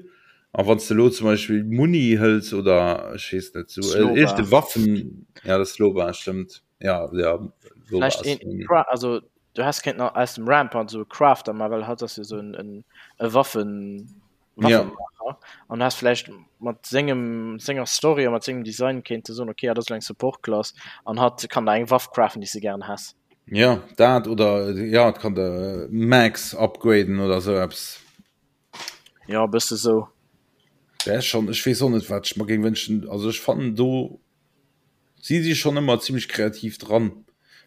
a wann s de elo zum Beispill Muni hëls oder ech weess net esou Sloba. iergende Waffen, ja dat Sloba stëmmt, ja ja Loba Vläicht ass een Muni. Cra also du häss kéinten aus dem Rampart esou e Crafter man, well hatt ass jo esou en en e Waffen Ja. Waffenmacher an has vläicht mat sengem senger Story a mat sengem Design kéinte soen okay, hatt ass elo eng Support Class an hatt kann der eng Waff craften déi s de gären häss. Ja dat oder ja et kann de Max upgraden oder sou eppes. Ja e bësse sou. Wär schon, ech weess och net wat ech mer géing wënschen. Also ech fannen do si si schon ëmmer zimmlech kreativ dran.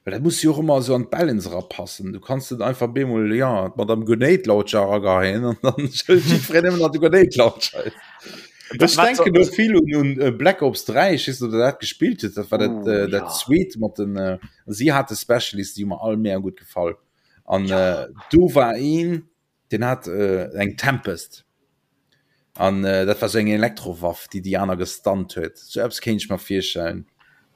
Well dat muss jo och ëmmer esou an d'Balance erapassen. Du kanns net einfach bemol ja d'Madame Grenade Launcher erageheien an dann schëllt jiddwereen ëmmer nach de Grenade Launcher. Ech denken do vill un, un äh, Black Ops 3, ich weiß nicht, ob der dat gespielt huet, dat war dat, uh, äh, dat ja. zweet mat den äh, sie hatte Specialist, die mir all mehr gut gefallen. An ja. äh, do war een, den hat äh, eng Tempest. An äh, dat war so eng Elektrowaff, déi die aner gestunt huet. So etwas kéint ich mir virstellen.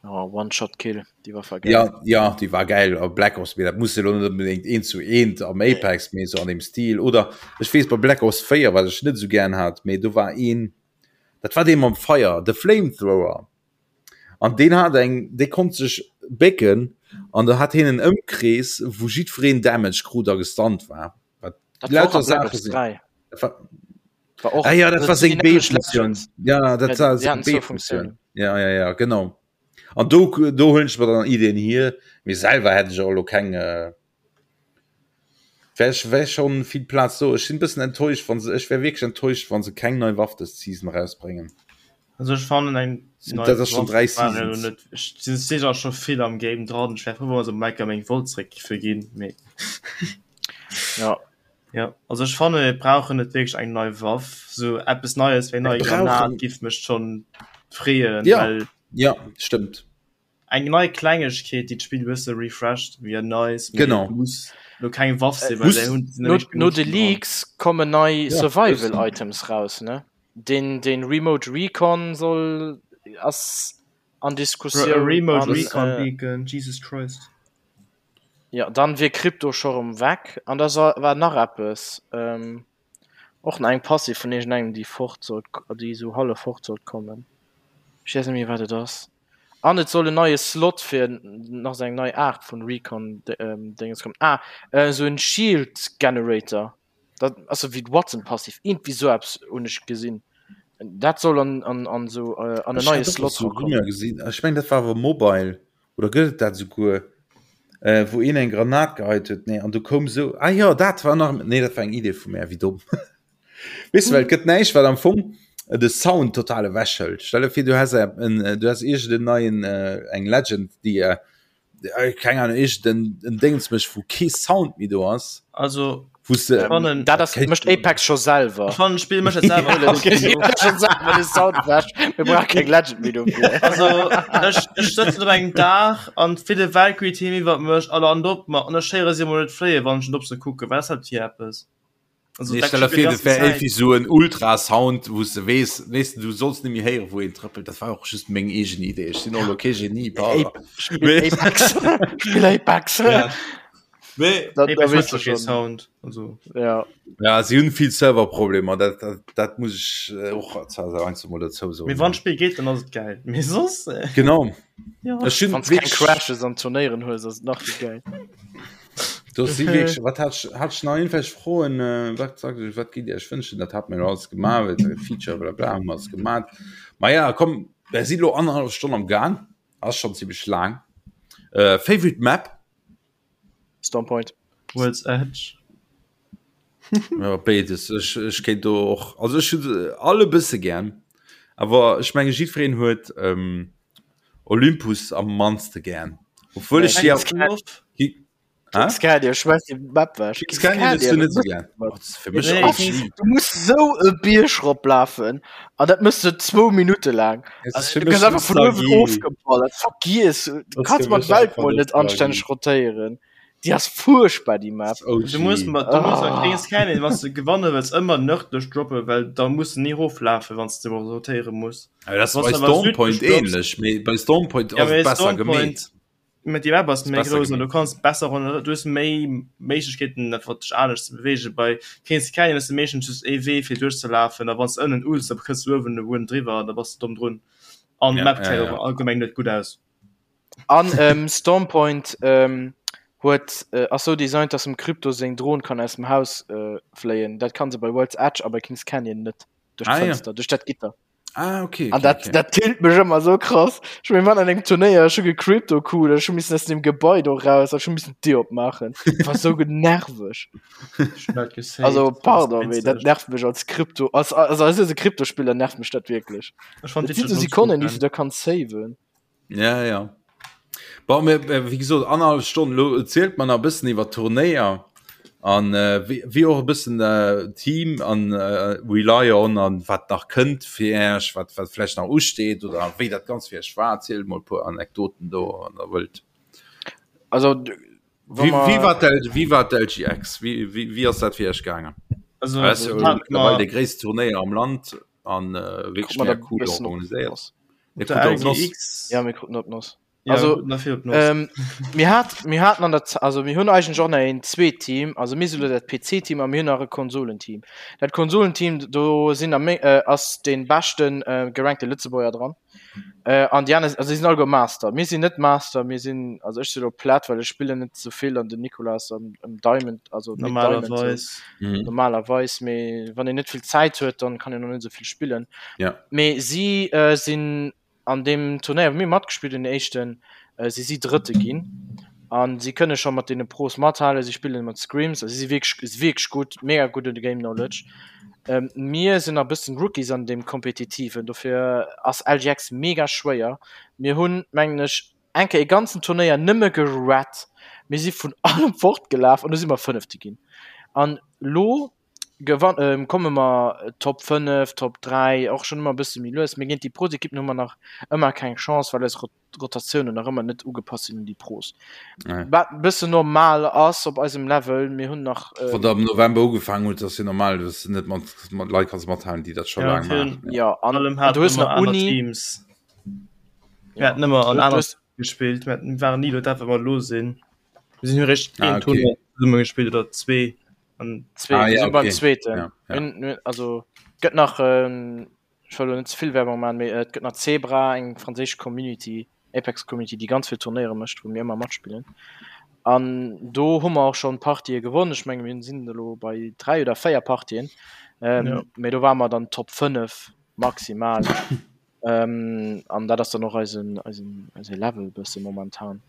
Oh, One-Shot-Kill, die war geil. Ja, ja, die war geil. Aber Black Ops, dat muss ja net unbedingt een zu eent am Apex nee. so an dem Stil. Oder ech wees bei Black Ops 4, wat ech net so gern hat, mee do war een, dat war dee mam Feier, de Flamethrower. An deen hat eng, dee konnt sech bécken an da hat hien en Ëmkrees, wou jiddwereen Damage krut a gestunt war. Wat Dat war och lauter a Black Saache Ops sinn. 3. Dat war, War och, ah ja, dat war seng B-Funktioun. Ja, dat war seng B-Funktioun. Ja, ja, ja, genau. An do, do huelen ech mer dann Ideen hier. Mee selwer hätt ech och elo keng, äh, wär, wär schon vill Plaz do. Ech sinn bëssen enttäuscht, wann se, ech wär wierklech enttäuscht, wann se keng nei Waff dës Season rausbréngen. Also ech fannen eng nei Dat ass schon 3 Seasons. Net, ech sinn sicher scho vill am Game dran. Ech wär frou, wa se mer enker meng Volt zréck giffe ginn, mee. Ja. Ja, also ech fanne mir brauchen net wierklech eng nei Waff, sou eppes Neies wéi nei Granat giff mech schonn freeën, ja, well ja stëmmt. Eng nei Klengegkeet, déi d'Spill e bësse refresht, wier nice, mee genau. muss lo keng Waff sinn, well déi hunn no, no de Leaks kommen nei ja, Survival Items raus, ne? Den, den Remote Recon soll ass an Diskussioun. Remote Recon Beacon, Jesus Christ. Jo, dann wier Krypto scho rem weg. An da war nach eppes, och nach eng Passiv vun iergendengem déi fort sollt, déi esou hallef fort sollt kommen. Ech weess net méi wat et ass. An et soll en neie Slot fir nach esou eng nei Aart vun Recon Déngens kommen. Ah, esou en Shield Generator. Dat ass esou wéi d'Wattson Passiv, iergendwéi esou eppes hunn ech gesinn. Dat soll an an an esou an en Ech neie hat och Slot esou erakommen. Rumeur gesinn, ech mengen dat war awer Mobile. Oder gëtt et dat esouguer, äh, wou een eng Granat geheit huet? Nee, an du koum sou, ah jo, dat war nach, nee, dat war eng Idee vu mär, wéi domm. Weess de, well et gëtt näischt, wat am Fong de Sound total ewechhëlt. Stell der vir, du häss en, du häss iergend en neien, eng Legend, déi, keng Ahnung, iergend en, en Déngens mécht, wou kee Sound méi do ass. Also, Wous de, Ech fannen, Dat ass, mécht Apex scho selwer. Ech fannen d'Spill mécht dat selwer. Scho selwer de Sound ewech. Mir brauche keng Legend méi dofir. Also ech, ech sëtzen op engem Daach an d'fille Valkyrie Team iwwert mech a landen op mer an ech héiere si emol net fléien, wann ech net op se kucken. Wat ass dat fir eppes? Also, Nee, dat stell der vir, dat wär irgendwie so en Ultrasound, wou s de weess, weess de, du solls net méi héieren, wou een trëppelt. Dat war och just meng eegen Idee. Ech sinn och elo kee Genie, pardon. Spill Apex. Spill Apex. Ja. Nee. Da, da Apex weess huet du kee schon. Sound. Also. Ja. Ja, si hunn vill Serverproblemer, dat, dat, dat muss ech äh, och zwar mol dozou soen. Mee wann d'Spill geet, dann ass et geil. Mee soss. Äh, Genau. ja. Ech hunn Wann du keng wierklech- Crashes an Turnéieren hues, ass et nach méi geil. Do si wierklech, wat hat ech, hat ech nach irgendwelch Froen, äh, wat sagt ech, wat gitt Dir Iech wënschen? Dat hat mir jo alles gemaach, well Feature bla bla hu mer alles gemaat. Ma ja, komm, mir si lo annerhallef Stonn am Gaang, ass schon zimmlech laang. Äh, Favorite Map? Storm Point. World's Edge. Ja, béides. Ech, ech kéint do och, also ech hunn se all e bësse gär, awer ech menge jiddwereen huet ähm, Olympus am mannste gär. Obwuel ech si Kings Ki- Hä? Kings Canyon, schmeiß die Map weg. Kings Canyon hues du net esou gär. Oh, dat ass fir mech Nee, och Kings- lieb. Du muss sou e Bierg roplafen an dat mëss du zwou Minutte laang. Es ist Also, fir du mech gëss einfach vun uewen Nostalgie. ofgeballert. Vergiess, du Das kanns fir mat mech Welt einfach mol net Nostalgie. anstänneg rotéieren. Déi ass fuerchtbar déi Map. Du muss mat du muss Ah. mat Kings Canyon, wann du gewanne wëlls, ëmmer nërdlech droppen, well da muss du ni roflafen, wann du rotéiere muss. Aber das Wann bei du awer Storm Point südlech drops- ähnlich. Mee bei Storm Point Ja, ass mee et besser Storm gemeet. Point, Mee déi Map ass méi besser grouss an du gemeet. kanns besser ronderëm, du hues méi Méiglechkeeten einfach dech anescht ze beweegen. Bei Kings Canyon hues du meeschtens just ee Wee fir duerchzelafen a wann s de ënnen ulls, da kënns du uewen e wuen driwwer an da bass de domm drun. An Ja, d'Map ja, gesäit ja. och allgemeng net gutt aus. An ähm, Storm Point ähm, huet äh, ass sou designt, dass dem Krypto seng Dron kann aus dem Haus äh, fléien. Dat kann se bei World's Edge a bei Kings Canyon net. Duerch Ah, ja. d'Fënster, duerch dat Gitter. Ah, okay, An okay, dat, okay. dat tillt mech ëmmer sou krass. Ech mir waren an engem Turnéier, ech hu gecrypto-cool, ech hu missen aus dem Gebai do raus, ech hu missen d'Dier opmaachen. Dat war sou nerveg. Also pardon, mee dat nervt mech als Krypto, als, also als e Kryptospiller nervt mech dat wierklech. Dat sinn sou Sekonnen, déi s du da kanns saven. Ja, ja. Bon, mir, äh, wéi gesot, annerhallef Stonn, lo erzielt mer nach e bëssen iwwer d'Turnéier an äh, wéi, wéi och e bëssen äh, Team an äh, Rely On an wat nach kënnt fir Äech, wat, wat vläicht nach usteet oder wéi dat Ganzt fir Iech war. Erzielt mol e puer Anekdoten do, wann der wëllt. Also, Wéi, wéi war d'L, wéi war d'LGX? Wéi, wéi, wéi ass dat fir Iech gaangen? Also, Dat ass jo hat mëttlerweil mer de gréisste Turnéier am Land an äh, wierklech Krut mer mega dat cool bëssen organiséiert. opgepasst. Mir der kruten op d'Noss. LGX Ja, mir kruten op d'Noss. Ja, Also, kruten der vill op d'Noss. ähm, mir hat, mir haten an der Z also mir hunn eigentlech och nach een zweet Team, also mir si lo dat PC-Team a mir hunn nach e Konsolenteam. Dat Konsolenteam, do sinn a meng, äh, ass dee beschten äh, gerankte Lëtzebuerger dran. Äh, an déi aner, also si sinn alleguer Master. Mir sinn net Master, mir sinn, also ech si lo Plat, well ech spillen net sou vill an den Nicolas am, am Diamond, also Mid Diamond sou. Normalerweis. Mhm. Normalerweis, mee wann een net vill Zäit huet, dann kann een och net sou vill spillen. Ja. Mee si äh, sinn an deem Turnéier, wou mir matgespillt hunn, den éischten, äh, si si Drëtte ginn. An si kënne scho mat deene Pros mathalen, si spillen mat Scrims, also si si wierklech, si wierklech gutt, mega gudde Game Knowledge. Ähm, mir sinn nach bëssen Rookies an deem Kompetitiven, dofir ass LGX mega schwéier. Mir hunn, mengen ech, eng Kéier e ganzen Turnéier nëmme gerat. Mir si vun allem fortgelaf an du si mer Fënnefte ginn. An lo gewann, ähm, komme mer Top 5, Top 3, och schonn ëmmer e bësse méi lues. Mee géint déi Pros-Ekippen hu mer nach ëmmer keng Chance, well eis Rotatiounen nach ëmmer net ugepasst sinn un déi Pros. Nee. Wat e bëssen normal ass op eisem Level. Mir hunn nach. Äh, Wann der am November ugefaangen hutt, ass jo normal, dass du net mat, mat Leit kanns mathalen, déi dat scho Ja, laang virun maachen. ja, an, allem an du haten hues ëmmer nach aner Uni. Teams. Mir Ja. haten ëmmer an Du, du aner hues, gespillt. Mir haten, waren ni do dat, wat mer elo sinn. Mir sinn jo réischt Ah, een okay. Tournoi zesumme gespillt oder zwee. An zwee, Ah, wir ja, sinn beim okay. zweeten. Ja, ja. Mir, mir, also gëtt nach ähm, ech wëll elo net ze vill Werbung maachen, mee et gëtt nach Zebra, eng franséisch Community, Apex Community, déi ganz vill Turnéiere mécht, wou mir ëmmer matspillen. An do hu mer och schonn Partië gewonnen. Ech menge mir sinn elo bei 3 oder 4 Partien. Ähm, Ja. Mee do ware mer dann Top 5 maximal. Ähm, an dat ass dann och eisen, eisen, eise Level bësse momentan.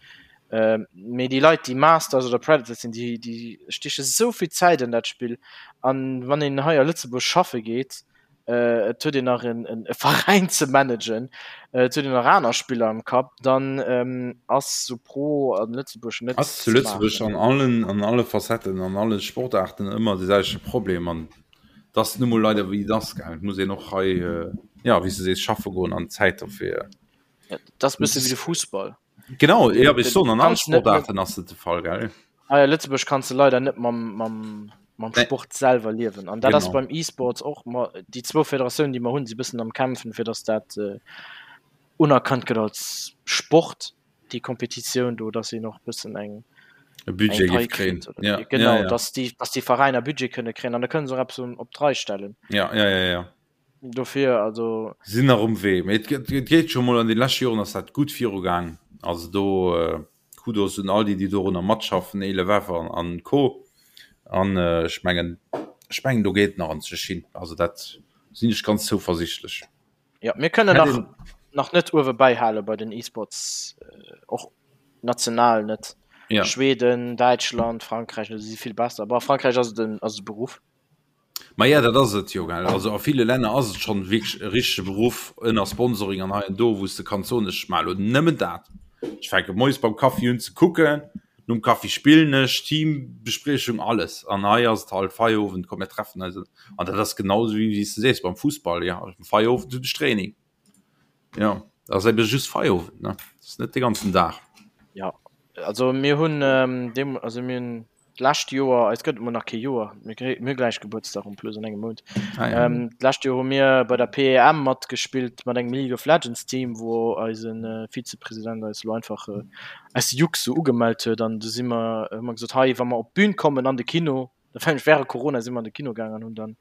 Ähm, mee déi Leit, déi Masters oder Predators sinn, déi, déi stieche sou vill Zäit an dat Spill. An wann een hei a Lëtzebuerg schaffe geet, äh, et huet een nach en, en, e Veräin ze managen, äh, et huet een nach aner Spiller am Kapp, dann ähm, ass sou Pro an Lëtzebuerg net Ass zu ze Lëtzebuerg maachen. an allen, an alle Facetten, an alle Sportaarten ëmmer de selwechte Problem an et ass nu mol leider wéi et ass, gell. Et muss een och hei, äh, ja, wéi s de sees, schaffe goen an Zäit dofir. Ja, dat ass bësse wéi de Fussball. Genau, ja, wéi ech soen, an alle Kanns net mat Sportaarten ass et de Fall, gell. Hei a Lëtzebuerg kanns de leider net mam, mam, mam Nee. Sport selwer liewen. An dat ass Genau. beim E-Sports och, ma déi zwou Federatiounen, déi mer hunn, si bëssen am Kämpfen, fir datt dat äh, unerkannt gëtt als Sport, déi Kompetitioun do, datt een och bëssen eng, E eng Budget Pai géif kréien. kritt. Oder, Ja, ja, genau, ja. datt déi, datt déi Veräiner Budget kënne kréien an da kënne se och eppes op d'Rei stellen. Ja, ja, ja, ja. Dofir, also. Sinn nach um Wee, mee et et geet scho mol, an de leschte Joren ass dat gutt virugaang. Also do Kudos un all déi, déi dorunner matschaffen, Elevef an an Co. An ech mengen, ech mengen do geet nach anzech hin. Also dat sinn ech ganz zouversichtlech. Jo, mir kënnen Hätt nach een. nach net uewe bäihale bei den E-Sports, och national net. Ja. Schweden, Däitschland, Frankräich, si si vill besser. Bon, a Frankräich ass et en ass et e Beruff. Maja, dat ass et jo, gell. Also a ville Länner ass et schonn wierklech e richtege Beruff ënner Sponsoring an hei an do, wou s de kanns soen, ech maache lo nëmmen dat. Ech fänke moies beim Kaffi un ze kucken, nom Kaffi spillen ech, Teambespriechung, alles. An hei ass et halt Feierowend, komm mir treffen eis. An dat ass genau esou wéi s de sees beim Fussball, jo, am Feierowend hunn ech Training. Jo, dat ass ebe just Feierowend, ne, dat ass net de ganzen Dag. Jo, also mir hunn deem, also mir hunn D'lescht Joer, eis gëtt et mol nach kee Joer, mir kréie mir hu gläich Gebuertsdag en plus an engem Mount. Ah, ja. Ähm, d'lescht Joer hu mir bei der PEM matgespillt mat engem League of Legends Team, wou eisen äh, Vizepresident eis lo einfach äh, aus Jux sou ugemellt huet an du si mer hu mer gesot, hei wa mer op d'Bün kommen an de Kino, dat war nämlech während Corona si mer an de Kino gaangen an hunn dann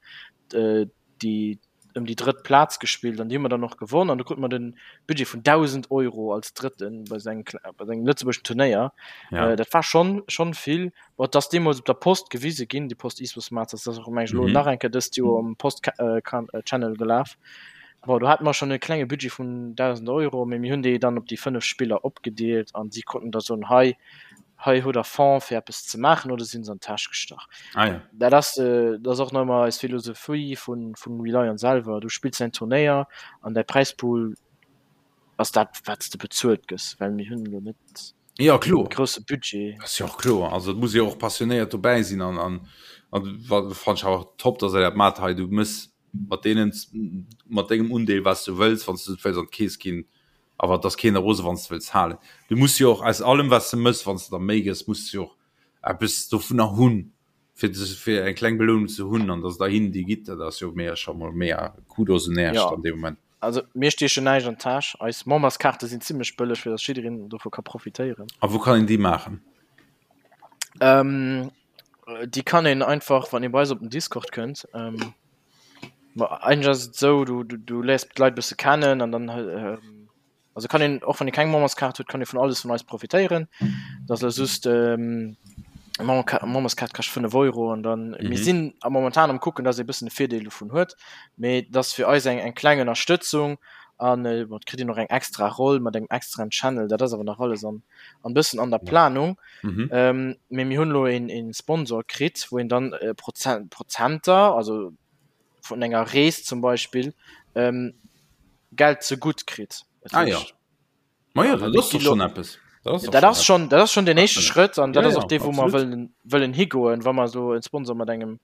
äh, déi ëm déi drëtt Plaz gespillt an déi hu mer dann och gewonn an du krute mer den Budget vun 1.000 Euro als Drëtten bei sengem bei sengem lëtzebuergeschen Turnéier. Ja. Äh, dat war schon schon vill. Bon, et ass deemools op der Post gewise ginn, déi Post eSports Masters, dat ass och meng ech elo Mhm. nach eng Kéier dëst Joer um Post äh, kan äh, Channel gelaf. Bon, do hate mer schonn e klenge Budget vun 1.000 Euro, mee mir hunn déi dann op déi 5 Spiller opgedeelt an si konnten da soen, hei, hei hutt der Fonds fir eppes ze maachen oder si hunn se an d'Täsch gestach. Ah, ja. Dat ass, dat ass och nach ëmmer eis Philosophie vun, vun Relion selwer. Du spills däin Turnéier an däi Präispool ass dat, wat s de bezuelt gëss, well mir hunn elo net Ja, kloer. e grousse Budget. Ass jo och kloer. Also et muss ee och passionéiert dobäi sinn an, an, an fannen ech awer top, dass der dat maacht hei. Du mëss mat deenen mat dengem Undeel wat s du wëlls, wann s du et wëlls an d'Keess ginn, awer et ass keen rose wann s du wëlls halen. Du muss jo och aus allem wat s de mëss, wann s de der Méi gëss, muss du jo och eppes dovunner hunn, fir fir eng kleng Belounung ze hunn an dass der hinnen déi gitt, dat ass jo mega scho mol mega Kudos un Äerch Ja. an deem Moment. Also mir stiechen näischt an d'Täsch. Eis Memberskaarte sinn zimmlech bëlleg, fir dass jiddereen dovu ka profitéieren. A wou kann een déi maachen? Ähm, déi kann een einfach, wann ee bei eis op den Discord kënnt, ähm, ma eigentlech ass et esou, du, du, du léiers d'Leit e bësse kennen an dann, ähm, also kann een, och wann ee keng Memberskaart huet, kann ee vun alles vun eis profitéieren. Dat ass elo just, ähm, Memberskaart kascht 5 Euro an dann, mm -hmm. mir sinn am momentan am kucken, dass ee bëssen e Virdeel dovun huet, mee dat ass fir eis eng, eng kleng Ënnerstëtzung an äh, bon, kritt een och eng extra Roll mat engem extraen Channel, dat ass awer nach alles an, an bëssen an der Planung. Mhm. Ähm, mee mir hunn elo een, een Sponsor kritt, wou een dann äh, Prozent, Prozenter, also vun enger Rees zum Beispill, ähm, Geld zegutt kritt. Ah, ja. Ma ja, dat ass doch schon eppes. Dat ass schon, dat ass schon den éischte Schrëtt an dat ass och dee wou mer wëllen, wëllen higoen, wa mer esou en Sponsor mat engem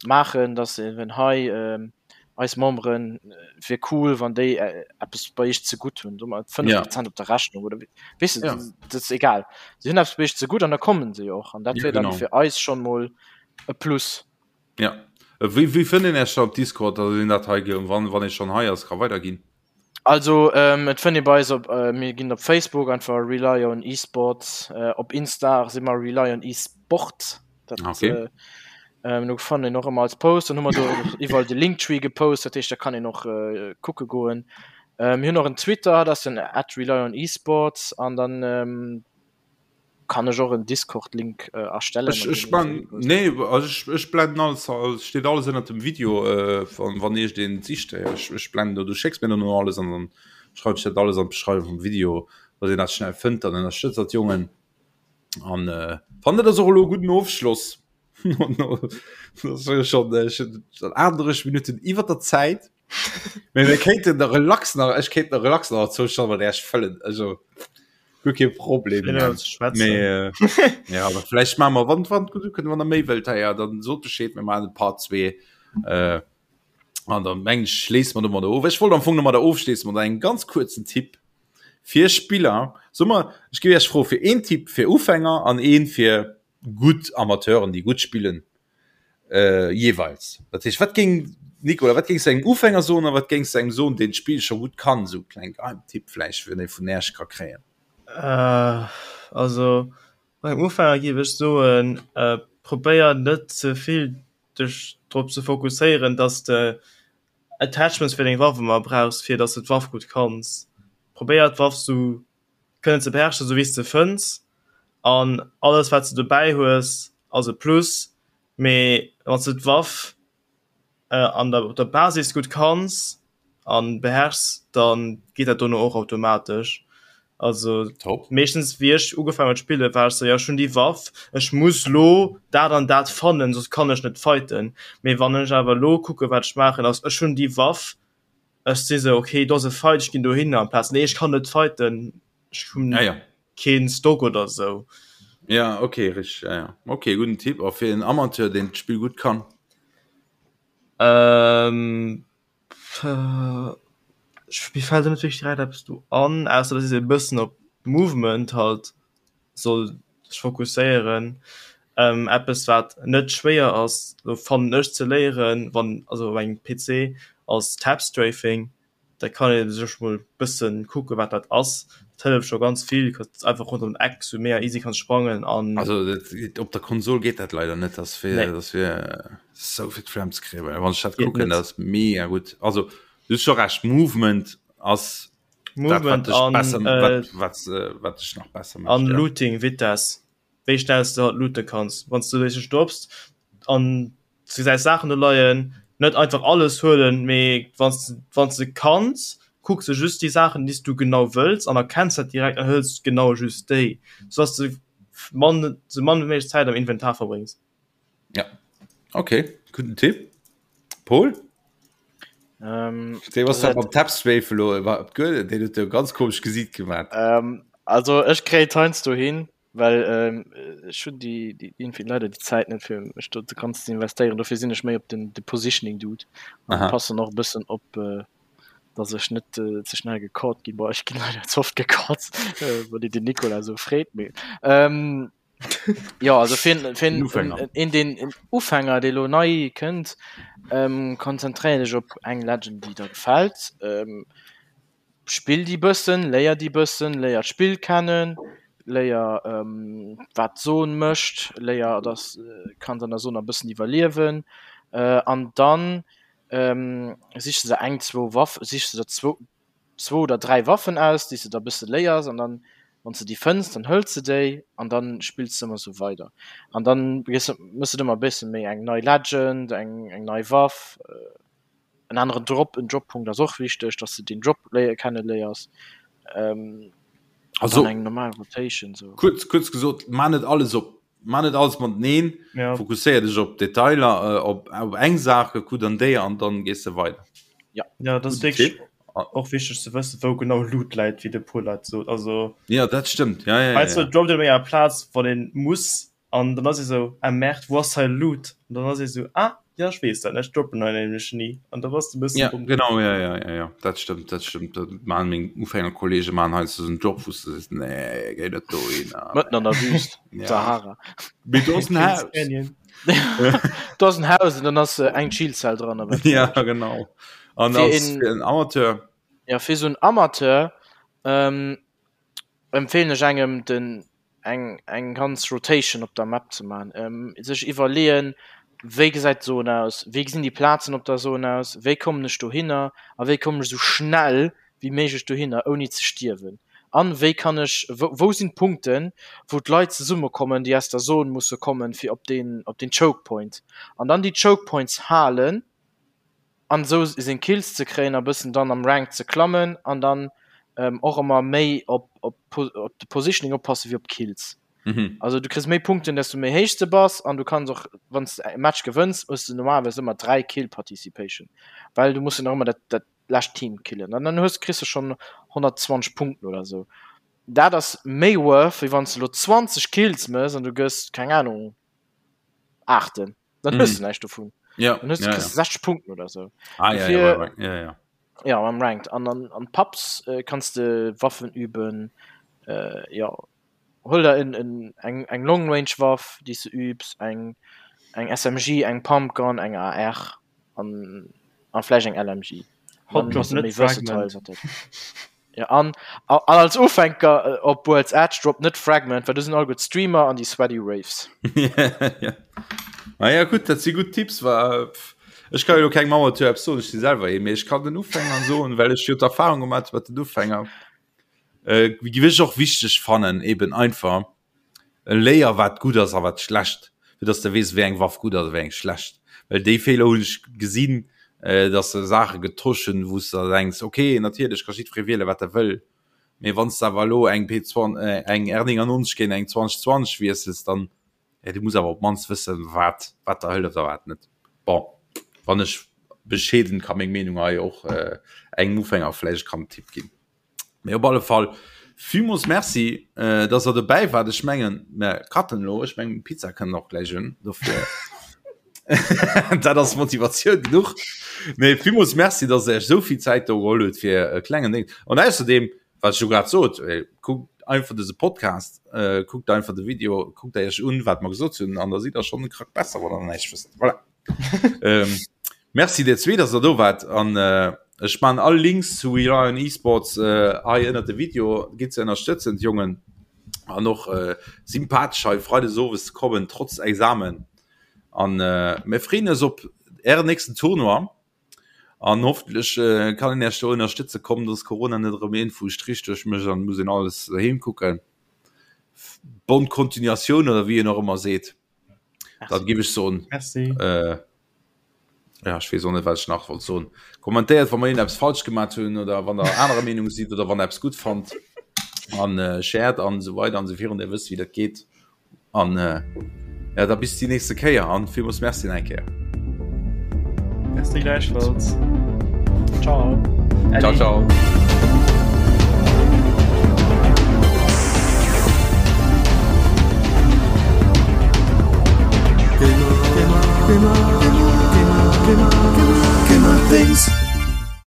maachen, dass eben hei ähm, eis Memberen äh, wier cool, wann déi äh, eppes bei iech zegutt hunn, so mat 5 Ja. Prozent op der Rechnung oder wéi- weess de, Ja. dat ass egal. Si hunn eppes bei iech zegutt an da kommen se jo och an dat Ja, wier dann genau. fir eis schon mol e Plus. Ja. Äh, Wéi, wéi fënnt een Iech da op Discord, dass een dat hei, ge- wann, wann ee schon hei ass, ka weiderginn? Also ähm, et fënnt ee bei eis op äh, mir ginn op Facebook einfach Rely on Esports, äh, op Insta si mer Rely on Esport. Dat, Okay. äh, ähm, do fannt een och ëmmer als Post, dann hu mer do och iwwerall de Linktree gepost, dat heescht da kann een och äh, kucke goen. Äh, mir hunn och en Twitter, dat ass den at Rely on Esports an dann ähm, Kann ech och en Discord Link erstellen? Ech, ech man, nee, also ech, ech blenden alles, also steet alles ënnert dem Video, äh, wann, wann iech den sicht, ech, ech blenden do, du schécks mir dann no alles an dann schreiw ech dat alles an d'Beschreiwung vum Video, dass een dat schnell fënnt, dann ënnerstëtzt dat Jongen. An äh, fannen dat ass och elo e gudden Ofschloss. Das ass schon, äh, schon 38 Minuten iwwer der Zäit. Mee mir kéinten der relax nach, ech kéint der relax nach zwou Stonnen mat Äech fëllen, also. Guer kee Problem mee äh, ja aber vielleicht machen wir wann wann du können wann der méi wëllt ja dann sot Bescheed mir machen Part 2 äh, an dann meng ich schléiss man domadder of. Ech wollt am Fong nomadder ofschléissen mat engem ganz kurzen Tipp fir Spiller. Soe mer ech géif Iech froe fir een Tipp fir Ufänger an een fir gutt Amateuren déi gutt spillen äh, jeweils. Dat heescht wat géing Nicolas, wat géings du engem Ufänger soen a wat géings du engem soen deen d'Spill scho gutt kann, sou kleng Geheimtipp vläicht fir dee vun Äerch ka kréien? Äh, also beim Ufänger géif ech soen, äh, probéier net ze vill dech drop ze fokusséieren, dass de Attachments fir deng Waff ëmmer brauchs, fir dass de d'Waff gutt kanns. Probéier d'Waff sou kënnen ze beherrschen, sou wéi s de fënns an alles wat s de dobäi hues ass e Plus, mee wann s de d'Waff an der op der Basis gutt kanns an beherrschs, dann geet dat dono och automatesch. Also Top. meeschtens wéi ech ugefaangen hunn spillen, war ech sou, jo ech hunn déi Waff, ech muss lo dat an dat fannen, soss kann ech net fighten. Mee wann ech awer lo kucke wat ech maachen ass, ech hunn déi Waff, Ech si sou, ok, do ass e Fight, ech ginn dohinner, amplaz nee, ech kann net fighten, ech hunn Ja, ja. keen Stock oder sou. Ja, okay, richtig, ja, ja. Okay, gudden Tipp. A fir en Amateur, deen d'Spill gutt kann? Ähm, ech, mir fält elo net wierklech direkt eppes do an, ausser dass ee e bëssen op Movement halt soll sech fokusséieren. Eppes wat net schwéier ass lo fannen ech ze léieren, wann also op engem PC ass Tap Strafing. Da kann ee sech mol bëssen kucke wat dat ass. Dat hëlleft scho ganz vill, kannst einfach ronderëm den Eck sou mega easy kanns sprangen an. Also dat op der Konsol geet dat leider net, dat wier Nee. dat wier sou fir d'Flemm ze kréien, well wann ech dat Geet kucken, net. dat ass mega gutt. Also du hues scho Recht, Movement ass dat, wat dech an, besser, äh, wat, wat, äh, wat dech nach besser an mécht, ja. Looting Vitesse wéi schnell s de halt loote kanns wann s du dech stops an du gesäis Saachen do leien. Net einfach alles huelen, mee wann s de wann s de kanns, kucks de just déi Saachen, déi s du genau wëlls an erkenns dat direkt an hëls genau just déi, sou dass de mann sou mann wéi méiglech Zäit am Inventar verbréngs. Ja, okay, gudden Tipp. Paul? Ähm, Dee was dat mam Tapstrafe lo war op d'Guel, deen huet jo ganz komesch Gesiit gemaat. Ähm, also ech kréien heiansdo hin, well ähm, ech hunn déi, déi irgendwie leider déi Zäit net fir mech do ganz ze investéieren. Dofir sinn ech méi op den de Positioning Dude an passen och e bëssen op, äh, dass ech net äh, ze schnell gecaught ginn. Boah, ech ginn leider ze oft gecaught, äh, wann een den Nicolas esou freet. Mee ähm, ja, also fir fir en, Ufänger. en, den en Ufänger, dee lo nei kënnt, ähm, konzentréier dech op eng Legend, déi der gefält. Ähm, Spill déi bëssen, léier déi bëssen, léier d'Spill kennen, léier wat d'Zon mécht, léier dass kanns an der Zon e bëssen iwwerliewen an dann sichs de der eng zwou Waff, sichs de der zwou zwou oder 3 Waffen aus, déi s de da bësse léiers an dann wann s de déi fënns, dann hëls de déi an dann spills de ëmmer sou weider an dann méchs de ëmmer e bësse méi eng nei Legend, eng eng nei Waff. En aneren Drop, en Droppunkt ass och wichteg, dass de den Drop léier kenne léiers. Ähm, also eng normal Rotation so. Kurz, kurz gesot, ma net alles op ma net alles mateneen, ja. Fokusséier dech op Detailer, äh, op, op eng Saach, kuck dann déi an dann gees de weider. Ja. Ja, dat ass wierklech och wichteg ze wëssen, wou genau Loot läit, wéi de Paul dat sot. Also Ja, dat stëmmt. Ja, ja, ja, heiansdo ja. droppt een op enger Plaz, wann een muss An dann ass ee sou, ah merde, wou ass hei Loot? An dann ass ee sou, ah jo ech weess dat net, ech droppen hei nämlech ni. An da bass de e bëssen Ja, domm. genau, ja, ja, ja, ja, dat stëmmt, dat stëmmt. Dat maachen meng Ufängerkollege maachen heiansdo esou en Drop, wou s de sees, nee, géi net dohinner. Mëtten an der Wüst, Ja. Sahara. Mee do ass en Kings Haus. Canyon. Do ass en Haus an dann ass eng Chillzell dran a wat Ja, genau. An Fir als een- fir en Amateur, Ja, fir esou en Amateur ähm, empfehlen ech engem den eng eng ganz Rotation op der Map ze man, ähm, sech iwwerleeën, wéi gesäit d'Zon aus, wéi gesinn déi Plazen op der Zon aus, wéi kommen ech dohinner a wéi kommen ech esou schnell wéi méiglech dohinner ouni ze stierwen an wéi kann ech wou wou sinn d'Punkten, wou d'Leit zesummekommen, déi aus der Zon musse kommen, fir op deen op deen Choke Point an dann déi Choke Points halen. an esou seng Kills ze kréien a bëssen dann am Rank ze klammen an dann och ëmmer méi op op op de Positioning oppasse wéi op d'Kills. Mhm. Also du kriss méi Punkten desto méi héich de bass an du kanns och wann s de e Match gewënns hues de normalerweis ëmmer 3 Kill Participation, well du muss jo nach ëmmer dat dat lescht Team killen an dann hues kriss de schonn 120 Punkten oder esou. Dat ass méi worth wéi wann s de elo 20 Kills mëss an du gëss keng Ahnung Aachten. Dann hues du näischt dovun. Ja, Dann hues du ja, ja. kriss 60 Punkten oder sou. Ah, ja, Dofir- ja, ja, ja, ja. Ja, am Ranked. An an, an Pubs äh, kanns de Waffen üben. Äh, ja. Hol der en, en, eng, eng Long Range Waff, déi s de übs, eng, eng SMG, eng Pumpgun, eng AR an, an vläicht eng LMG. Hot Dann Drop bass du net méi versatile Fragment. wat dat. Ja, an, an als Ufänker äh, op World's Edge drop net Fragment, well do sinn all gutt Streamer an déi sweaty Raves. ja. Ah, ja gut, dat si gutt Tipps war pff, ech kann jo keng Mauer zu soen, ech si selwer ee, mee ech kann den Ufänger soen, well ech jo d'Erfahrung gemaat mat den Ufänger. Äh, gi ech och wichteg fannen eben einfach Léier wat gutt ass a wat schlecht, fir dass de weess wéi eng Waff gutt ass a wéi eng schlecht. Well déi Feeler hunn ech gesinn, dass se Saache getosch hunn, wou s de der denks, ok natierlech ka jiddweree wiele wat e wëll, mee wann s de awer elo eng P eng R99 géint eng 2020 wiessels, dann, jo du muss awer op d'mannst wëssen wat wat der hëlleft a wat net. Bon, wann ech bescheeden ka meng Meenung hei och engem Ufänger vläicht kann Tipp ginn. Mee op alle Fall villmools Merci, äh, dass der dobäi waart. Ech mengen, mir cutten elo. Ech mengen, Pizza kënnt och gläich un. Dofir dat ass Motivatioun genuch. Mee villmools Merci, dass der iech esou vill Zäit do geholl hutt fir e klengen Ding. An ausserdeem, wat ech jo grad sot, äh, kuckt einfach dëse Podcast, äh, kuckt einfach de Video, kuckt der iech un, wat mer gesot hunn, an da sidd der schonn e Krack besser, wann der näischt wësst. Voilà. ähm, merci dir zwee, dass der do wart an äh, ech man all Links zu We Lion Esports äh, hei ënner de Video gitt ze ënnerstëtzen d'Jongen an och äh, sympathesch hei Freides owes ze kommen trotz Examen an äh, mir freeën eis op ären nächsten Tournoi an hoffentlich äh, kann een Iech do ënnerstëtze kommen, dass Corona net erëm een vu Strich duerch mécht an muss een alles doheem kucken. Bonne Continuatioun oder wéi een och ëmmer seet. Dat giff ech soen. Merci. Äh, Ja, ech weess och net, wat ech nach wollt soen. Kommentéiert, wa mer iergendeppes falsch gemat hunn oder wann der anerer Meenung sidd oder wann der eppes gutt fannt. An äh, shared an esou weider an esou virun. Dir wësst, wéi dat geet. An äh, ja, da bis déi nächste Kéier an villmools Merci nach eng Kéier. Merci gläichfalls. Ciao. Ciao, ciao. Gamer, Gamer, Gamer.